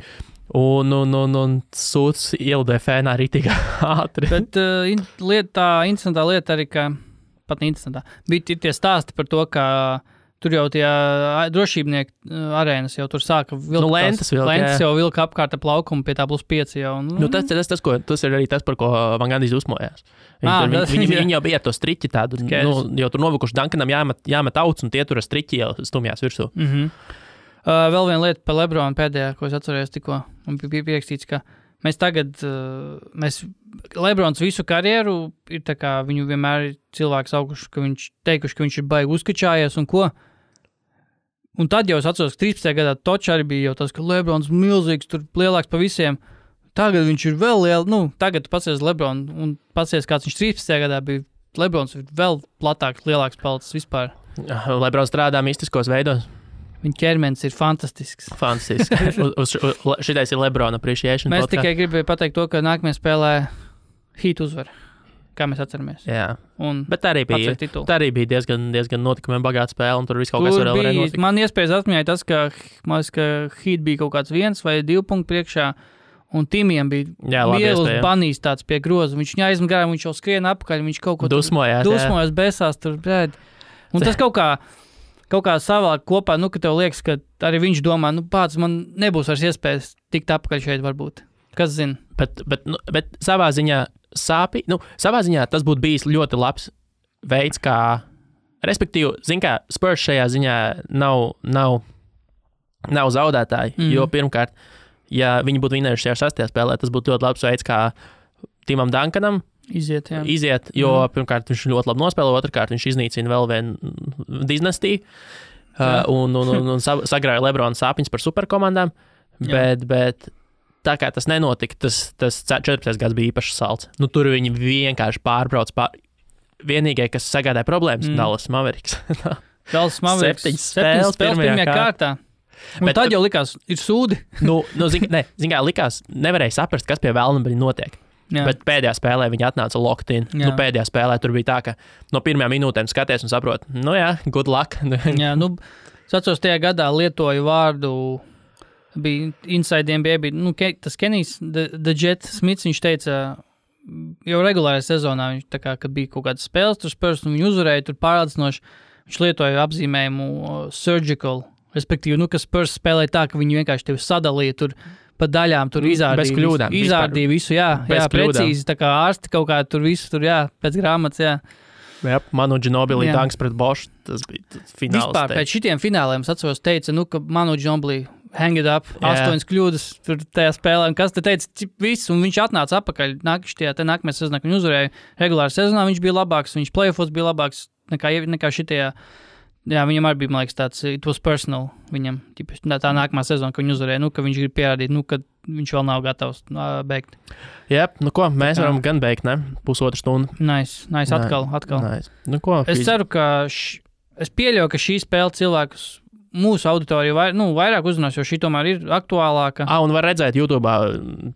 Speaker 2: Un sūds ielidēja fēnā rītīgi ātri.
Speaker 1: Bet interesantā lieta arī, ka pat interesantā, bija tie stāsti par to, ka tur jau tie drošībnieki arēnas jau tur sāka vilkt.
Speaker 2: Lentas
Speaker 1: jau vilka apkārt ap laukumu pie tā +5 jau.
Speaker 2: Tas ir arī tas, par ko man gandrīz uzmojās. Viņi jau bija ar to striķi tādu, jau tur novukuši Duncanam jāmet auts, un tie tur ar striķi jau stumjās virsū.
Speaker 1: Vēl viena lieta par Lebronu pēdējā, ko es atcerējos tikko, un bija pierakstīts, ka mēs tagad, Lebrons visu karjeru ir tā kā, viņu vienmēr ir cilvēks auguši, ka viņš teikuši, ka viņš ir baigi uzkačājies un ko. Un tad jau es atceros, ka 13. gadā Točs arī bija jau tas, ka Lebrons milzīgs, tur lielāks pa visiem. Tagad viņš ir vēl tagad tu pacies Lebronu un pacies, kāds viņš 13. gadā bija. Lebrons ir vēl platāks, lielāks palicis vispār.
Speaker 2: Lebrons strādā mistiskos veidos.
Speaker 1: Viņa ķermenis ir fantastisks.
Speaker 2: Šitais ir Lebrona appreciation.
Speaker 1: Mēs tikai gribēju pateikt to, ka nākamajā spēlē Heat uzvar, kā mēs atceramies.
Speaker 2: Jā, bet tā arī bija diezgan notikumiem bagāta spēle, un tur viss kaut kas varēja notikt. Man
Speaker 1: iespējas atmiņāja tas, ka Heat bija kaut kāds 1 vai 2 punktu priekšā, un Timiem bija liels banīs tāds pie groza. Viņš viņu aizmet garām, viņš jau skrien apakaļ, viņš kaut ko dusmojās, besās tur. Un tas kaut kā savāk kopā, ka tev liekas, ka arī viņš domā, pats man nebūs vairs iespējas tikt apakaļ šeit varbūt. Kas zina?
Speaker 2: Bet savā ziņā savā ziņā tas būtu bijis ļoti labs veids, kā, respektīvi, kā Spurs šajā ziņā nav zaudētāji, jo pirmkārt, ja viņi būtu vinējuši šajā 6. spēlē, tas būtu ļoti labs veids, kā Timam Duncanam iziet, jo pirmkārt viņš ļoti labi nospēlē, otrkārt viņš iznīcina vēl vienu dinastiju un sagrāja Lebrona sāpiņas par superkomandām, bet tā kā tas nenotika, tas 14. gads bija īpaši salds. Tur viņi vienkārši pārbrauc vienīgai, kas sagādāja problēmas, Dallas Mavericks.
Speaker 1: Dallas Mavericks 7 spēles pirmajā kārtā. Un tad jau likās, ir sūdi.
Speaker 2: Likās, nevarēja saprast, kas pie vēlna bija notiek. Jā. Bet pēdējā spēlē viņi atnāca locked in. Pēdējā spēlē tur bija tā, ka no pirmajām minūtēm skaties un saprot, good luck.
Speaker 1: Jā, es atceros, tajā gadā lietoju vārdu, bija insidiem, bija tas Kenijs, The Jet Smits, viņš teica, jau regulārajā sezonā, viņš tā kā, kad bija kaut kādas spēles, tur Spurs, un viņi uzvarēja, tur pārācinoši, viņš lietoja apzīmējumu surgical, respektīvi, ka Spurs spēlēja tā, ka viņi vienkārši tevi sadalīja tur pa daļām, tur izārdīja visu, jā, precīzi, tā kā ārsti kaut kā tur visu, tur, jā, pēc grāmatas, jā.
Speaker 2: Jā, Manu Ginobili tanks pret Bošu, tas bija fināls.
Speaker 1: Vispār, pēc šitiem fināliem, es atceros, teica, ka Manu Ginobili hang it up, 8 kļūdas tur tajā spēlē, un kas te teica, viss, un viņš atnāca apakaļ, nākamajā sezonā, kad viņš uzvarēja regulāri sezonā, viņš bija labāks, viņš playoffos bija labāks nekā šitajā, jā, viņam arī bija, man liekas, tāds, it was personal, viņam, tā nākamā sezona, ka viņš uzvarēja, ka viņš grib pierādīt, ka viņš vēl nav gatavs beigt.
Speaker 2: Jā, mēs varam gan beigt, ne? Pusotru stundu.
Speaker 1: Nice, atkal.
Speaker 2: Nice.
Speaker 1: Es ceru, ka, es pieļauju, ka šī spēle cilvēkus mūsu auditoriju vairāk uzrunās, jo šī tomēr ir aktuālāka.
Speaker 2: Un var redzēt YouTube'ā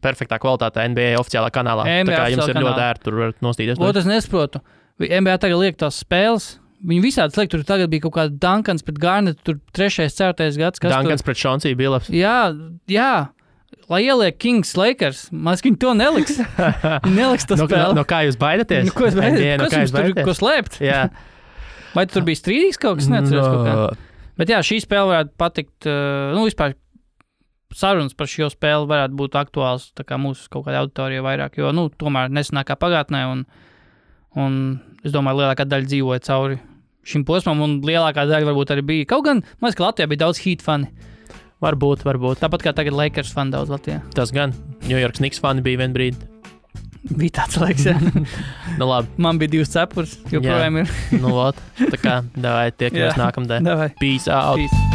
Speaker 2: perfektā kvalitātē NBA oficiālā kanālā. Tā kā jums ir ļoti ērti, tur varat nostīties.
Speaker 1: Es nesaprotu. NBA tagad liek tās spēles. Viņi visādi liek, tur tagad bija kaut kāda Duncans pret Garnett, tur 3., 4. gads.
Speaker 2: Duncans pret Chauncey Billups.
Speaker 1: Jā. Lai ieliek Kings Lakers, viņi to neliks. Viņi neliks to spēli.
Speaker 2: No kā jūs baidaties?
Speaker 1: Ko jūs tur ko slēpt?
Speaker 2: Jā.
Speaker 1: Vai tur bija strīdīgs kaut kas? Neatceros kaut kā. Bet jā, šī spēle varētu patikt, vispār sarunas par šo spēli varētu būt aktuāls tā kā mūsu kaut kādā auditorijā vairāk, jo, tomēr nesenākā pagātnē un es domāju, lielākā daļa dzīvoja cauri šim posmam un lielākā daļa varbūt arī bija. Kaut gan, man liekas, ka Latvijā bija daudz Heat fani.
Speaker 2: Varbūt.
Speaker 1: Tāpat kā tagad Lakers fani daudz Latvijā.
Speaker 2: Tas gan. New York Knicks fani bija vien brīdi.
Speaker 1: Bija tāds laiks, jā.
Speaker 2: Labi.
Speaker 1: Man bija 2 cepures, joprojām ir.
Speaker 2: Tā kā, davai, tiekamies nākamdien.
Speaker 1: Davai.
Speaker 2: Peace out.
Speaker 1: Peace.